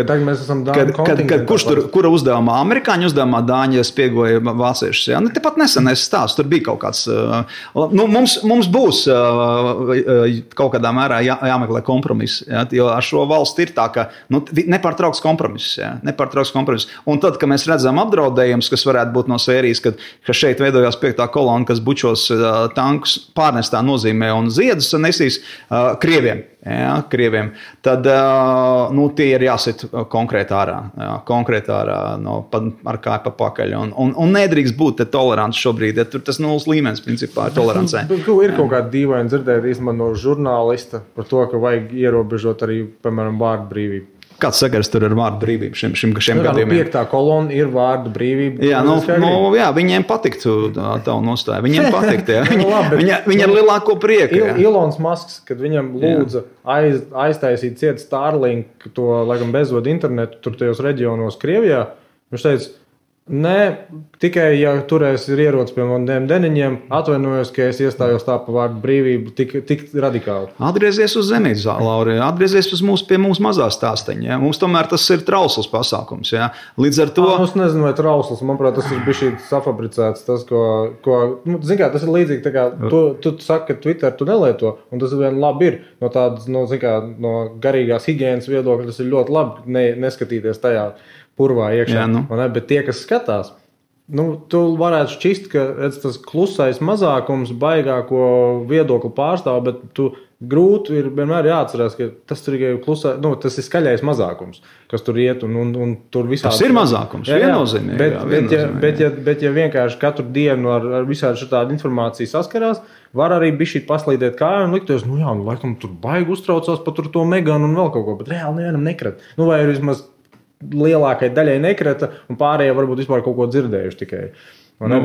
kura uzdevumā, amerikāņu uzdevumā Dāņi spiegoja vāciešus. Jā. Tepat nesen es stāstu, tur bija kaut kāds. Mums būs kaut kādā mērā jāmeklē kompromiss. Jā. Jo ar šo valsti ir tā, ka nepārtrauks kompromiss. Un tad, kad mēs redzam apdraudējumus, kas varētu būt no sērijas, ka šeit veidojās 5. kolona, kas bučos tankus pārnestā nozīmē un ziedus nesīs Krieviem. Jā, Krieviem. Tad tie ir jāsit konkrēti ārā. Ar kāju pa pakaļ. Un nedrīkst būt tolerants šobrīd. Ja tur tas nulles līmenis principā ir tolerancē.
Ir kaut kāda dīvaina dzirdēt īstenībā no žurnālista par to, ka vajag ierobežot arī, piemēram, vārdu brīvību.
Kāds sakars tur ar vārdu brīvību šiem gadījumiem?
5. kolona ir vārdu brīvība.
Jā, viņiem patiktu tavu nostāju. Viņiem patiktu, viņi ar lielāko prieku.
Ilons Masks, kad viņam lūdza aiztaisīt ciet Starlink, to, laikam, bezvadu internetu tur tajos reģionos Krievijā, viņš teica, tikai, ja turēs ir ierocis pie maniem deniņiem, atvainojos, ka es iestājos tā pa vārdu brīvību tik radikāli.
Atgriezies uz zemītes, Lauri, atgriezies pie mūsu mazā stāsteņa. Ja? Mums tomēr tas ir trausls pasākums. Ja? Līdz ar to...
Es nezinu, vai trausls, manuprāt, tas ir bišķi safabricēts. Tas, zin kā, tas ir līdzīgi, tā kā tu saki, ka Twitter tu nelieto, un tas vien labi ir. No tādas, no garīgās higienas viedokļa, tas ir ļoti labi neskatīties tajā purvā iekšā. Bet tie, kas skatās, tu varētu šķist, ka tas klusais mazākums baigāko viedokli pārstāv, bet tu grūti ir vienmēr jāatcerās, ka tas ir klusā, tas ir skaļais mazākums, kas tur iet un tur visādi.
Tas ir mazākums, viennozīmīgi.
Bet ja vienkārši katru dienu ar visādi šādu informāciju saskarās, var arī bišķīt paslīdēt kāju un liktos, laikam tur baigi uztraucās par to Meganu un vēl kaut ko, bet reāli nevienam nekrat. Vai vismaz lielākai daļai nekrita, un pārējie varbūt vispār kaut ko dzirdējuši tikai.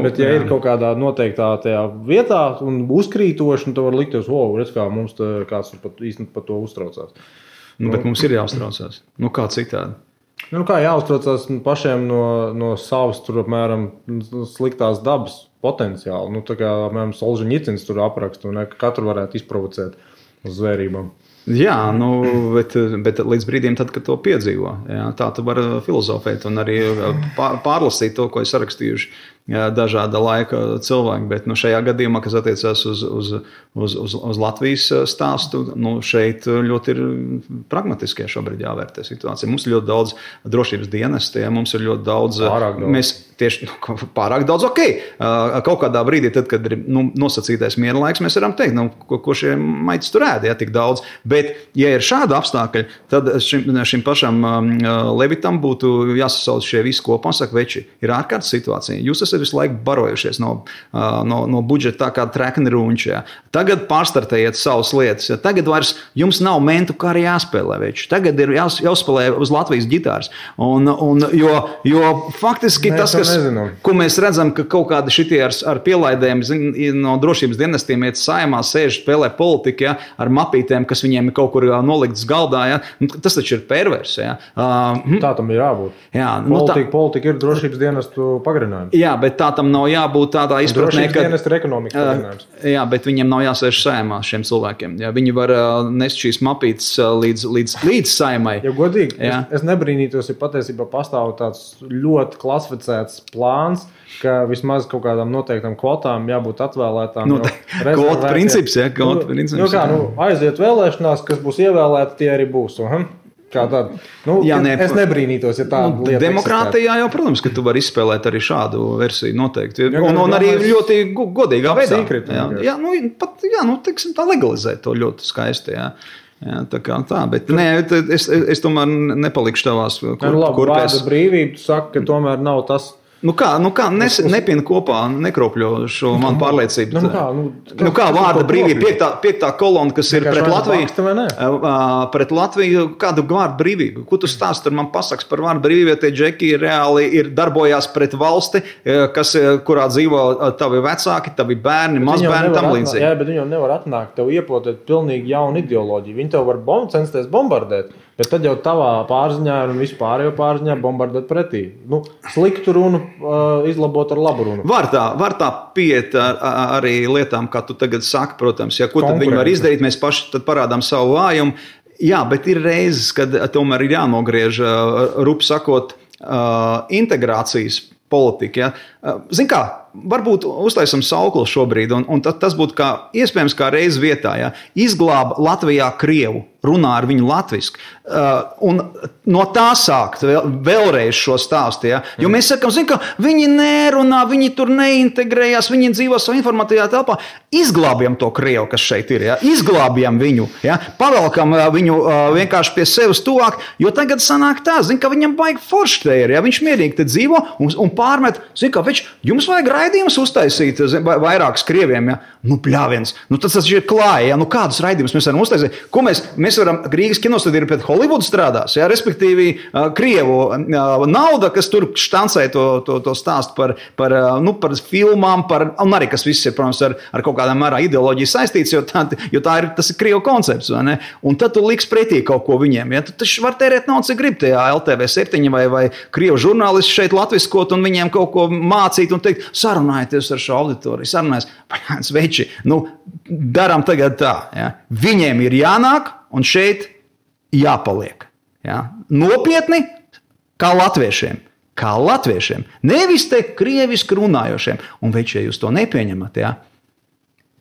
Bet ja ir kaut kādā noteiktā tajā vietā un uzkrītoši, tad var likties, redz, kā mums kāds īstenībā par to uztraucās.
Bet mums ir jāuztraucās. Kā citādi?
Kā jāuztraucās pašiem no savas, tur apmēram sliktās dabas potenciāli. Tā kā, apmēram, Solžeņicins tur apraksta, ka katru varētu izprovocēt uz zvērībām.
Jā, bet līdz brīdim, tad, kad to piedzīvo, jā, tā tu vari filozofēt un arī pārlasīt to, ko ir sarakstījuši dažāda laika cilvēki. Bet šajā gadījumā, kas attiecās uz Latvijas stāstu, šeit ļoti ir pragmatiskie šobrīd jāvērtē situācija. Mums ir ļoti daudz drošības dienesti, mums ir ļoti daudz. Mēs tieši pārāk daudz, ok. Kaut kādā brīdī, tad, kad ir nosacītais miera laiks, mēs varam teikt, ko šie maitis tur ēd, ja tik daudz. Bet, ja ir šāda apstākļi, tad šim pašam Levitam būtu jāsasauc šie visi kopā un saka, veči, ir ārkārtas situācija. Jūs esat visu laiku barojušies no budžeta tā kā trekni runči. Ja. Tagad pārstartējiet savas lietas. Ja. Tagad vairs jums nav mentu, kā arī jāspēlē. Veči. Tagad ir jāspēlē uz Latvijas ģitāras. Jo faktiski tas, ko mēs redzam, ka kaut kādi šitie ar pielaidēm no drošības dienestiem iet saimā, sēž, spēlē politiku, ja, ar mapītēm, kas viņiem ir kaut kur noliktas galdā. Ja. Tas taču ir pervers. Ja.
Tā tam ir jābūt.
Jā,
politika ir drošības dienestu pagarinājums.
Jā, bet tā tam nav jābūt tādā izpratnē,
ka dienestu ir ekonomikas pagarinājums.
Jā, bet viņiem nav jāsēž saimā šiem cilvēkiem. Jā, viņi var nest šīs mapītes līdz saimai.
Ja godīgi, es nebrīnītos, ja patiesībā pastāv tāds ļoti klasificēts plāns, ka vismaz kaut kādām noteiktām kvotām jābūt atvēlētām.
Kvotu princips, jā, kvotu princips.
Aiziet vēlēšanās, kas būs ievēlēti, tie arī būs. Kā tāda. Es nebrīnītos, ja tāda lieta
demokrātijā jau, protams, ka tu vari izspēlēt arī šādu versiju noteikti. Un arī ļoti godīgā veidā. Teiksim, tā legalizēt to ļoti skaisti, jā. Jā, tā, bet es tomēr nepalikšu tavās
kurpēs. Vārda brīvība, tu saki, ka tomēr nav tas.
Nepina kopā, nekropļo šo manu pārliecību. Kā vārda brīvība, piektā kolona, kas ir pret Latviju. Pret Latviju, kādu vārdu brīvību? Ko tu stāsti ar man pasaks par vārdu brīvību, ja tie džeki reāli darbojās pret valsti, kurā dzīvo tavi vecāki, tavi bērni, mazbērni, tam līdzīgi.
Jā, bet viņi jau nevar atnākt, tev iepotēt pilnīgi jaunu ideoloģiju. Viņi tev var censties bombardēt. Bet tad jau tavā pārziņā un vispārējo pārziņā bombardēt pretī. Sliktu runu izlabot ar labu runu.
Var tā pieiet arī lietām, kā tu tagad saki, protams. Ja, ko tad viņi var izdarīt? Mēs paši tad parādām savu vājumu. Jā, bet ir reizes, kad tomēr ir jānogriež, rupi sakot, integrācijas politika. Ja. Zin kā, varbūt uztaisam sauklu šobrīd, un tas būtu iespējams kā reiz vietā. Ja. Izglāba Latvijā Krievu, runā ar viņu latviski. Un no tā sākt vēlreiz šo stāstu. Ja. Jo mēs sakam, ka viņi nerunā, viņi tur neintegrējās, viņi dzīvo savā informatīvā telpā. Izglābjam to Krievu, kas šeit ir. Ja. Izglābjam viņu. Ja. Pavelkam viņu vienkārši pie sevis tuvāk, jo tagad sanāk tā, ka viņam baigi forši te ir. Ja. Viņš mierīgi te dzīvo un pārmet, jums vajag raidījumus uztaisīt vairākus krieviem. Ja. Pļāviens. Tas ir klāja. Ja. Kādus raidījumus mēs varam uztaisīt? Ko mēs varam, Rīgas kinostudija pret Holivudu strādās, ja, respektīvi Krievu nauda, kas tur štancē to stāstu par filmām, un arī kas viss ir, protams, ar kaut kādā mērā ideoloģiju saistīts, jo tas ir Krievu koncepts, vai ne? Un tad tu liks pretī kaut ko viņiem, ja? Tu taču var tērēt naudu, cik grib tajā LTV7 vai Krievu žurnālisti šeit latviskot un viņiem kaut ko mācīt un teikt, sarunājieties ar šo auditoriju, sarunājies, veči, darām tagad tā, ja? Viņiem ir jānāk, un šeit jāpaliek. Ja? Nopietni, kā latviešiem. Nevis te krieviski runājošiem. Un veči, ja jūs to nepieņemat, ja?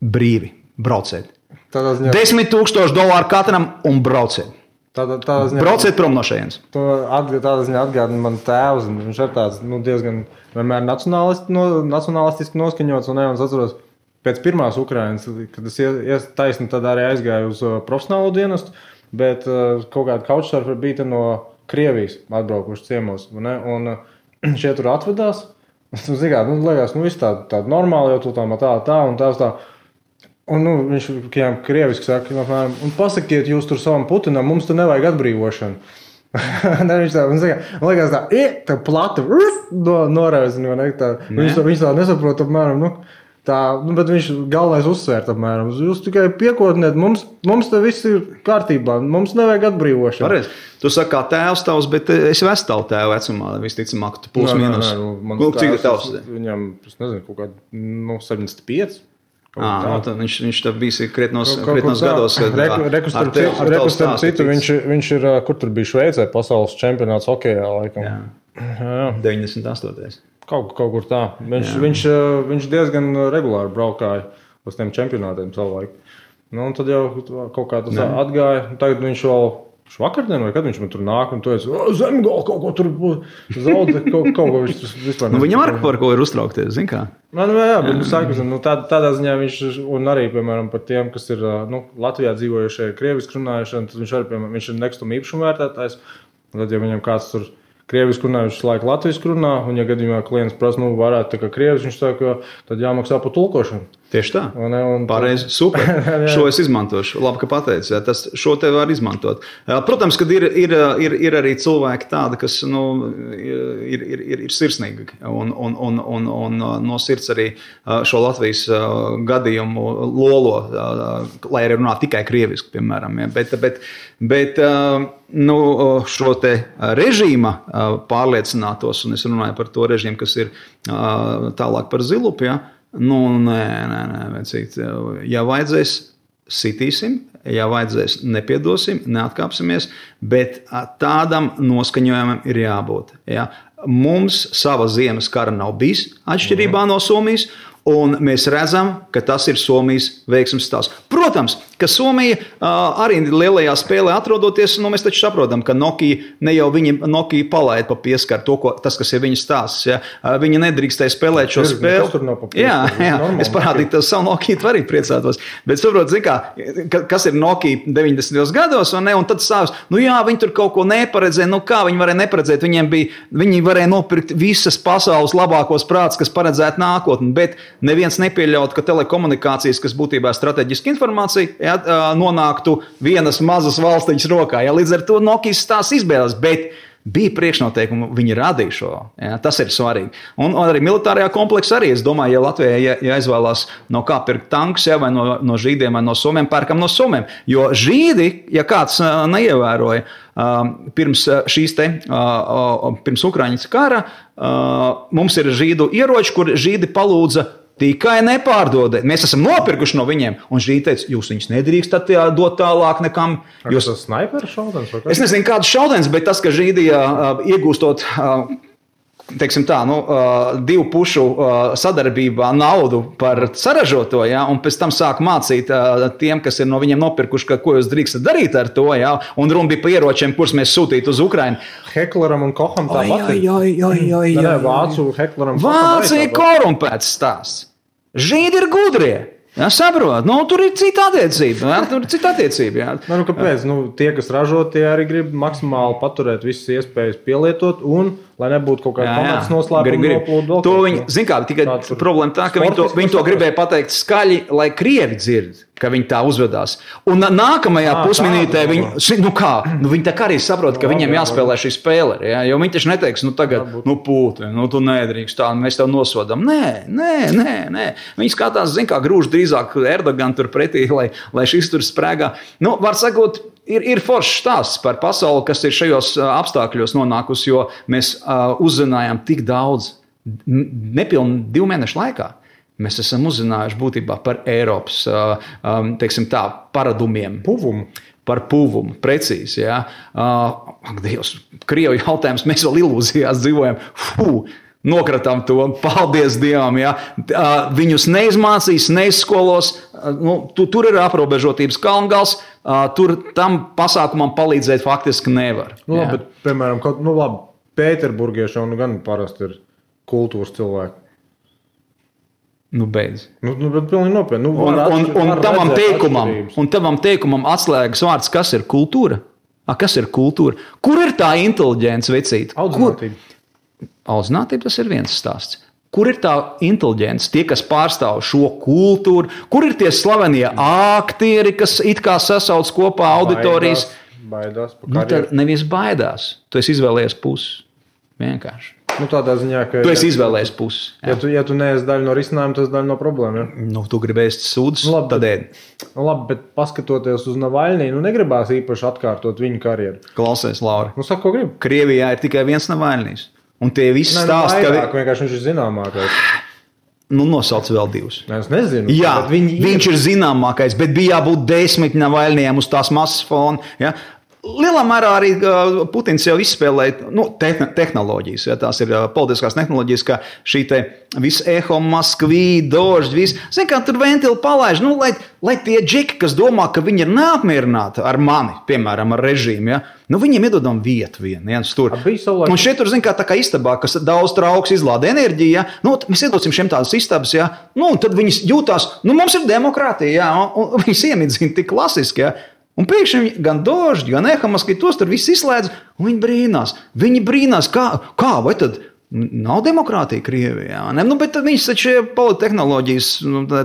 Brīvi, brauciet. $10,000 katram un brauciet. Brauciet prom no šejienes.
Tādā ziņā atgādina man tēvs. Viņš ir tāds diezgan vienmēr nacionalistiski noskaņots. Un es atceros, pēc pirmās Ukrainas, kad es taisni tad arī aizgāju uz profesionālo dienestu, bet kaut kāda couchsurferi bija no Krievijas atbraukuši ciemos. Un šie tur atvedās. Liekas, viss tāda normāli, jau tā un tā. Un viņš krieviski saka, un pasakiet jūs tur savam Putinam, mums tur nevajag atbrīvošanu. Viņš liekas tā plata noraizina. Viņš tā nesaprot apmēram, bet viņš galvenais uzsvērt apmēram. Jūs tikai piekotniet, mums te viss ir kārtībā, mums nevajag atbrīvošanu.
Pareiz. Tu saki kā tēvs tavs, bet es vestālu tēvu vecumā, visticamāk, tu plus mīnus.
Cik ir tavs? Viņam, es nezinu, kaut kādā 75.
Viņš tā bijis krietnos gados.
Rekustam citu, viņš ir, kur tur bija Šveicē, pasaules čempionāts hokejā, laikam.
Jā. 98.
Kaut kur tā. Viņš diezgan regulāri braukāja uz tiem čempionātiem savu laiku. Un tad jau kaut kā tas atgāja. Tagad viņš vēl vakardien, vai kad viņš man tur nāk un tu esi Zemgala kaut ko tur zaudē, kaut ko viņš vispār
nevar. Viņam ar ko ir uztraukties, zin kā?
Jā, bet tādā ziņā viņš, un arī, piemēram, par tiem, kas ir Latvijā dzīvojušie, krieviski runājušie, tad viņš arī, piemēram, viņš ir nekustuma īpašuma vērtētājs. Tad, ja viņam kāds tur krieviski runā, viņš laiku latviski runā, un ja gadījumā klients prasa, varētu tā kā krievis, viņš saka, tad jāmaksā par tulkošanu.
Tieši tā. Pareizi, super. Šo es izmantošu. Labi, ka pateici. Šo te var izmantot. Protams, kad ir arī cilvēki tādi, kas ir sirsnīgi un no sirds arī šo Latvijas gadījumu lolo, lai arī runā tikai krieviski, piemēram. Ja. Bet šo te režīma pārliecinātos, un es runāju par to režīmu, kas ir tālāk par zilupi, ja. Nē, vecīt. Ja vajadzēs, sitīsim, ja vajadzēs, nepiedosim, neatkāpsimies, bet tādam noskaņojumam ir jābūt. Ja? Mums sava ziemas kara nav bijis atšķirībā no Somijas, un mēs redzam, ka tas ir Somijas veiksmes stāsts. Protams, ka Somija arī lielajā spēlē atrodoties, mēs taču saprotam, ka Nokia palaid pa pieskaru tas, kas ir viņas stāsts. Ja? Viņa nedrīkstēja spēlēt šo spēli. Jā, es parādīju tev savu Nokia, tu arī priecātos. Bet saprot, zin kā, kas ir Nokia 90. gados, un tad sāks, viņi tur kaut ko neparedzēja, kā viņi varēja neparedzēt, viņi varēja nopirkt visas pasaules labākos prātus, kas paredzētu nākotni, bet neviens nepieļaut, ka telekomunikācijas, kas būtībā strateģiska informācija, nonāktu vienas mazas valstiņas rokā. Ja, līdz ar to Nokijas tās izbēles, bet bija priekšnoteikumi, viņi radīja šo. Ja, tas ir svarīgi. Un arī militārajā kompleksā arī, es domāju, ja Latvijai jāizvēlās no kā pirkt tankus, ja, vai no žīdiem, vai no somiem, pērkam no somiem. Jo žīdi, ja kāds neievēroja, pirms Ukraiņas kara, mums ir žīdu ieroči, kur žīdi palūdza tikai nepārdodēt. Mēs esam nopirkuši no viņiem, un žīdi teica, jūs viņus nedrīkstat dot tālāk nekam.
Jūs tas snaiperu šaudens?
Es nezinu, kāds šaudens, bet tas, ka žīdi iegūstot, teiksim tā, divu pušu sadarbībā naudu par saražoto, ja, un pēc tam sāk mācīt tiem, kas ir no viņiem nopirkuši, ko jūs drīkstat darīt ar to, ja, un runa bija par ieročiem, kurus mēs sūtītu uz Ukrainu.
Hekleram un Koham tāpat. Vācu Hekleram.
Vācija korumpēts stāsts. Žīdi ir gudrie. Jā, saprot, tur ir cita attiecība. Jā.
Kāpēc? Tie, kas ražo, tie arī grib maksimāli paturēt visas iespējas pielietot un, lai nebūtu kaut kāda pamats noslēpuma noplūdu.
To viņi, zin kā, tikai problēma tā, ka viņi to gribēja pateikt skaļi, lai krievi dzird, ka viņi tā uzvedās. Un nākamajā pusminūtē viņi tā kā arī saprot, ka viņiem jāspēlē šī spēle. Ja? Jo viņi taču neteiks, tagad, pūti, tu nedrīkst tā, mēs tev nosodam. Nē. Viņi skatās, zin kā, grūž drīzāk Erdogan tur pretī, lai šis tur sprēgā. Var sakot, ir foršs stāsts par pasauli, kas ir šajos apstākļos nonākusi, jo mēs uzzinājām tik daudz, nepilni 2 mēnešu laikā. Mēs esam uzzinājuši būtībā par Eiropas, teiksim tā, paradumiem. Par puvumu, precīzi, jā. Dievs, Krievu jautājums, mēs vēl ilūzijās dzīvojam. Nokratām to, paldies Dievam, jā. Viņus neizmācīs, neizskolos, tur ir aprobežotības kalngals, tur tam pasākumam palīdzēt faktiski nevar.
Labi, bet, piemēram, Pēterburgieši jau gan parasti ir kultūras cilvēki.
Beidz.
Bet pilnīgi nopietni.
Un tavam teikumam atslēgas vārds, kas ir kultūra? Kas ir kultūra? Kur ir tā inteliģence, vecīt? Audzinātība, tas ir viens stāsts. Kur ir tā inteliģence, tie, kas pārstāv šo kultūru? Kur ir tie slavenie aktieri, kas it kā sasauc kopā auditorijas?
Baidās
tad nevis baidās. Tu esi izvēlējies pusi. Vienkārši.
Tādā ziņā, ka...
Tu esi izvēlējies pusi.
Ja tu neesi daļa no risinājuma, tas daļa no problēma. Ja?
Tu gribi ēst sūdus, tad ēd.
Labi, bet paskatoties uz Navaļnī, negribās īpaši atkārtot viņu karjeru.
Klausies, Lauri.
Saka, ko gribi?
Krievijā ir tikai viens Navaļnīs. Un tie visi stāsti,
ka... Vienkārši viņš ir zināmākais.
Nosauc vēl 2.
Es nezinu.
Jā, viņš ir zināmākais, bet bija jābūt 10 Navaļnijam uz tās masas fona. Ja? Lielā mērā arī Putins jau izspēlēja tehnoloģijas. Ja? Tās ir politiskās tehnoloģijas, kā šī te visa eho, Maskvī, Dožd, viss. Zin, kā tur ventili palaiž, lai tie džeki, kas domā, ka viņi ir neapmierināti ar mani, piemēram, ar režīmu, ja? Viņiem iedodam vietu viens tur. Un šeit tur, tā kā istabā, kas daudz trauks izlāda enerģiju, ja? Mēs iedosim šiem tādas istabas, ja? Un tad viņas jūtās, mums ir demokrātija, ja? Un viņas iemidzina tik klasiski, ja? Un pēkšņi gan Dožd, gan Ehamas, ka tos tur viss izslēdz, un viņi brīnās. Viņi brīnās, kā vai tad nav demokrātija Krievijā? Bet viņas taču polittehnoloģijas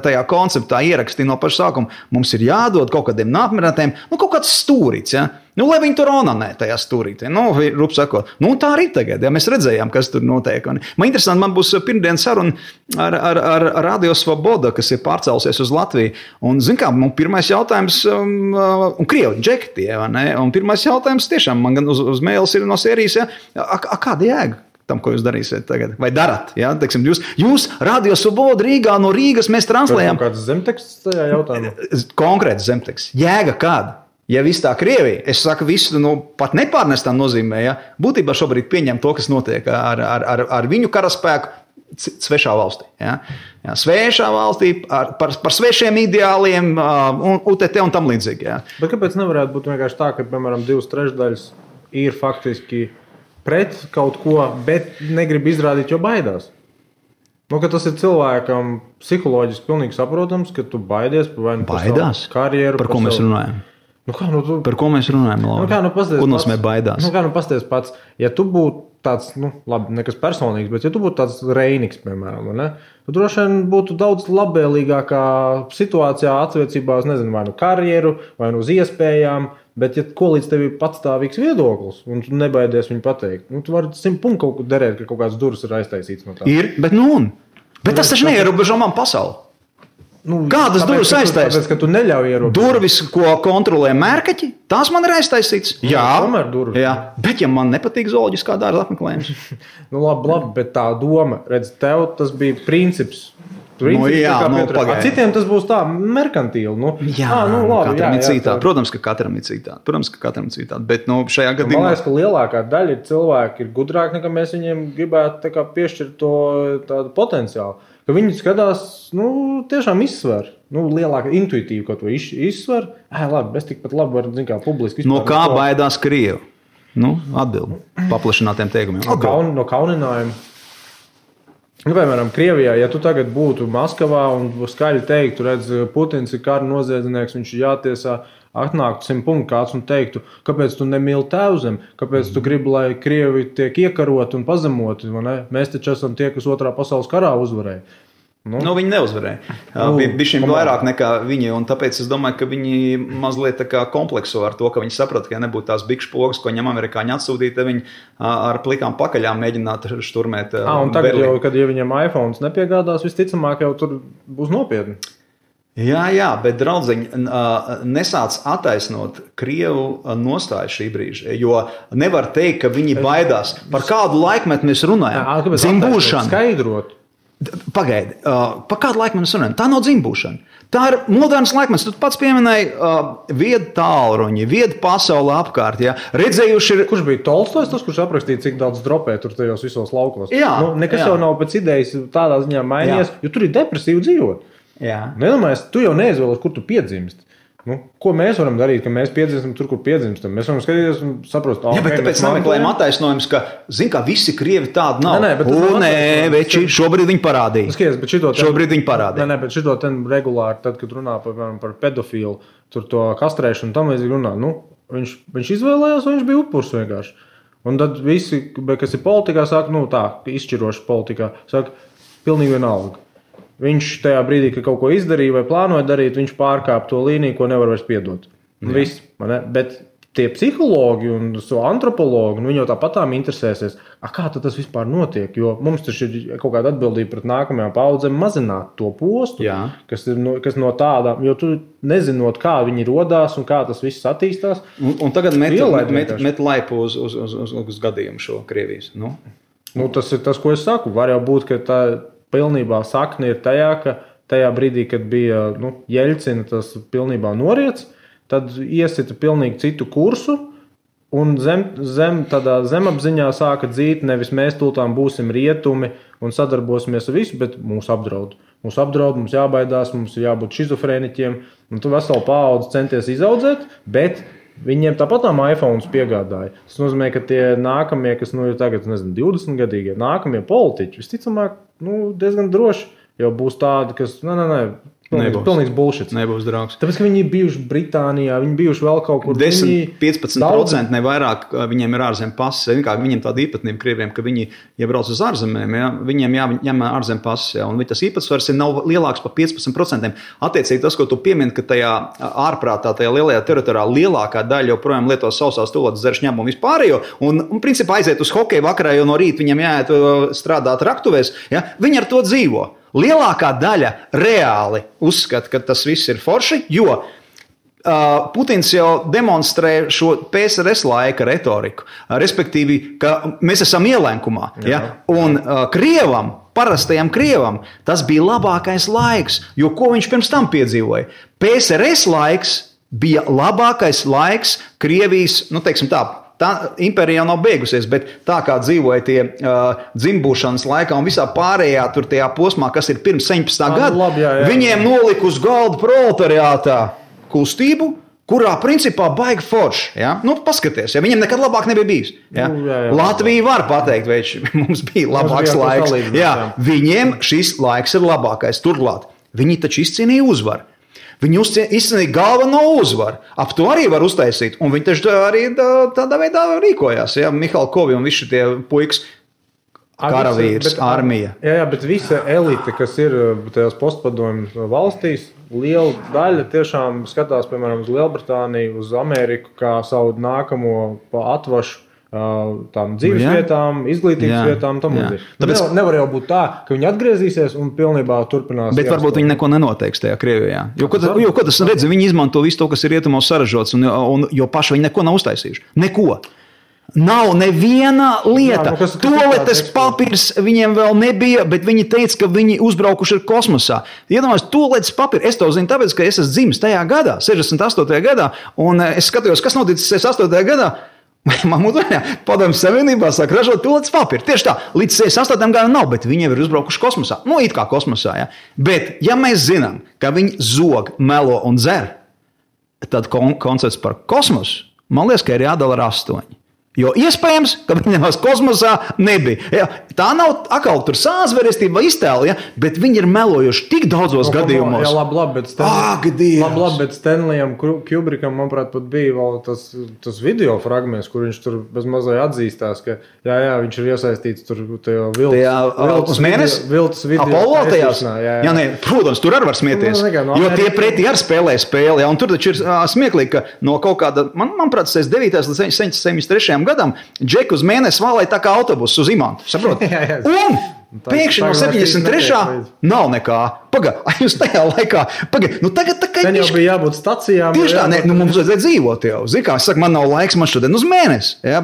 tajā konceptā ierakstīja no paša sākuma. Mums ir jādod kaut kādiem neapmierinātiem, kaut kāds stūrīts, ja? Lai viņi tur onanē tajā stūrītē. Rup sakot, tā arī tagad, ja mēs redzējām, kas tur notiek. Man interesanti, man būs pirmdien saruna ar Radio Svoboda, kas ir pārcēlusies uz Latviju. Un, pirmais jautājums, un Krievi, džeki tie, vai ne? Un pirmais jautājums tiešām, man gan uz mēles ir no sērijas, ja? Kāda jēga tam, ko jūs darīsiet tagad? Vai darat? Ja? Teiksim, jūs Radio Svoboda Rīgā, no Rīgas mēs translējam.
Kāds zemteksts tajā jautājumā?
Konkrēts zemteksts. Jēga kāda? Ja viss tā Krievija, es saku visu, pat nepārnestā nozīmē, ja, būtībā šobrīd pieņem to, kas notiek ar viņu karaspēku svešā valstī. Ja. Ja, svešā valstī, par svešiem ideāliem, UTT un tam līdzīgi. Ja.
Bet kāpēc nevarētu būt vienkārši tā, ka, piemēram, 2/3 ir faktiski pret kaut ko, bet negrib izrādīt, jo baidās? Ka tas ir cilvēkam psiholoģiski pilnīgi saprotams, ka tu baidies par savu karjeru.
Par ko mēs runājam? Par ko mēs runājam, Laura? Ko nozīmē baidās?
Pasties pats, ja tu būtu tāds, labi, nekas personīgs, bet ja tu būtu tāds Reiniks, piemēram, tu droši vien būtu daudz labvēlīgākā situācijā attiecībā uz, vai karjeru, vai uz iespējām, bet ja ko līdz tev ir patstāvīgs viedoklis, un tu nebaidies viņu pateikt, tu vari 100 punktu kaut ko derēt, ka kaut kāds durvis ir aiztaisīts no tā.
Ir, bet Bet tas taču neierobežo man pasauli. Kādas durvis aiztaisītas?
Tāpēc, ka tu neļauj ierobežot.
Durvis, ko kontrolē mērkaķi, tās man ir aiztaisītas. Jā, bet ja man nepatīk zooloģiskā dārza apmeklējums.
Labi, bet tā doma, redz, tev tas bija princips.
Citiem
tas būs tā merkantīli.
Katram ir citādi. Protams, ka katram ir citādi. Bet šajā gadījumā...
Man liekas, ka lielākā daļa cilvēki ir gudrāki, nekā mēs viņiem gribētu piešķirt to tādu potenciālu. Ka viņi skatās, tiešām izsver. Lielāka intuitīva, ko to izsver. Labi, es tikpat labi varu, publiski
izpār. No kā baidās Krievi? Atbildi paplašinātiem teikumiem.
No kauninājuma. Piemēram, Krievijā, ja tu tagad būtu Maskavā un skaļi teiktu, redz, Putins ir kara noziedznieks, viņš ir jātiesā, atnāktu 100 punktu kāds un teiktu, kāpēc tu nemīli tēvzem, kāpēc tu gribi, lai Krievi tiek iekaroti un pazemoti, mēs taču esam tie, kas otrā pasaules karā uzvarēja.
Viņi neuzvarēja. Bija šim vairāk nekā viņi, un tāpēc es domāju, ka viņi mazliet tā kā komplekso ar to, ka viņi saprata, ka ja nebūtu tās bikšu pogas, ko viņam amerikāņi atsūtīja, tad viņi ar plikām pakaļām mēģinātu šturmēt
un tagad Berlīnu. Jau, kad ja viņam iPhones nepiegādās, visticamāk jau tur būs nopietni.
Jā, bet draudzeņi nesāc attaisnot Krievu nostāju šī brīža, jo nevar teikt, ka viņi baidās. Par kādu laikmetu mēs runājam? Dzimbūšana.
Skaidrot.
Pagaidi, par kādu laiku mēs runājam? Tā nav dzimbūšana. Tā ir moderns laikmets. Tu pats pieminēji viedu tālruņi, viedu pasauli apkārt. Ja? Redzējuši ir...
Kurš bija Tolstojs, tas, kurš aprakstīja, cik daudz dropē tur tajos visos laukos?
Jā.
Nekas jau nav pēc idejas tādā ziņā mainījies, jo tur ir depresīvi dzīvot.
Jā.
Nedomājies, tu jau neizvēlies, kur tu piedzimst. Ko mēs varam darīt, ka mēs piedzimstam tur, kur piedzimstam? Mēs varam skatīties un saprast,
bet tāpēc nemeklējam attaisnojums, ka, ka visi Krievi tādi nav.
Veči,
šobrīd viņi parādīja. Šobrīd viņi parādīja.
Bet šito ten regulāri, tad, kad runā par pedofilu, tur to kastrēšanu, tam līdzīgi runā, viņš izvēlējās, un viņš bija upurs vienkārši. Un tad visi, kas ir politikā, saka, izšķiroši politikā, saka, pilnīgi vienalga. Viņš tajā brīdī, kad kaut ko izdarīja vai plānoja darīt, viņš pārkāpa to līniju, ko nevar vairs piedot. Viss, bet tie psihologi un antropologi, viņi jau tāpatām interesēsies, kā tas vispār notiek, jo mums taču ir kaut kāda atbildība pret nākamajām paudzēm mazināt to postu, kas no tādām, jo tu nezinot, kā viņi rodās un kā tas viss attīstās.
Un tagad met laipu uz gadījumu šo Krievijas.
Tas ir tas, ko es saku. Var jau būt, ka pilnībā sakne ir tajā, ka tajā brīdī, kad bija Jeļcina tas pilnībā noriets, tad iesita pilnīgi citu kursu, un tādā zemapziņā sāka dzīt, nevis mēs tūltām būsim rietumi un sadarbosimies ar visu, bet mūs apdraud. Mums jābaidās, mums ir jābūt šizofrēniķiem, un tu veselu paudzi centies izaudzēt, bet viņiem tāpatām iPhones piegādāja. Tas nozīmē, ka tie nākamie, kas ir tagad, 20 gadīgie, nākamie politiķi, visticamāk, diezgan droši jau būs tādi, kas, pilnīgs bullshit.
Nebūs draugs.
Tāpēc, ka viņi bijuši Britānijā, viņi bijuši vēl kaut kur.
10-15% ne vairāk viņiem ir ārzem pases. Viņiem tāda īpatnība krieviem, ka viņi, ja brauc uz ārzemēm, viņiem jāņem ārzem pases. Un tas īpatsvars nav lielāks par 15%. Attiecīgi tas, ko tu piemini, ka tajā ārprātā, tajā lielajā teritorijā lielākā daļa joprojām lieto sausās tūlētas dzeršņām un vispārējo. Un principā aiziet uz hokeju vakarā, jo no rīta viņam jāiet strādāt raktuvēs. Ja? Viņi ar to dzīvo. Lielākā daļa reāli uzskata, ka tas viss ir forši, jo Putins jau demonstrē šo PSRS laika retoriku, respektīvi, ka mēs esam ielenkumā. Ja? Un Krievam, parastajam Krievam, tas bija labākais laiks, jo ko viņš pirms tam piedzīvoja? PSRS laiks bija labākais laiks Krievijas, teiksim tā, tā impērija jau nav beigusies, bet tā kā dzīvoja tie dzimbūšanas laikā un visā pārējā tur tajā posmā, kas ir pirms 17. gada, viņiem nolika uz galda proletariātā kustību, kurā principā baigi forši. Ja? Paskaties, ja viņiem nekad labāk nebija bijis. Ja? Latvija var pateikt, vai mums bija labāks laiks. Viņiem šis laiks ir labākais. Turklāt, viņi taču izcīnīja uzvaru. Viņi izcīnīja galveno uzvaru. Ap to arī var uztaisīt. Un viņi taču arī tādā veidā rīkojās. Ja? Mihāla Kovi un visi tie puikas, karavīrs, armija.
Jā, bet visa elite, kas ir tajās postpadomju valstīs, liela daļa tiešām skatās, piemēram, uz Lielbritāniju, uz Ameriku, kā savu nākamo atvašu tām dzīves vietām, izglītības vietām. Tāpēc nevar jau būt tā, ka viņi atgriezīsies un pilnībā turpinās.
Bet varbūt viņi neko nenoteiks tajā Krievijā. Jo, ko tas redz, viņi izmanto visu to, kas ir rietumos saražots, jo paši viņi neko nav uztaisījuši. Neko. Nav neviena lieta. Toaletes papīrs viņiem vēl nebija, bet viņi teica, ka viņi uzbraukuši ir kosmosā. Iedomājos, toaletes papīri. Es to zinu tāpēc, ka es esmu dzimis tajā gadā, 68. gadā, un es skatījos, kas noticis 68. gadā. Padomju Savienībā sāk ražot toaletes papīru. Tieši tā, līdz 68. gadam nav, bet viņi jau ir uzbraukuši kosmosā. It kā kosmosā, ja. Bet, ja mēs zinām, ka viņi zog, melo un dzer, tad koncepts par kosmosu, man liekas, ka ir jādala ar 8. Jo iespējams, ka viņiem kosmosā nebija. Ja, tā nav atkal tur sāzverestība vai iztēle, ja, bet viņi ir melojuši tik daudzos gadījumos.
Jā, labi, bet Stanleyam Kubrickam, manuprāt, pat bija vēl tas video fragments, kur viņš tur bez mazai atzīstās, ka viņš ir iesaistīts tur
uz mēnesi?
Viltas video.
Apollo tajās? Jā, nē, protams, tur arī var smieties. Jo tie pretī arī spēlē spēli, ja, un tur taču ir smieklīgi, ka no kaut kāda, manuprāt, 9. līdz 73. gadam Džeku uz mēnesi vālēja tā kā autobusu uz Imantu. Saprot? Un pēkšņi no 73. nav nekā. Jūs tajā laikā. Tagad tā kā
jau bija jābūt stacijām.
Tieši tā, mums vajadzēja dzīvot jau. Zini, kā es saku, man nav laiks, man šodien uz mēnesi. Ja?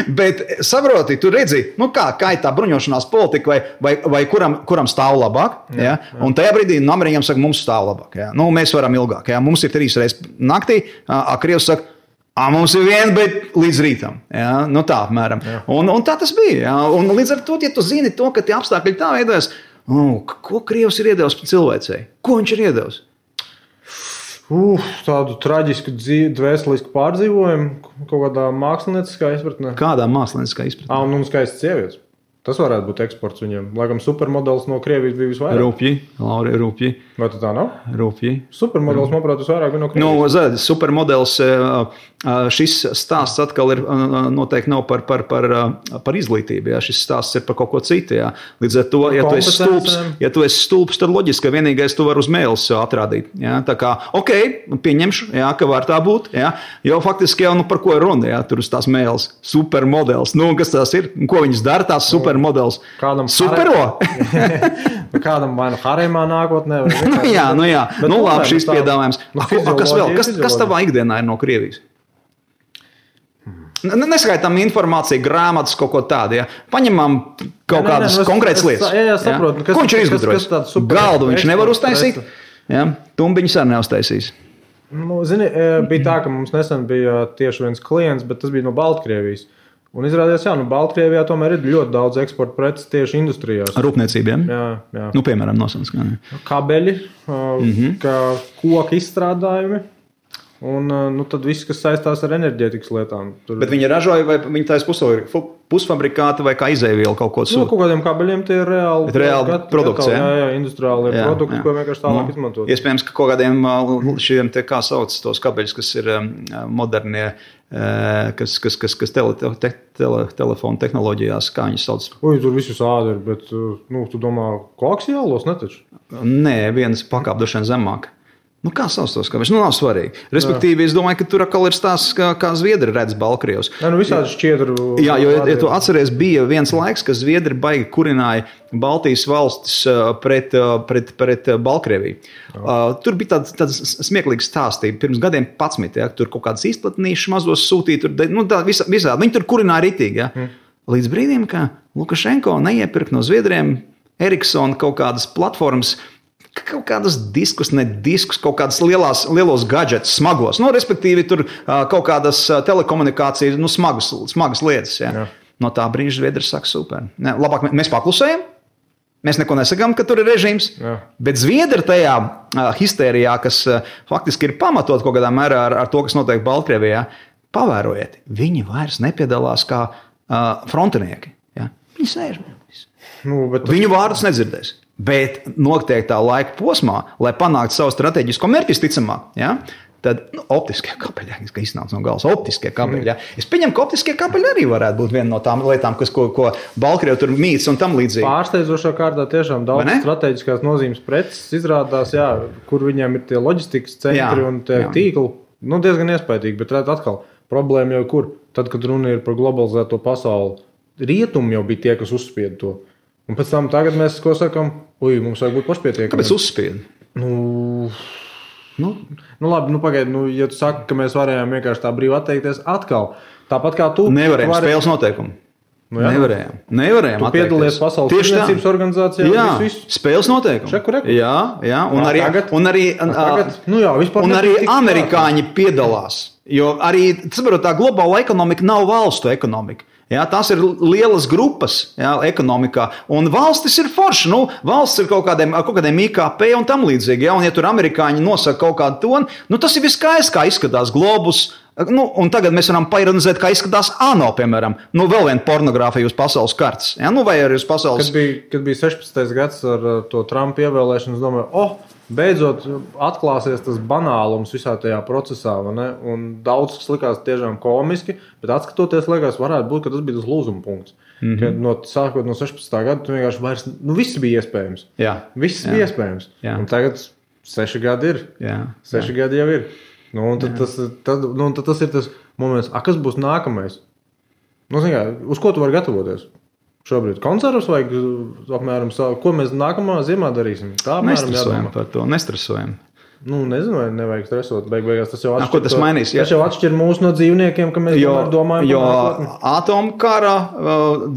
Bet saproti, tu redzi, kā ir tā bruņošanās politika vai kuram stāv labāk. Ja? Un tajā brīdī Ameriņam saka, mums stāv labāk. Ja? Mēs varam ilgāk. Ja? Mums ir 3 reizes naktī, Krievs saka, mums ir viena, bet līdz rītam. Ja? Tā apmēram. Un tā tas bija. Ja? Un līdz ar to, ja tu zini to, ka tie apstākļi tā veidojas, ko Krievs ir iedevis cilvēcei? Ko viņš ir iedevis?
Tādu traģisku dvēselisku pārdzīvojumu kaut kādā mākslinieckā izpratnē.
Kādā mākslinieckā izpratnē?
Un skaists sievietes. Tas varētu būt eksports viņiem. Laikam supermodelis no Krievijas bija visvairāk.
Rūpji.
Vai tā nav?
Rūpji.
Supermodelis, manuprāt, visvairāk bija no Krievijas.
Supermodelis, šis stāsts atkal ir noteikti nav par izglītību. Ja? Šis stāsts ir par kaut ko citu. Ja? Līdz ar to, ja tu esi stulbs, tad loģiski, ka vienīgais tu var uz mēles atrādīt. Ja? Tā kā, pieņemšu, ja, ka var tā būt. Ja? Jo faktiski jau par ko ir runa, ja? Tur uz tās mēles. Supermodelis. Kas tās ir? Ko viņas dara tās supermodelis? Supero?
Kādam vai no haremā nākotnē?
Jā. Labi, šis piedāvājums. Kas vēl? Kas tavā ikdienā ir no Krievijas? Neskaitām informāciju, grāmatas, kaut ko tādu. Ja? Paņemam kaut kādas konkrētas lietas.
Jā, saprotu.
Ko viņš ir izgudrojis? Galdu viņš nevar uztaisīt. Ja? Tumbiņus arī neuztaisīs.
Nu, zini, bija tā, ka mums nesen bija tieši viens klients, bet tas bija no Baltkrievijas. Un izrādījās, Baltkrievijā tomēr ir ļoti daudz eksporta preces tieši industrijās.
Rūpniecībiem?
Jā.
Nu, piemēram, nosauc.
Kabeļi, koku izstrādājumi. Un tad viss, kas saistās ar enerģētikas lietām.
Bet viņi ražoja, vai viņi taisa pusfabrikāti vai kā izēvielu kaut ko sūta?
Kaut kādiem kabeļiem tie ir reāli
produkts,
jā, industriāli produkti, ko vienkārši tālāk izmantot.
Iespējams, ka kaut kādiem šiem, kā sauc tos kabeļus, kas ir modernie, kas telefonu tehnoloģijās, kā viņi sauc?
Tur visus ādi ir, bet tu domā, koaksiālos netaču?
Nē, viens pakāpdošana zemāk. Kā sauc tos kabeļus? Nav svarīgi. Respektīvi, es domāju, ka tur atkal ir stāsts, kā Zviedri redz Baltkrievus.
Visādi šķiedru.
Jā, jo, ja tu atceries, bija viens laiks, kad Zviedri baigi kurināja Baltijas valstis pret Baltkrieviju. Tur bija tāds smieklīgs stāsts. Pirms gadiem 11, ja, tur kaut kādas izplatnīšas mazos sūtīja. Visādi. Viņi tur kurināja ritīgi. Ja. Līdz brīdim, ka Lukašenko neiepirka no Zviedriem Ericsson kaut kādas platformas, kaut kādas diskus, kaut kādas lielos gadžetus, smagos. Respektīvi, tur kaut kādas telekomunikācijas, smagas lietas. Ja. Jā. No tā brīža Zviedri saka, super. Labāk mēs paklusējam, mēs neko nesakām, ka tur ir režīms, bet Zviedri tajā histērijā, kas faktiski ir pamatot kaut kādā mērā ar to, kas notiek Baltkrievijā, pavērojiet, viņi vairs nepiedalās kā frontinieki. Ja. Viņi sēž. Viņu vārdus nedzirdēs. Bet noteiktā laika posmā, lai panāktu savu strateģisko mērķi, ticamāk, ja, tad optiskie kabeļi, kas iznāca no galas, optiskie kabeļi. Ja. Es pieņemu, ka optiskie kabeļi arī varētu būt viena no tām lietām, ko Baltkrievi tur mīts un tam līdzīgi.
Pārsteidzošā kārtā tiešām daudz strateģiskās nozīmes preces izrādās, kur viņiem ir tie loģistikas centri un tie tīkli. Diezgan iespaidīgi, bet atkal problēma jau kur. Tad, kad runa ir par globalizēto pasauli, rietumi jau bija tie, kas uzspied to. Un pēc tam tagad mēs ko sakam, mums vajag būt pašpietiekami.
Kāpēc uzspied?
Labi, pagaidi, ja tu saki, ka mēs varējām vienkārši tā brīvi atteikties atkal, tāpat kā tu.
Nevarējām, spēles noteikumi. Nevarējām
tu piedalies Pasaules tirdzniecības organizācijā.
Jā, spēles noteikumi. Jā, un arī amerikāņi piedalās. Jo arī, tā globāla ekonomika nav valstu ekonomika. Jā, tās ir lielas grupas ekonomikā, un valstis ir forši. Valsts ir kaut kādiem IKP un tam līdzīgi. Un ja tur amerikāņi nosaka kaut kādu tonu, tas ir viss skaisti, kā izskatās globus. Un tagad mēs varam paironizēt, kā izskatās ANO, piemēram. Vēl viena pornogrāfija uz pasaules kartes. Vai arī uz pasaules...
Kad bija 16. gads ar to Trumpa ievēlēšanu, es domāju, beidzot atklāsies tas banālums visā tajā procesā. Un daudz kas likās tiešām komiski, bet atskatoties, liekas, varētu būt, ka tas bija tas lūzuma punkts. Sākot no 16. gada, tu vienkārši vairs, viss bija iespējams. Viss bija iespējams. Un tagad 6 gadi ir. 6 gadi jau ir. Tad tas ir tas moments, kas būs nākamais? Uz ko tu vari gatavoties? Šobrīd koncertus vajag apmēram savu, ko mēs nākamā ziemā darīsim? Tā apmēram
nestresojam par to, nestresojam.
Nezinu, vai nevajag stresot. Beigās tas jau atšķir.
Ko tas mainīs?
Tas jau atšķir mūs no dzīvniekiem, ka mēs domājam.
Jo atomkara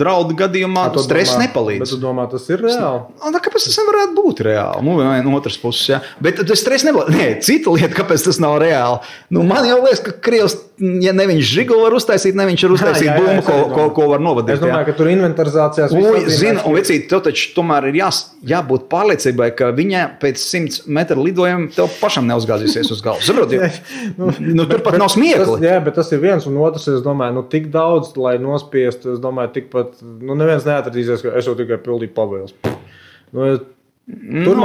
draudu gadījumā stress nepalīdz.
Bet tu domā, tas ir reāli?
Kāpēc tas nevarētu būt reāli? No otras puses, jā. Bet tas stress nepalīdz. Nē, cita lieta, kāpēc tas nav reāli. Man jau liekas, ka Krievs, ja ne viņš žiguli var uztaisīt, ne viņš var uztaisīt bumbu, ko var novadīt.
Es domāju, ka tur inventarizācijās
zina, un vecīt, tev taču tomēr ir jābūt pārliecībai, ka viņa pēc 100 metru lidojuma tev pašam neuzgāzīsies uz galvas. Tur pat nav smiekli.
Jā, bet tas ir viens, un otrs, es domāju, tik daudz, lai nospiestu, es domāju, tikpat, neviens neatradīsies, ka es jau tikai pildīju pavēles. Tur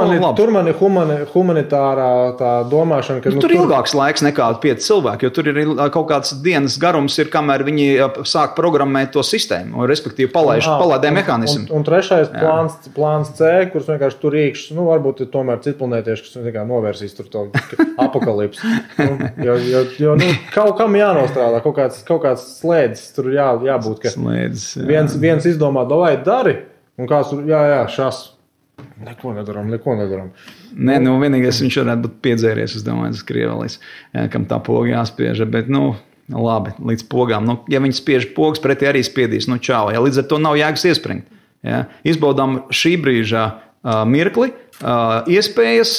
man ir humanitārā tā domāšana, ka...
Tur ir ilgāks laiks nekā 5 cilvēki, jo tur ir kaut kāds dienas garums, kamēr viņi sāk programmēt to sistēmu, un respektīvi palaidē mehānismu.
Un trešais plāns C, kurš vienkārši tur iekšs, varbūt ir tomēr citplanētieši, kas novērsīs tur to apakalips. Jo kaut kam jānostrādā, kaut kāds slēdzis tur jābūt, ka viens izdomā, davai dari, un kāds tur, šas. Neko nedaram.
Nē, vienīgais viņš varētu būt piedzēries, es domāju, tas Krievelis, kam tā poga jāspieža, bet, labi, līdz pogām. Nu, ja viņi spiež pogas, pretī arī spiedīs, nu čau. Ja, līdz ar to nav jēgas iespringt. Ja. Izbaudām šī brīža mirkli, iespējas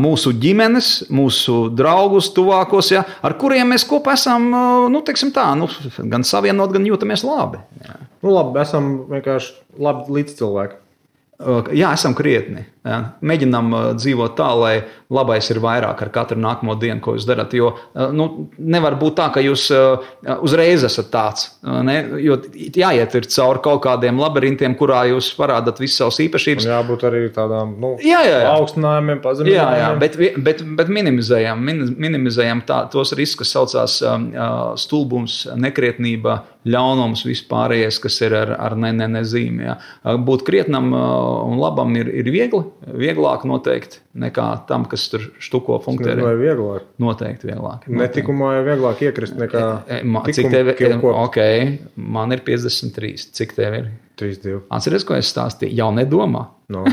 mūsu ģimenes, mūsu draugus, tuvākos, ja, ar kuriem mēs kopā esam, gan savienot, gan jūtamies labi. Ja.
Labi, esam vienkārši labi līdzcilvēki.
Jā, esam krietni. Jā. Mēģinām dzīvot tā, lai labais ir vairāk ar katru nākamo dienu, ko jūs darat. Jo nevar būt tā, ka jūs uzreiz esat tāds. Ne? Jo jāiet ir cauri kaut kādiem labirintiem, kurā jūs parādat visas savas īpašības.
Un jābūt arī tādām augstinājumiem, pazeminājumiem.
Bet minimizējam tos riskus, kas saucās stulbums, nekrietnība, ļaunums, vispārējais, kas ir ar nezīmi. Ja. Būt krietnam un labam ir vieglāk noteikti nekā tam, kas tur štuko funktē.
Vai vieglāk?
Noteikti vieglāk.
Netikumā ir vieglāk iekrist nekā
cik tev ir? Ok, man ir 53. Cik tev ir?
32.
Atceries, ko es stāstīju? Jau nedomā.
No.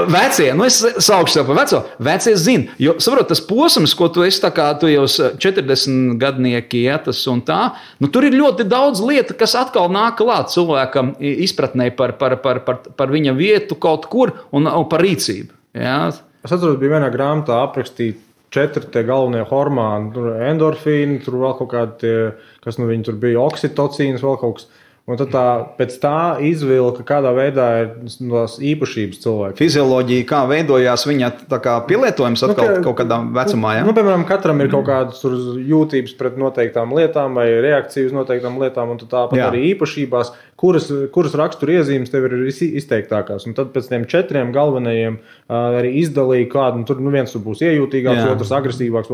Vecie, es saukšu sev par veco. Vecie zina, jo, saprot, tas posms, ko tu esi, tu jau 40 gadnieki, ja, tas un tā, tur ir ļoti daudz lietu, kas atkal nāk klāt cilvēkam izpratnē par viņa vietu kaut kur un par rīcību. Ja.
Es atceros, bija vienā grāmatā aprakstīt 4 tie galvenie hormoni, tur endorfīni, tur vēl kaut kādi, kas viņi tur bija, oksitocīns, vēl kaut kas. Un tad pēc tā izvilka, kādā veidā ir tās īpašības cilvēki.
Fizioloģija, kā veidojās viņa pielietojums atkal kaut kādā vecumā, ja?
Piemēram, katram ir kaut kādas jūtības pret noteiktām lietām vai reakcijas noteiktām lietām, un tāpat arī īpašībās, kuras raksturiezīmes tev ir izteiktākās. Un tad pēc tiem 4 galvenajiem arī izdalīja kādu, tur viens tur būs iejūtīgāks, otrs agresīvāks,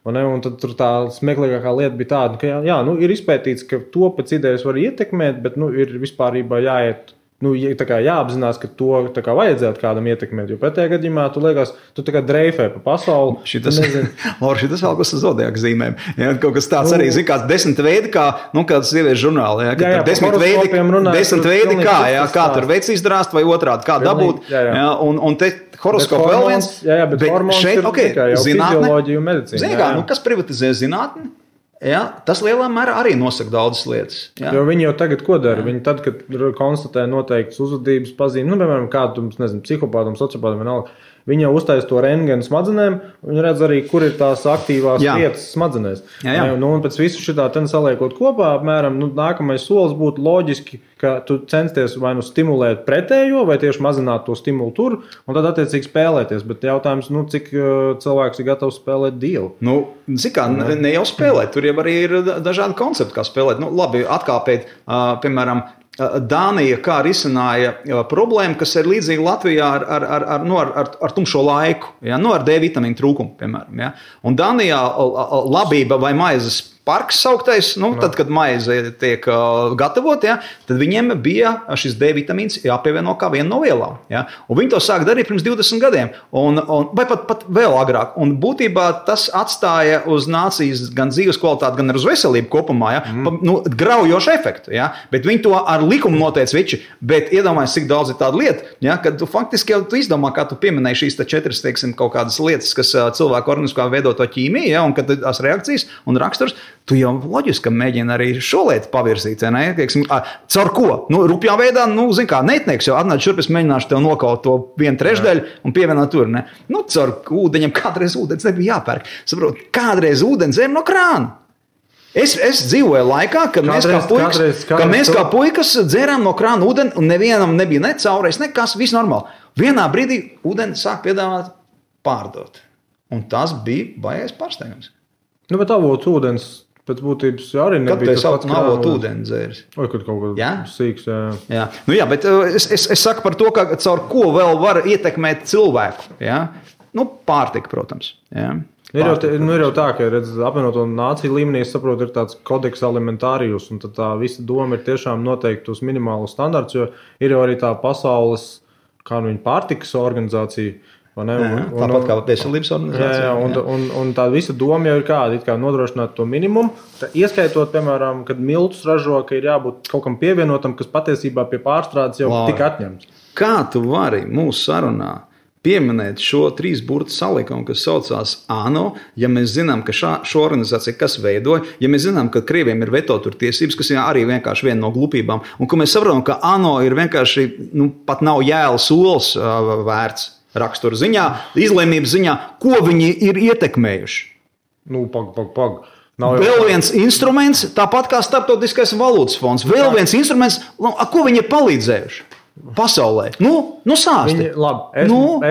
un tad tur tā smieklīgākā lieta bija tāda, ka ir izpētīts, ka to pēc idejas var ietekmēt, bet ir vispārībā jāiet, jāapzinās, ka to vajadzētu kādam ietekmēt, jo pretējā gadījumā tu liekas, tu dreifē pa pasauli.
Šitas vēl kas zodiaka zīmēm. Ja, kaut kas tāds arī, kāds 10 veidi, kā, kāds sieviešu žurnāli. Ja, 10 veidi kā tur veids izdrāst vai otrādi, kā dabūt. Ja, un te horoskopu vēl viens.
Bet hormons šeit, ir tikai jau fizioloģija un medicīna.
Zini kā, kas privatizē zinātni? Ja, tas lielā mērā arī nosaka daudzas lietas. Ja.
Jo viņi jau tagad ko dara? Viņi tad, kad konstatē noteiktas uzvedības pazīmes, piemēram, kādu, psihopātam, sociopātam vienalga, viņi jau uztaisa to rentgenu smadzenēm, viņi redz arī, kur ir tās aktīvās vietas smadzenēs. Un pēc visu šitā saliekot kopā, apmēram, nākamais solis būtu loģiski, ka tu censties vai stimulēt pretējo, vai tieši mazināt to stimulu tur, un tad attiecīgi spēlēties. Bet jautājums, cik cilvēks ir gatavs spēlēt dievu?
Ne jau spēlēt, tur jau arī ir dažādi koncepti, kā spēlēt. Labi, atkāpēt, piemēram, Dānija kā risināja problēmu, kas ir līdzīga Latvijā ar tumšo laiku, ja? Ar D vitamīnu trūkumu, piemēram. Ja? Un Dānijā labība vai maizes parks sauktais, tad, kad maize tiek gatavot, ja, tad viņiem bija šis D vitamīns jāpievieno kā viena no vielām. Ja. Un viņi to sāk darīt pirms 20 gadiem, vai pat vēl agrāk. Un būtībā tas atstāja uz nācijas gan dzīves kvalitāti, gan uz veselību kopumā, ja, graujošu efektu. Ja. Bet viņi to ar likumu noteica viči, bet iedomājies, cik daudz ir tāda lieta, ja, kad tu faktiski jau tu izdomā, kā tu pieminēji šīs 4, teiksim, kaut kādas lietas, kas cilvēku organismā veido to ķīmiju, ja, un kad tās reakcijas un raksturs, tu jau loģiski mēģini arī šo lietu pavirzīt. Caur ko? Rupjā veidā, neitnieks jau atnāc šurp, es mēģināšu tev nokaut to 1/3 un pievienot tur. Ne? Caur ūdeņiem kādreiz ūdens nebija jāpērk. Saprot, kādreiz ūdens dzēr no krāna. Es dzīvoju laikā, kad mēs kā puikas dzērām no krāna ūdeni un nevienam nebija ne caurais, nekas, viss normāli. Vienā brīdī ūdeni sāk piedāvāt pārdot. Un tas bija baigais pārsteigums.
Bet avots ūdens pēc būtības arī nebija
tas pats avots ūdens dzēris.
Vai kad kaut kas sīks,
jā. Jā, bet es saku par to, ka caur ko vēl var ietekmēt cilvēku. Ja? Pārtika, protams. Ja?
Ir jau tā, ka apvienoto nāciju līmenī, es saprotu, ir tāds kodeks alimentārijus, un tad tā visa doma ir tiešām noteikti tos minimālus standarts, jo ir jau arī tā pasaules, kā viņa pārtikas organizācija,
tāpat kā veselības organizācija.
Un tā visa doma jau ir kāda, kā nodrošināt to minimumu, ieskaitot, piemēram, kad miltus ražo, ka ir jābūt kaut kam pievienotam, kas patiesībā pie pārstrādes jau tika atņemts.
Kā tu vari mūsu sarunā pieminēt šo 3 burtu salikumu, kas saucās ANO, ja mēs zinām, ka šo organizāciju kas veidoja, ja mēs zinām, ka Krieviem ir veto tur tiesības, kas ir arī vienkārši viena no glupībām, un ka mēs saprotam, ka ANO ir vienkārši, pat nav jēlas olas vērts rakstura ziņā, izlēmības ziņā, ko viņi ir ietekmējuši.
Pag.
Vēl viens instruments, tāpat kā Starptautiskais valūtas fonds, vēl viens instruments, ko viņi ir palīdzējuši pasaulē. Sāsti.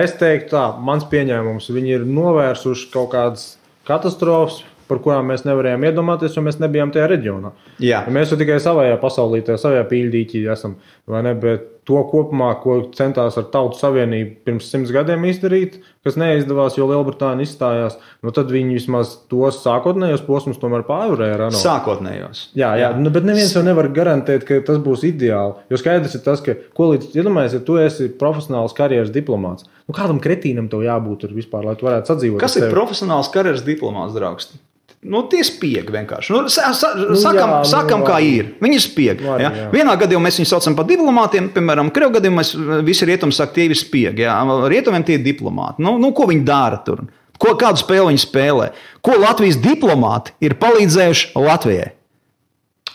Es teiktu tā, mans pieņēmums, viņi ir novērsuši kaut kādas katastrofas, par kurām mēs nevarējām iedomāties, jo mēs nebijām tajā reģionā.
Jā.
Mēs jau tikai savajā pasaulītē, savajā pīļdīķī esam, vai ne, bet to kopumā, ko centās ar Tautu Savienību pirms 100 gadiem izdarīt, kas neizdevās, jo Lielbritānija izstājās, tad viņi vismaz tos sākotnējos posmus tomēr pārvarēja.
Sākotnējos.
Jā. Bet neviens jau nevar garantēt, ka tas būs ideāli, jo skaidrs ir tas, ka, iedomājies, ja tu esi profesionāls karjeras diplomāts, kādam kretīnam tev jābūt tur vispār, lai tu varētu sadzīvot.
Kas ir profesionāls karjeras diplomāts, draugs? Tie spiegi vienkārši. Sakam, kā ir. Viņi ir spiegi. Ja? Vienā gadījumā mēs viņus saucam par diplomātiem, piemēram, Krievu gadījumā visi rietumi saka, tie ir spiegi. Ja? Rietumiem tie ir diplomāti. Ko viņi dara tur? Kādu spēli viņi spēlē? Ko Latvijas diplomāti ir palīdzējuši Latvijai?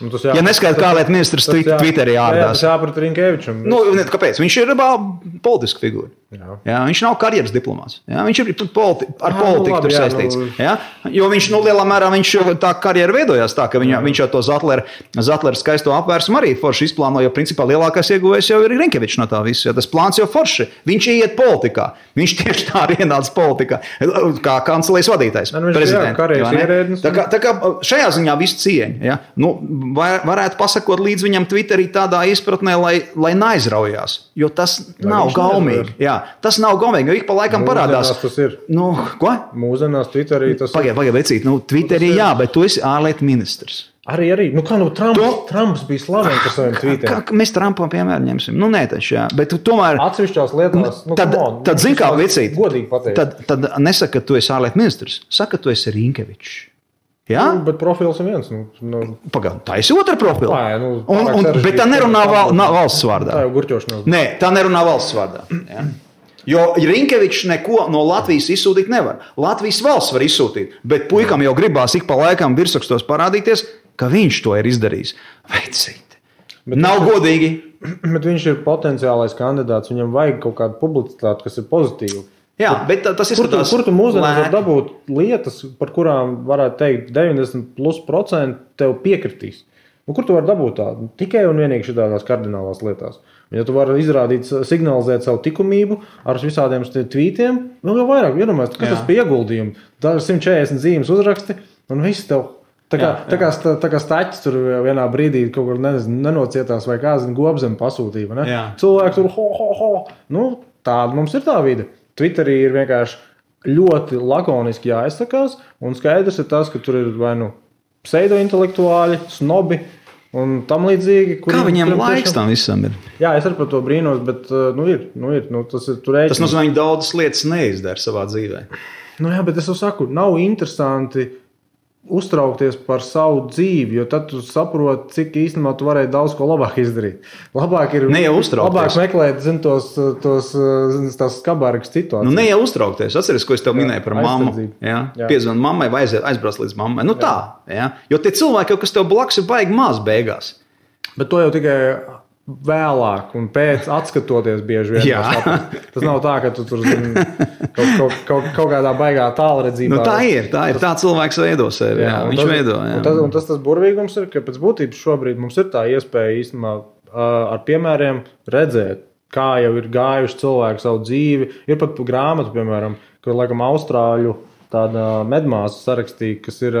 Ja neskaidrs, kā lieta ministrs Twitterī ārdās.
Tas jāprat Rinkevičam.
Kāpēc? Viņš ir politiska figūra. Jā, viņš nav karjeras diplomāts. Jā, viņš ir ar politiku tur saistīts. Jā, jo viņš lielā mērā tā karjera veidojās tā, ka viņš jau to Zatleru skaisto apvērsumu arī forši izplāno, jo principā lielākais ieguvējs jau ir Rinkevičs no tā visu. Tas plāns jau forši. Viņš iet politikā. Viņš tieši tā arī ienāca politikā. Kā kancelējas vadītājs. Prezidents. Tā kā šajā ziņā visu cieņa. Ja? Varētu pasakot līdz viņam Twitterī tādā izpratnē, lai neaizraujās. Jo tas nav gaumīgi. Jā, tas nav gaumīgi, jo ik pa laikam parādās.
Tas ir.
Ko?
Mūsdienās Twitterī tas ir.
Pagaid, vecīt. Twitterī jā, bet tu esi ārlietu ministrs.
Arī. Trumps bija slavens par saviem tweetiem.
Mēs Trumpam piemēram ņemsim. Nē, taču jā. Bet tomēr.
Atsevišķās lietās.
Tad zin kā, vecīt.
Godīgi pateikt.
Tad nesaka, ka tu esi ārlietu ministrs. Saka, ka tu esi Rinkevičs. Ja?
Bet profils ir viens.
Pagaid, tā ir otra profila. Bet tā nerunā valsts vārdā.
Tā jau gurķošanās.
Nē, tā nerunā valsts vārdā. Ja? Jo Rinkevičs neko no Latvijas izsūtīt nevar. Latvijas valsts var izsūtīt, bet puikam jau gribās ik pa laikam virsrakstos parādīties, ka viņš to ir izdarījis. Veicīt. Nav godīgi.
Bet viņš ir potenciālais kandidāts. Viņam vajag kaut kādu publicitāti, kas ir pozitīva.
Jā, bet tas izskatās.
Kur tu mūsdienās var dabūt lietas, par kurām varētu teikt 90% tev piekritīs? Kur tu vari dabūt tādu? Tikai un vienīgi šitādās kardinālās lietās. Ja tu vari izrādīt, signalizēt savu likumību ar visādiem tvītiem, vēl jau vairāk iedomājies, kas tas pie ieguldījumi. Tā ir 140 zīmes uzraksti un viss tev. Tā kā staķis tur vienā brīdī kaut kur nenocietās vai kā gobzem pasūtīja. Ne? Cilvēki tur ho. Tāda mums ir tā vide. Twitterī ir vienkārši ļoti lakoniski jāizsakās, un skaidrs ir tas, ka tur ir vai pseido-intelektuāļi, snobi un tam līdzīgi.
Kā viņiem laiks tam visam ir?
Jā, es arī par to brīnos, bet ir. Tas ir tur
rēķins. Tas nozīmē, viņi daudzas lietas neizdara savā dzīvē.
Jā, bet es jau saku, nav interesanti uztraukties par savu dzīvi, jo tad tu saproti, cik īstenībā tu varēji daudz ko labāk izdarīt. Labāk ir labāk meklēt, tās skabārgas situācijas.
Ne jau uztraukties. Atceries, ko es tev minēju par mammu. Piezvan mammai vai aizbrauc līdz mammai. Tā. Ja? Jo tie cilvēki, kas tev blakus ir baigi maz beigās.
Bet to jau tikai vēlāk un pēc atskatoties bieži vien. Tas nav tā, ka tu tur kaut kādā baigā tālredzībā.
Tā ir. Tā cilvēks veido sevi. Viņš veido.
Un tas burvīgums ir, ka pēc būtības šobrīd mums ir tā iespēja īstenībā ar piemēriem redzēt, kā jau ir gājuši cilvēki savu dzīvi. Ir pat grāmatu, piemēram, ko laikam austrāļu tāda medmāsa sarakstīja, kas ir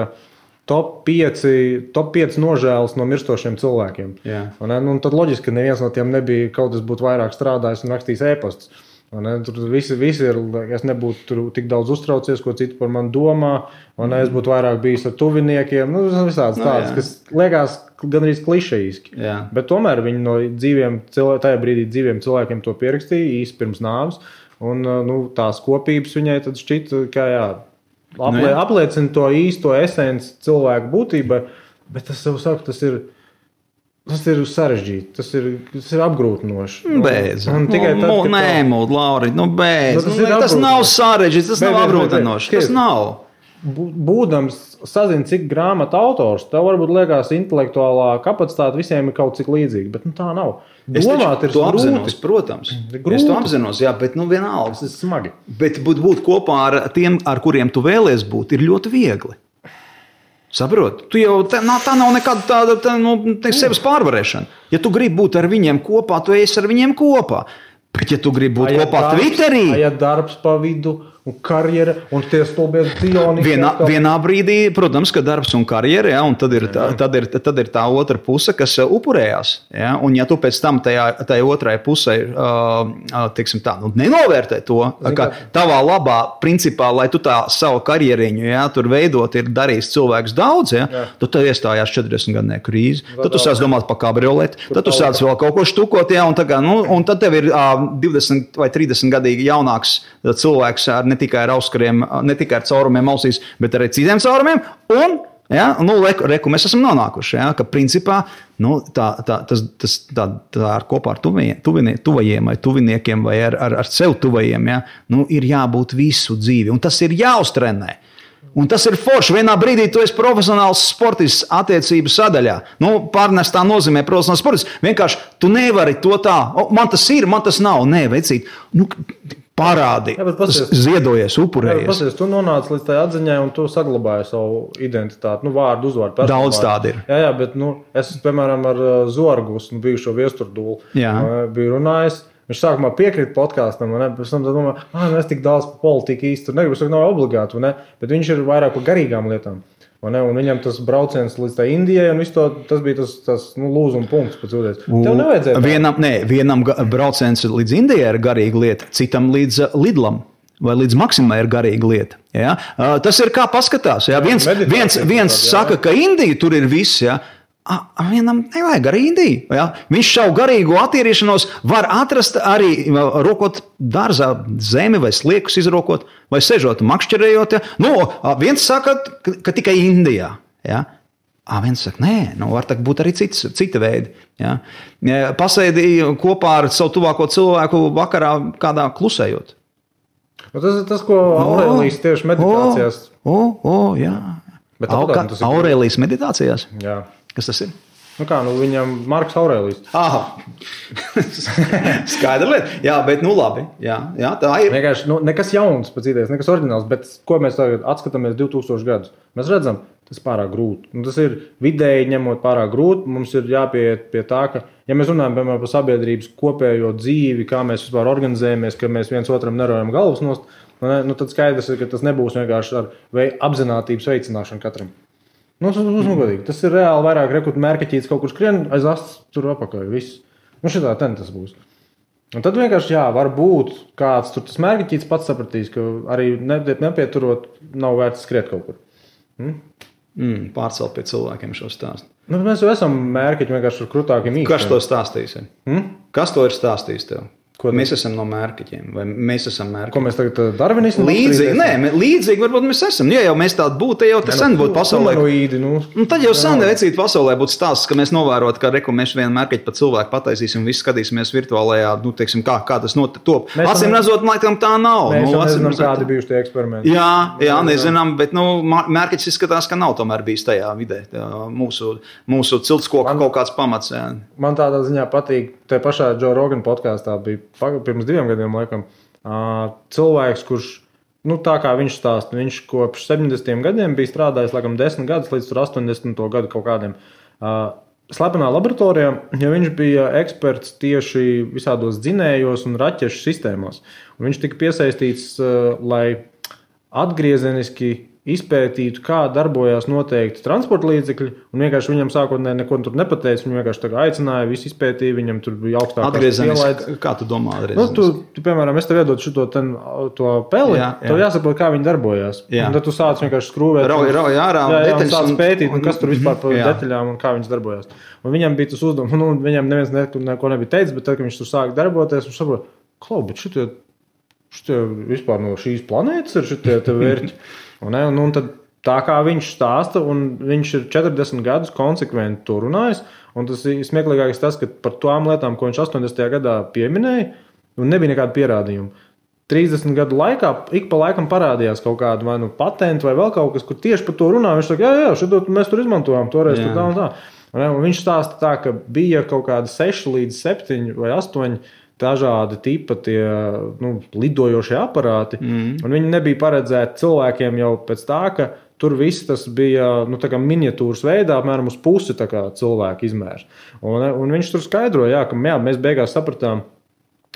top 5 nožēlas no mirstošiem cilvēkiem. Tad loģiski, ka neviens no tiem nebija kaut kas būtu vairāk strādājis un rakstījis ēpastus. Tur visi ir, es nebūtu tur tik daudz uztraucies, ko citi par mani domā, es būtu vairāk bijis ar tuviniekiem, visādas tādas, kas liekas gandrīz klišejiski. Bet tomēr viņi no tajā brīdī dzīviem cilvēkiem to pierakstīja īsti pirms nāves, un tās kopības viņai tad šķita, ka apliecina to īsto esenci cilvēku būtībai, bet tas jau saka, tas ir Tas ir sarežģīti, tas ir apgrūtinoši.
Beidz. Nē, Lauri, beidz. Tas nav sarežģīti, tas nav apgrūtinoši. Tas nav.
Būdams sazin, cik grāmatu autors, tev varbūt liekas intelektuālā kapacitāte visiem ir kaut cik līdzīga, bet tā nav. Domāt ir
apzinos, protams. Es to apzinos, jā, bet vienalga.
Tas ir smagi.
Bet būt kopā ar tiem, ar kuriem tu vēlies būt, ir ļoti viegli. Saprot? Tu jau, tā nav nekāda tāda sevis pārvarēšana. Ja tu gribi būt ar viņiem kopā, tu esi ar viņiem kopā. Bet ja tu gribi būt kopā Twitterī...
Ja darbs pa vidu un karjera un tie stulbies cioni...
Vienā brīdī, protams, ka darbs un karjera, ja, un tad ir tā otra puse, kas upurējās. Ja, un ja tu pēc tam tajā otrai pusē, teiksim tā, nenovērtē to, ka tavā labā principā, lai tu tā savu karjeriņu, ja, tur veidot, ir darījis cilvēks daudz, ja, tad tev iestājās 40 gadnieku krīze, tad tu sāc domāt par kabrioleti, tad tu sāc vēl kaut ko štukot, ja, un tad tev ir 20 vai 30 gadīgi jaunāks cilvēks ne tikai ar auskariem, ne tikai ar caurumiem ausīs, bet arī citiem caurumiem. Un, ja, reku mēs esam nonākuši, ja, ka principā tā ar kopā ar tuvajiem vai tuviniekiem vai ar sev tuvajiem, ja, ir jābūt visu dzīvi. Un tas ir jāuztrenē. Un tas ir forši. Vienā brīdī tu esi profesionāls sportists attiecību sadaļā. Pārnestā nozīmē profesionāls sportists. Vienkārši tu nevari to tā, man tas ir, man tas nav. Nē, vecīt, parādi, ziedojies, upurējies.
Pasies, tu nonāc līdz tai atziņai un tu saglabāji savu identitāti, vārdu, uzvārdu.
Daudz tādi ir.
Jā, bet es, piemēram, ar Zorgus, bijušo viesturdūlu, biju runājis. Viņš sākumā piekrita podkāstam, pēc tam domāja, es tik daudz par politiku īsti tur negribu, tas nav obligāti, bet viņš ir vairāk par garīgām lietām. Un viņam tas brauciens līdz tā Indijai, un tas bija tas lūzuma punkts pēc ūdens. Tev nevajadzēja.
Vienam brauciens līdz Indijai ir garīga lieta, citam līdz Lidlam. Vai līdz Maksimai ir garīga lieta. Ja? Tas ir kā paskatās. Ja? Viens saka, ka Indija tur ir viss, ja? Vienam nevajag arī Indiju. Ja? Viņš šau garīgo attīrīšanos var atrast arī rokot dārzā zemi vai sliekus izrokot vai sežot makšķerējot. Ja? Viens saka, ka tikai Indijā. Ja? Viens saka, nē, var būt arī cita veidi. Ja? Pasēdīja kopā ar savu tuvāko cilvēku vakarā kādā klusējot.
Tas ir tas, ko Aurēlijas tieši meditācijās.
Jā. Aurēlijas meditācijās?
Jā.
Kas tas ir?
Viņam Marks Aurēlijs.
Skaidra lieta. Jā, bet labi. Jā, tā ir.
Vienkārši nekas jauns pēc idejas, nekas oriģināls, bet ko mēs tagad atskatāmies 2000 gadus? Mēs redzam, tas ir pārāk grūti. Tas ir vidēji ņemot pārāk grūti. Mums ir jāpieiet pie tā, ka, ja mēs runājam, piemēram, par sabiedrības kopējo dzīvi, kā mēs vispār organizējamies, ka mēs viens otram nerojam galvas nost, tad skaidrs ir, ka tas nebūs vienkārši ar apzinātības veicināšanu katram. Tas ir reāli vairāk rekrutu mērķeķīts kaut kur skrien, aiz astes tur apakaļ, viss. Šitā tas būs. Un tad vienkārši, var būt kāds tur tas mērķeķīts pats sapratīs, ka arī nepieturot nav vērts skriet kaut kur.
Pārcelt pie cilvēkiem šo stāstu.
Mēs jau esam mērķeķi vienkārši ar krutākiem īstiem.
Kas to stāstīs? Kas to ir stāstījis tev? Mēs esam no mērķeķiem, vai mēs esam mērķeķi?
Ko mēs tagad darvinismu?
Līdzīgi varbūt mēs esam. Ja jau mēs tādi būtu, jau te sen būtu pasaulē. Tad jau sen vecīt pasaulē būtu stāsts, ka mēs novērot, ka mēs vienu mērķeķi pa cilvēku pataisīsim, visi skatīsimies virtuālajā, teiksim, kā tas top. Acīm redzot, laikam tā nav.
Mēs jau nezinām, kādi bijuši tie eksperimenti.
Jā, nezinām, bet mērķeķis izskatās, ka nav tomēr bijis tajā vidē. Mūsu ciltskoka kaut kāds pamats. Jā.
Man tādā ziņā patīk, te pašā Joe Rogan podkāstā bija pirms 2 gadiem, laikam, cilvēks, kurš, tā kā viņš stāsta, viņš kopš 70. gadiem bija strādājis, laikam, 10 gadus līdz 80. gadu kaut kādiem slepenā laboratorijā, ja viņš bija eksperts tieši visādos dzinējos un raķešu sistēmās. Un viņš tika piesaistīts, lai atgriezeniski izpētītu, kā darbojās noteikti transporta līdzekļi, un vienkārši viņam sākotnēji neko tur nepateica, viņu vienkārši tā aicināja, visu izpētīja, viņam tur bija augstākās pielaides.
Kā tu domā
atgriezeniski? Tu, piemēram, es tev iedotu to peli, tev jāsaprot, kā viņi darbojās. Un tad tu sāc vienkārši skrūvēt. Un sāc pētīt, kas tur vispār par detaļām un kā viņas darbojās. Un viņam bija tas uzdevums, viņam neviens neko nebija teicis, bet tad, kad viņš tur sāk darboties, viņš saprot, bet šitie vispār no šīs planētas ir šitie te vērķi. Un tad tā kā viņš stāsta, un viņš ir 40 gadus konsekventi to runājis. Un tas ir smieklīgākais tas, ka par tām lietām, ko viņš 80. gadā pieminēja, un nebija nekāda pierādījuma. 30 gadu laikā ik pa laikam parādījās kaut kāda vai patenta vai vēl kaut kas, kur tieši par to runā. Viņš saka, jā, šito mēs tur izmantojām, toreiz tur tā un tā. Un viņš stāsta tā, ka bija kaut kādi 6 līdz 7 vai 8 dažādi tipa tie lidojošie aparāti, un viņi nebija paredzēti cilvēkiem jau pēc tā, ka tur viss tas bija tā kā miniatūras veidā, apmēram uz pusi tā kā cilvēku izmērs. Un viņš tur skaidroja, ka mēs beigās sapratām,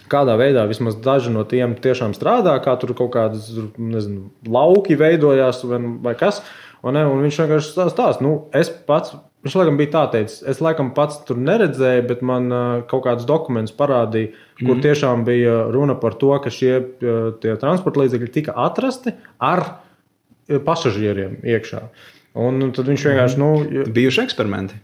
kādā veidā vismaz daži no tiem tiešām strādā, kā tur kaut kādas, nezinu, lauki veidojās vai kas. Un viņš vienkārši stāsta, es pats, viņš laikam bija tā teicis, es laikam pats tur neredzēju, bet man kaut kādus dokumentus parādīja, kur tiešām bija runa par to, ka tie transporta līdzekļi tika atrasti ar pasažieriem iekšā. Un tad viņš vienkārši...
Bijuši eksperimenti.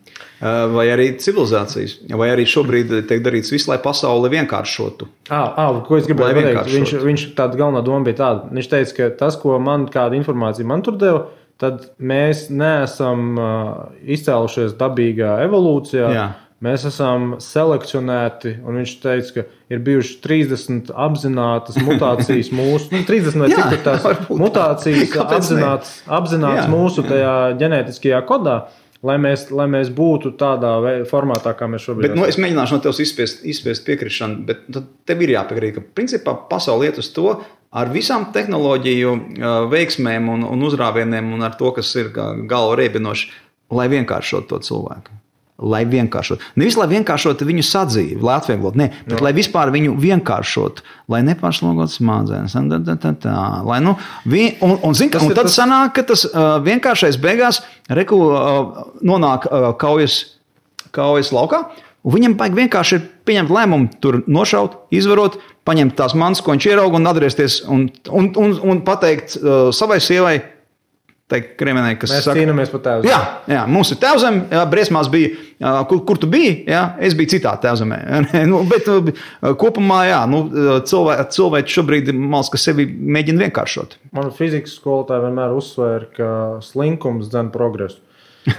Vai arī civilizācijas. Vai arī šobrīd tiek darīts viss, lai pasauli vienkāršotu.
Ko es gribēju pateikt? Viņš tāda galvenā doma bija tāda. Viņš teica, ka tas, ko kāda informācija man tur deva, tad mēs neesam izcēlušies dabīgā evolūcijā. Jā. Mēs esam selekcionēti, un viņš teica, ka ir bijuši 30 apzinātas mutācijas mūsu, 30 vai cik ir tās mutācijas apzinātas mūsu tajā ģenētiskajā kodā, lai mēs būtu tādā formātā, kā mēs šobrīd
esam. Bet, es mēģināšu no tevis izspiest piekrišanu, bet tad tev ir jāpiekrīt, ka principā pasauli iet uz to ar visām tehnoloģiju veiksmēm un uzrāvieniem un ar to, kas ir galva riebinoši, lai vienkāršot to cilvēku. Lai vienkāršot. Nevis, lai vienkāršot viņu sadzīvi, lai atvieglot, bet lai vispār viņu vienkāršot, lai nepārslogot smadzenes. Un tad sanāk, ka tas vienkāršais beigās nonāk kaujas laukā, un viņam vajag vienkārši ir pieņemt lēmumu, tur nošaut, izvarot, paņemt tās manas, ko viņš ierauga un atgriezties un pateikt savai sievai, Kriemenē, kas
mēs cīnāmies par tēvzemi.
Jā, mums ir tēvzemi, briesmās bija, kur tu biji, es biju citā tēvzemē. Bet kopumā, cilvēki šobrīd ka sevi mēģina vienkāršot.
Man fizikas skolotāji vienmēr uzsvēra, ka slinkums dzen progresu.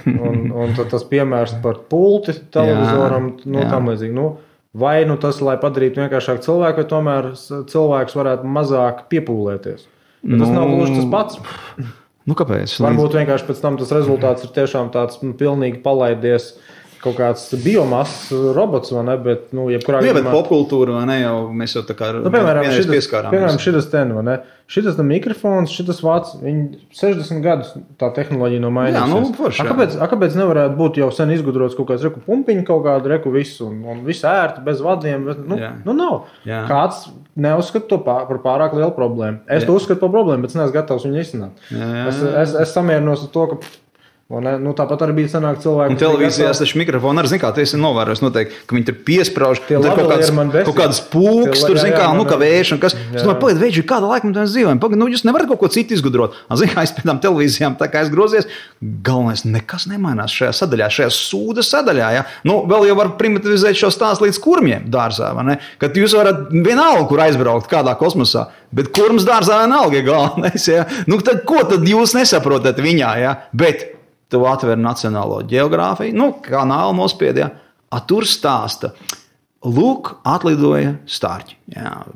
Un tad tas piemērs par pulti televizoram, tam līdzīgi. Vai tas, lai padarītu vienkāršāk cilvēku, vai tomēr cilvēks varētu mazāk piepūlēties. Bet tas nav gluži tas pats.
Kāpēc?
Varbūt vienkārši pēc tam tas rezultāts ir tiešām tāds pilnīgi palaidies kaut kāds biomasas robots, vai ne? Bet, jebkurā
gadījumā... bet popkultūra, vai ne, jau mēs jau tā kā vienreiz pieskārāmies.
Piemēram, šitas vai ne? Šitas mikrofons, šitas vāc, viņi 60 gadus tā tehnoloģija nav mainījusies.
Forši,
kāpēc nevarētu būt jau sen izgudrots kaut kāds pumpiņu, kaut kādu visu, un visu ērti, bez vadiem? Nav. Jā. Kāds neuzskata to par pārāk lielu problēmu. Es to uzskatu par problēmu, bet es neesmu gatavs viņu izsināt. Es samierinos ar to, ka tāpat arī bija sanāk cilvēki.
Un televīzijās taču mikrofoni arī, kā tu esi novērojis noteikti, ka viņi tur piesprauž, kaut kādas pūks, tur, kā vējš un kas. Es domāju, pagaid, vējš, kāda laika mēs dzīvojam? Pagaid, jūs nevarat kaut ko citu izgudrot. Es pēc tām televīzijām tā kā es grozies, galvenais nekas nemainās šajā sadaļā, šajā sūda sadaļā. Ja? Vēl jau var primitivizēt šo stāstu līdz kurmiem dārzā, vai ne? Kad jūs varat vienalga, kur aizbraukt kādā kosmosā, bet kurms dārzā vienalga ir galvenais. Ja? Tad ko tad jūs nesaprotat viņā? Ja? Bet tu atver Nacionālo ģeogrāfiju, kanālu nospied, tur stāsta. Lūk, atlidoja stārķi.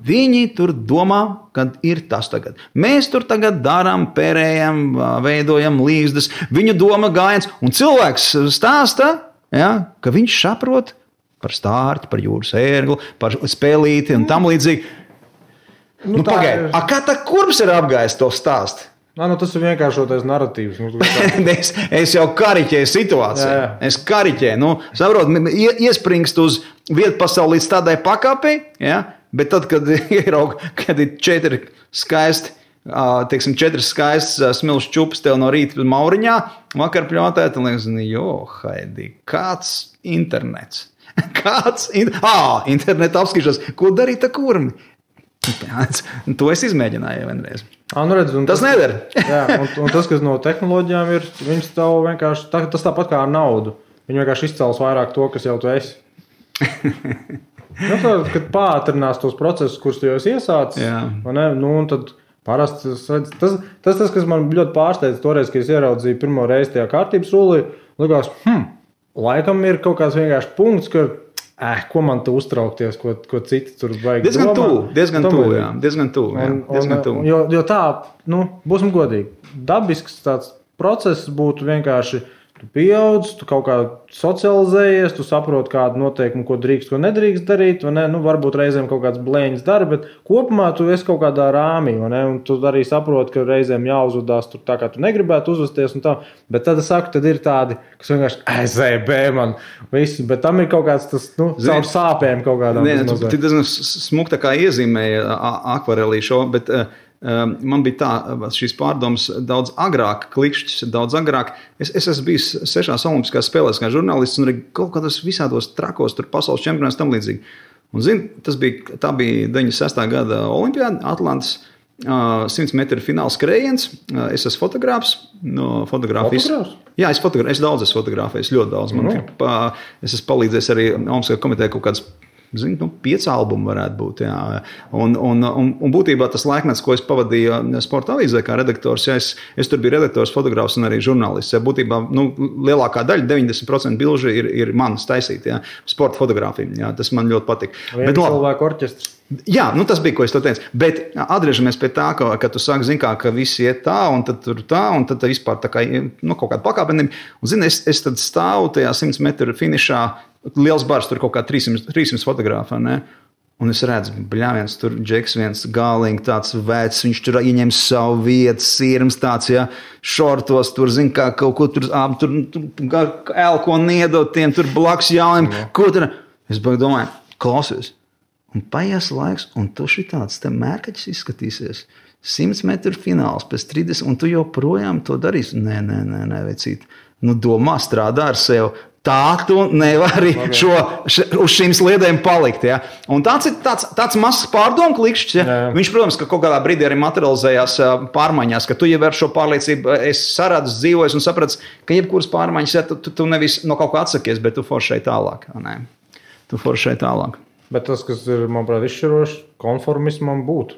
Viņi tur domā, kad ir tas tagad. Mēs tur tagad darām, pērējam, veidojam līgzdas, viņu doma gājiens, un cilvēks stāsta, ka viņš saprot par stārķi, par jūras ērgli, par spēlīti un tam līdzīgi. Pagaid, kā tā kurms ir apgājis to stāstu?
Tas ir vienkāršotais narratīvs.
Es jau kariķēju situāciju. Jā. Es kariķēju. Saprot, iespringst uz vietu pasauli līdz tādai pakāpei, bet tad, kad ir 4 skaisti, teiksim, 4 skaistas smilšu čupas tev no rīta mauriņā, vakar pļautēt, un liekas, Haidī, kāds internets? Interneta apskatīšanās. Ko darīt ar kurmi? To es izmēģināju vienreiz. Tas nedara.
un tas, kas no tehnoloģijām ir, viņas tev vienkārši, tas tāpat kā ar naudu. Viņi vienkārši izcels vairāk to, kas jau tu esi. Kad pātrinās tos procesus, kurus tu jau esi iesācis, un tad Parasti tas, kas man ļoti pārsteidz toreiz, kad es ieraudzīju pirmo reizi tajā kārtības rullī, likās, laikam ir kaut kāds vienkārši punkts, ka, ko man tu uztraukties, ko citi tur vajag domāt.
Diezgan tuvu.
Jo tā, būsim godīgi, dabisks tāds process būtu vienkārši, tu pieaudz, tu kaut kā socializējies, tu saproti kādu noteikumu, ko drīkst, ko nedrīkst darīt, vai ne? Varbūt reizēm kaut kāds blēņas dara, bet kopumā tu esi kaut kādā rāmī, vai ne? Un tu arī saproti, ka reizēm jāuzvedās tur tā, kā tu negribētu uzvesties un tā. Bet tad es saku, tad ir tādi, kas vienkārši ZB man visi, bet tam ir kaut kāds tas, caur sāpēm kaut kādām.
Tu diezgan smuk tā kā iezīmēja akvarelī šo, bet man bija tā, šīs pārdomas daudz agrāk, klikšķis daudz agrāk. Es esmu bijis 6 olimpiskās spēlēs kā žurnālists un arī kaut kādos visādos trakos, tur pasaules čempionāts tam līdzīgi. Un tā bija 96. gada olimpiāda, Atlantas 100 metru fināls skrējiens. Es esmu fotogrāfs.
Fotogrāfs?
Jā, es daudz esmu fotografējis, ļoti daudz. Es esmu palīdzējis arī Olimpiskajā komitejā kaut kādas 5 albumi varētu būt. Jā. Un būtībā tas laikmets, ko es pavadīju sporta avīzē kā redaktors, ja es tur biju redaktors, fotogrāfs un arī žurnālists. Ja, būtībā lielākā daļa, 90% bilžu ir manas taisīti, ja, sporta fotogrāfija. Ja, tas man ļoti patīk.
Bet cilvēku orķestrs.
Jā, tas bija, ko es to teicu. Bet atgriežamies pie tā, ka tu sāki, ka visi iet tā, un tad tur tā, un tad vispār tā kā, kaut kāda pakāpenība. Un, es tad stāvu tajā 100 metru finišā, liels bars, tur kaut kā 300 fotogrāfā, ne? Un es redzu, bļāviens, tur džeks viens galīgi tāds vecs, viņš tur ieņem savu vietu, sirms tāds, ja, šortos, tur, kā kaut ko tur elko niedot tiem, tur blakus jauniem, ko tur. Es domāju, klausies. Un paies laiks, un tu šitāds te mērkaķis izskatīsies. 100 metru fināls pēc 30, un tu joprojām to darīsi. Nē, vecīt. Domā, strādā ar sevi. Tā tu nevari uz šīm sliedēm palikt. Ja? Un tāds ir tāds mazs pārdomu klikšķis. Ja? Viņš, protams, ka kaut kādā brīdī arī materializējās pārmaiņās, ka tu jau ar šo pārliecību esi saradzis, dzīvojis un sapratis, ka jebkuras pārmaiņas, ja, tu nevis no kaut kā atsakies, bet tu foršai tālāk. Ne? Tu foršai tālāk.
Bet tas, kas ir, manuprāt, izšķiroši, konformismam būtu.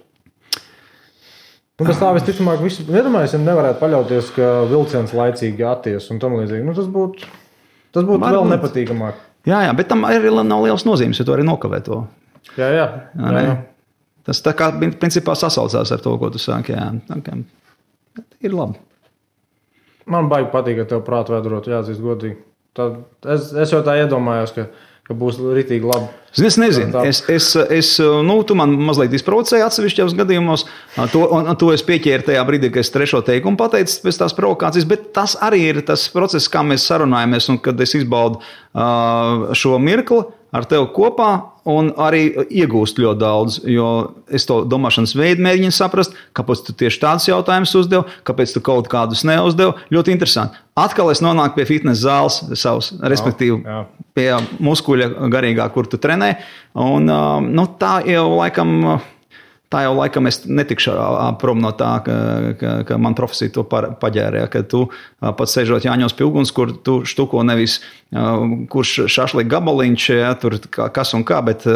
Bez tā visticamāk, iedomājies, ja nevarētu paļauties, ka vilciens laicīgi atties un tam līdzīgi. Tas būtu vēl nepatīkamāk.
Jā, bet tam arī nav liels nozīmes, ja tu arī nokavē to.
Jā.
Tas tā kā principā sasaucās ar to, ko tu sāki. Jā. Ir labi.
Man baigi patīk, ka tev prātu vēdurot, jāatzīst godīgi. Es jau tā iedomājos, ka būs ritīgi labi.
Es nezinu. Tu man mazliet izprovocēji atsevišķos gadījumos. To es pieķēru tajā brīdī, kad es 3. teikumu pateicu pēc tās provokācijas, bet tas arī ir tas process, kā mēs sarunājamies un kad es izbaudu šo mirkli ar tevi kopā un arī iegūst ļoti daudz, jo es to domāšanas veidu mēģinu saprast, kāpēc tu tieši tādus jautājumus uzdev, kāpēc tu kaut kādus neuzdev. Ļoti interesanti. Atkal es nonāku pie fitness zāles savas, respektīvi pie muskuļa garīgā, kur tu trenē. Un tā jau laikam es netikšu prom no tā, ka man profesija to paģērē, ka tu pats sēžot Jāņos pie uguns, kur tu štuko nevis kurš šašlika gabaliņš, ja, tur kas un kā, bet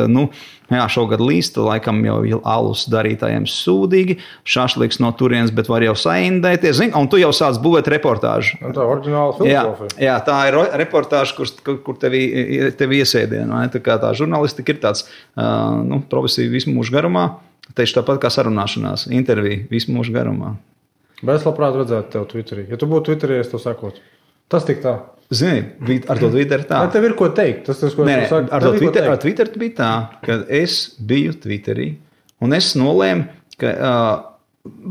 šogad līst, laikam jau alus darītājiem sūdīgi, šašliks no turienes, bet var jau saindēties, un tu jau sāc būvēt reportāžu.
Tā oriģināla filozofija.
Jā, tā ir reportāža, kur tevi iesēdien. Tā kā tā žurnālistika ir tāds profesija visu mūžu garumā. Tieši tāpat kā sarunāšanās, intervija visu mūžu garumā.
Bet es labprāt redzētu tev Twitterī. Ja tu būtu Twitterī, es to sakotu. Tas tik tā.
Zini, ar to Twitter tā.
Vai tev ir ko teikt? Tas, ko
es saku. Ar Twitter bija tā, ka es biju Twitterī un es nolēmu, ka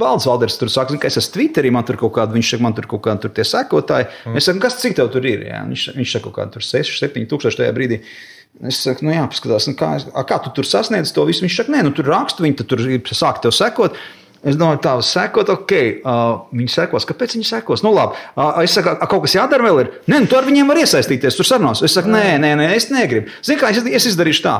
Valds Valders tur saka, ka es esmu Twitterī, man tur kaut kāda, viņš saka, man tur kaut kāda tur tie sekotāji. Es saku, cik tev tur ir? Jā? Viņš saka, kaut kāda tur 6-7 tūkstoši tajā brīdī. Es saku, jāpaskatās, kā tu tur sasniedz to visu? Viņš saka, tur rakstu, viņi tur sāk tev sekot. Es domāju, tā sekot, viņi sekos. Kāpēc viņi sekos? Labi. Es saku, kaut kas jādara vēl ir? Tu ar viņiem var iesaistīties, tur sarunās. Es saku, nē, es negribu. Zini kā, es izdarīšu tā.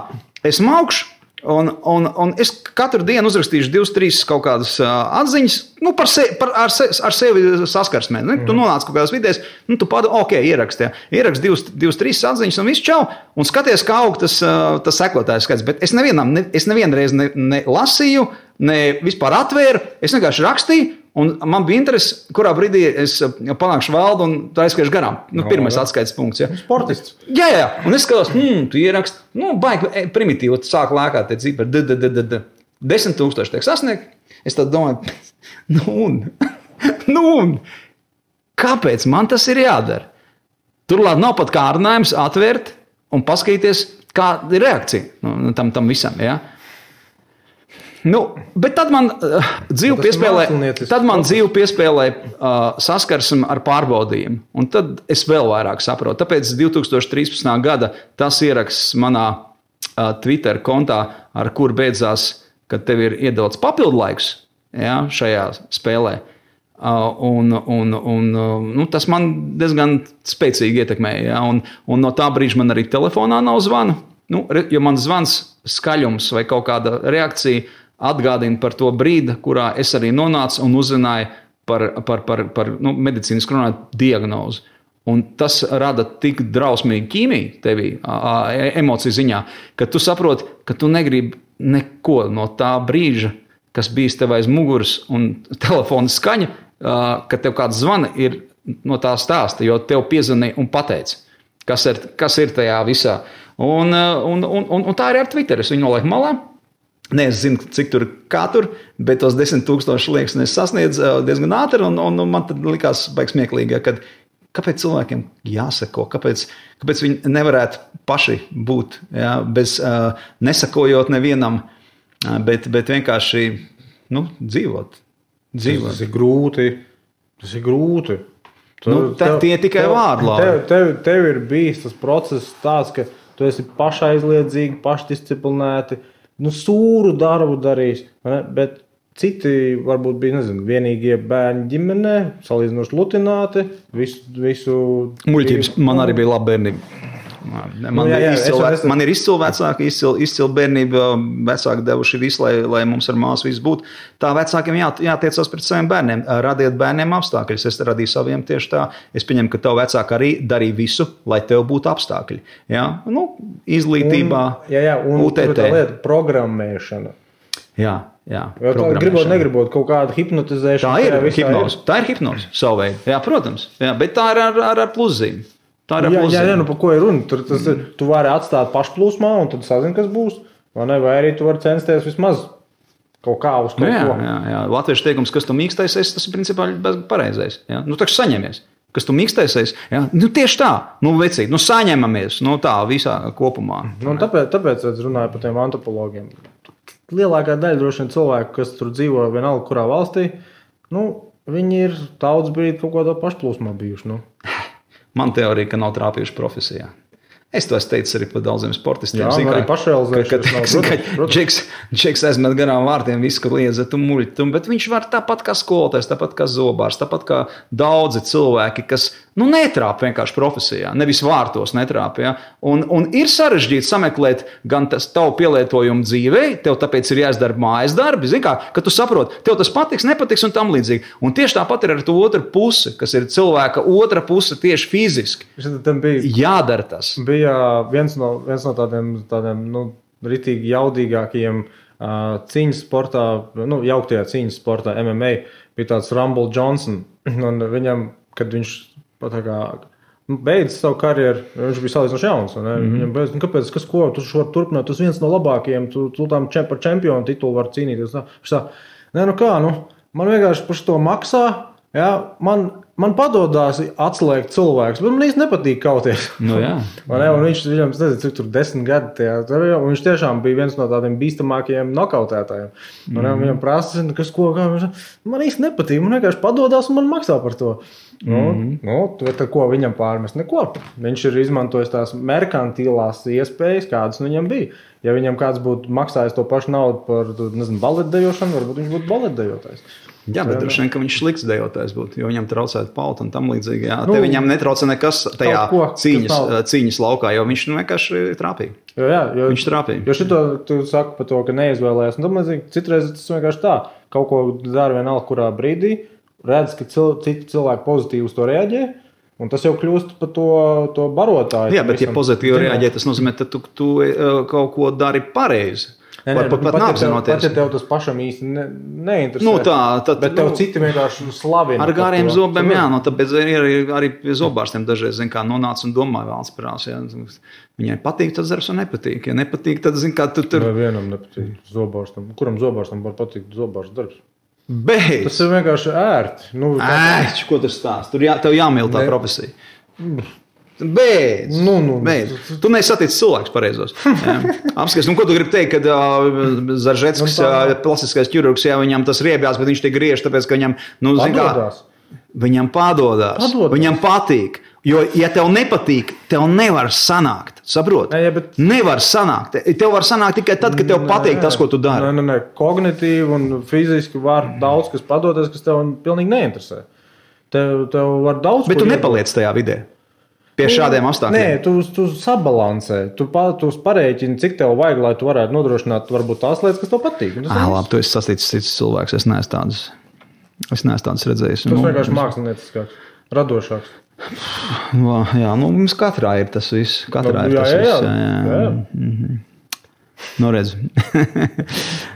Es maukšu. Un es katru dienu uzrakstīšu 2-3 kaut kādas atziņas, ar sevi saskarsmē. Tu nonāc kaut kādās vidēs, tu ieraksti 2-3 atziņas un viss čau, un skaties, kā aug tas sekotājs skaits. Bet es nevienreiz ne lasīju, ne vispār atvēru. Es vienkārši rakstīju, un man bija interesi, kurā brīdī es panākšu valdu un tā aizskiešu garām. Pirmais atskaites punkts. Ja.
Sportists.
Jā. Un es skatos, tu ieraksti, baigi primitīvi, tu sāk lēkāt te cipari, 10,000 tiek sasniegt. Es tad domāju, un kāpēc man tas ir jādara? Turklāt nav pat kārdinājums atvērt un paskatīties, kāda ir reakcija tam visam. Ja? Bet tad man dzīve piespēlēja saskarsmi ar pārbaudījumu. Un tad es vēl vairāk saprotu. Tāpēc 2013. gada tas ieraksts manā Twitter kontā, ar kur beidzās, kad tev ir iedots papildlaiks šajā spēlē. Tas man diezgan spēcīgi ietekmēja. Ja? Un no tā brīža man arī telefonā nav zvana. Jo man zvans, skaļums vai kaut kāda reakcija atgādina par to brīdi, kurā es arī nonācu un uzzināju par medicīnisku runāt diagnozi. Un tas rada tik drausmīgu ķīmiju tevī, emociju ziņā, ka tu saproti, ka tu negribi neko no tā brīža, kas bijis tev aiz muguras un telefona skaņa, ka tev kāds zvana ir no tā stāsta, jo tev piezvanīja un pateica, kas ir tajā visā. Un tā arī ar Twitter. Es viņu nolieku malā. Ne, es zinu, cik tur, kā tur, bet tos 10,000 liekas, es sasniedzu diezgan ātri, un man tad likās baigi smieklīgi, kad kāpēc cilvēkiem jāsako, kāpēc viņi nevarētu paši būt, bez nesakojot nevienam, bet vienkārši dzīvot.
Tas ir grūti.
Tie tikai vārdi.
Tev ir bijis tas process tāds, ka tu esi pašaizliedzīgi, pašdisciplinēti, sūru darbu darījis, bet citi varbūt bija, vienīgie bērni ģimenē, salīdzinoši lutināti, visu...
Muļķības, man arī bija laba bērnība. Man ir izcila vecāki, izcila bērnība, vecāki devuši visu, lai mums ar māsu viss būtu. Tā vecākiem jātiecās pret saviem bērniem. Radiet bērniem apstākļus. Es radīju saviem tieši tā. Es pieņemu, ka tev vecāki arī darīja visu, lai tev būtu apstākļi. Ja? Izglītībā, UTT.
Tā lieta programmēšana.
Jā.
Negribot kaut kādu hipnotizēšanu.
Tā ir hipnoze savu veidu. Jā, protams. Jā, bet tā ir ar pluszīm.
Jā, par ko ir runa? Tu vari atstāt pašplūsmā un tad sazini, kas būs. Vai arī tu vari censties vismaz kaut kā uz kaut ko.
Jā. Latviešu teikums, kas tu mīkstaisies, tas ir principā pareizais. Ja? Taču saņemies. Kas tu mīkstaisies? Ja? Tieši tā. Vecīt, saņemamies. Tā visā kopumā.
Tāpēc es runāju par tiem antropologiem. Lielākā daļa droši vien cilvēku, kas tur dzīvo vienalga kurā valstī, viņi ir tautas brīdi kaut kādā pašplūsmā bijuši.
Man teorija, ka nav trāpījuši profesijā. Es to teicu arī par daudziem sportistiem.
Jā, arī pašrealizēšanas.
Džeks aizmet garām vārtiem visu, kad liedza tu muļķi, bet viņš var tāpat kā skolotājs, tāpat kā zobārs, tāpat kā daudzi cilvēki, kas netrāp vienkārši profesijā, nevis vārtos netrāp. Ja? Un ir sarežģīti sameklēt gan tas tavu pielietojumu dzīvei, tev tāpēc ir jāizdara mājas darbi, zini kā, ka tu saproti, tev tas patiks, nepatiks un tam līdzīgi. Un tieši tāpat ir ar to otru pusi, kas ir cilvēka otra puse tieši fiziski. Jādara tas.
Bija viens no tādiem ritīgi jaudīgākajiem cīņas sportā, jauktajā cīņas sportā MMA, bija tāds Rumble Johnson. Un viņam, kad viņš beidz savu karjeru, viņš bija salīdzinoši jauns. Viņam beidz, kāpēc, tu vari turpināt, tu esi viens no labākajiem, tu tam par čempionu titulu vari cīnīties. Man vienkārši par to maksā, ja, man padodās atslēgt cilvēkus, bet man īsti nepatīk kauties. Un viņam, nezinu, cik tur 10 gadi, un viņš tiešām bija viens no tādiem bīstamākajiem nokautētājiem. Viņam prasa, man īsti nepatīk, man vienkārši padodās un man maksā par to. Bet ko viņam pārmest? Neko. Viņš ir izmantojis tās merkantilās iespējas, kādas viņam bija. Ja viņam kāds būtu maksājis to pašu naudu par, baletdejošanu, varbūt viņš būtu baletdejotājs.
Jā, bet droši vien, ka viņš slikts dejotājs būtu, jo viņam traucētu pauta un tam līdzīgi. Jā. Te viņam netrauca nekas tajā cīņas laukā, jo viņš vienkārši trāpīja. Viņš trāpīja.
Jo šito tu saki par to, ka neizvēlējās. Un tam līdzīgi citreiz tas vienkārši tā. Kaut ko dara vienalga kurā brīdī, redz, ka citi cilvēki pozitīvi uz to reaģē, Un tas jau kļūst par to barotāju.
Jā, bet ja pozitīvi reaģē, tas nozīmē, ka tu kaut ko dari pareizi. Pat neapzinoties.
Pat ja tev tas pašam īsti neinteresē.
Nu tā,
bet tev citi vienkārši slavina.
Ar gariem zobiem, jā, tāpēc arī pie zobārstiem dažreiz, kā nonāca un domāja valsts prās. Jā. Viņai patīk, tad darbs un nepatīk. Ja nepatīk, tad, kā tu tur...
Vai vienam nepatīk zobārstam. Kuram zobārstam var patikt zobārsts darbs?
Beidz!
Tas ir vienkārši ērti.
Ērti, ko tu stāst? Tev jāmīl tā profesija. Beidz! Beidz. Tu nesatiec cilvēks pareizos. Apskats, ko tu gribi teikt, kad Zaržetskis, plastiskais ķirurgs, jā, viņam tas riebjās, bet viņš te griež, tāpēc, ka viņam,
padodās.
Viņam padodās. Viņam patīk. Jo, ja tev nepatīk, tev nevar sanākt. Saprot? Nevar sanākt. Tev var sanākt tikai tad, kad tev patīk tas, ko tu dari.
Nē. Kognitīvi un fiziski var daudz, kas padoties, kas tev pilnīgi neinteresē. Tev var daudz.
Bet tu nepaliec tajā vidē. Pie šādiem apstākļiem.
Nē, tu sabalansē. Tu parēķini, cik tev vajag, lai tu varētu nodrošināt varbūt tās lietas, kas tev patīk.
Labi, tu esi sastīts cits cilvēks. Es neesmu tāds redzējis.
Tas vienkārši mākslinieckāks, radošāks.
Jā, mums katrā ir tas viss. Katrā ir tas viss. Jā. Nu, redz.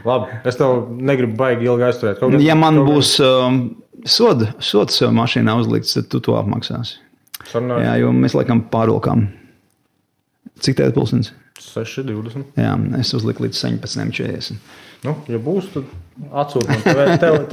Labi, es tev negribu baigi ilgi aizturēt.
Ja man būs sods mašīnā uzlikts, tad tu to apmaksāsi.
Sarunāju.
Jā, jo mēs laikam pārvilkām. Cik tev pulkstenis?
6:20.
Jā, es uzliku līdz 17:40.
Nu, ja būs, tad atsūti man. Tev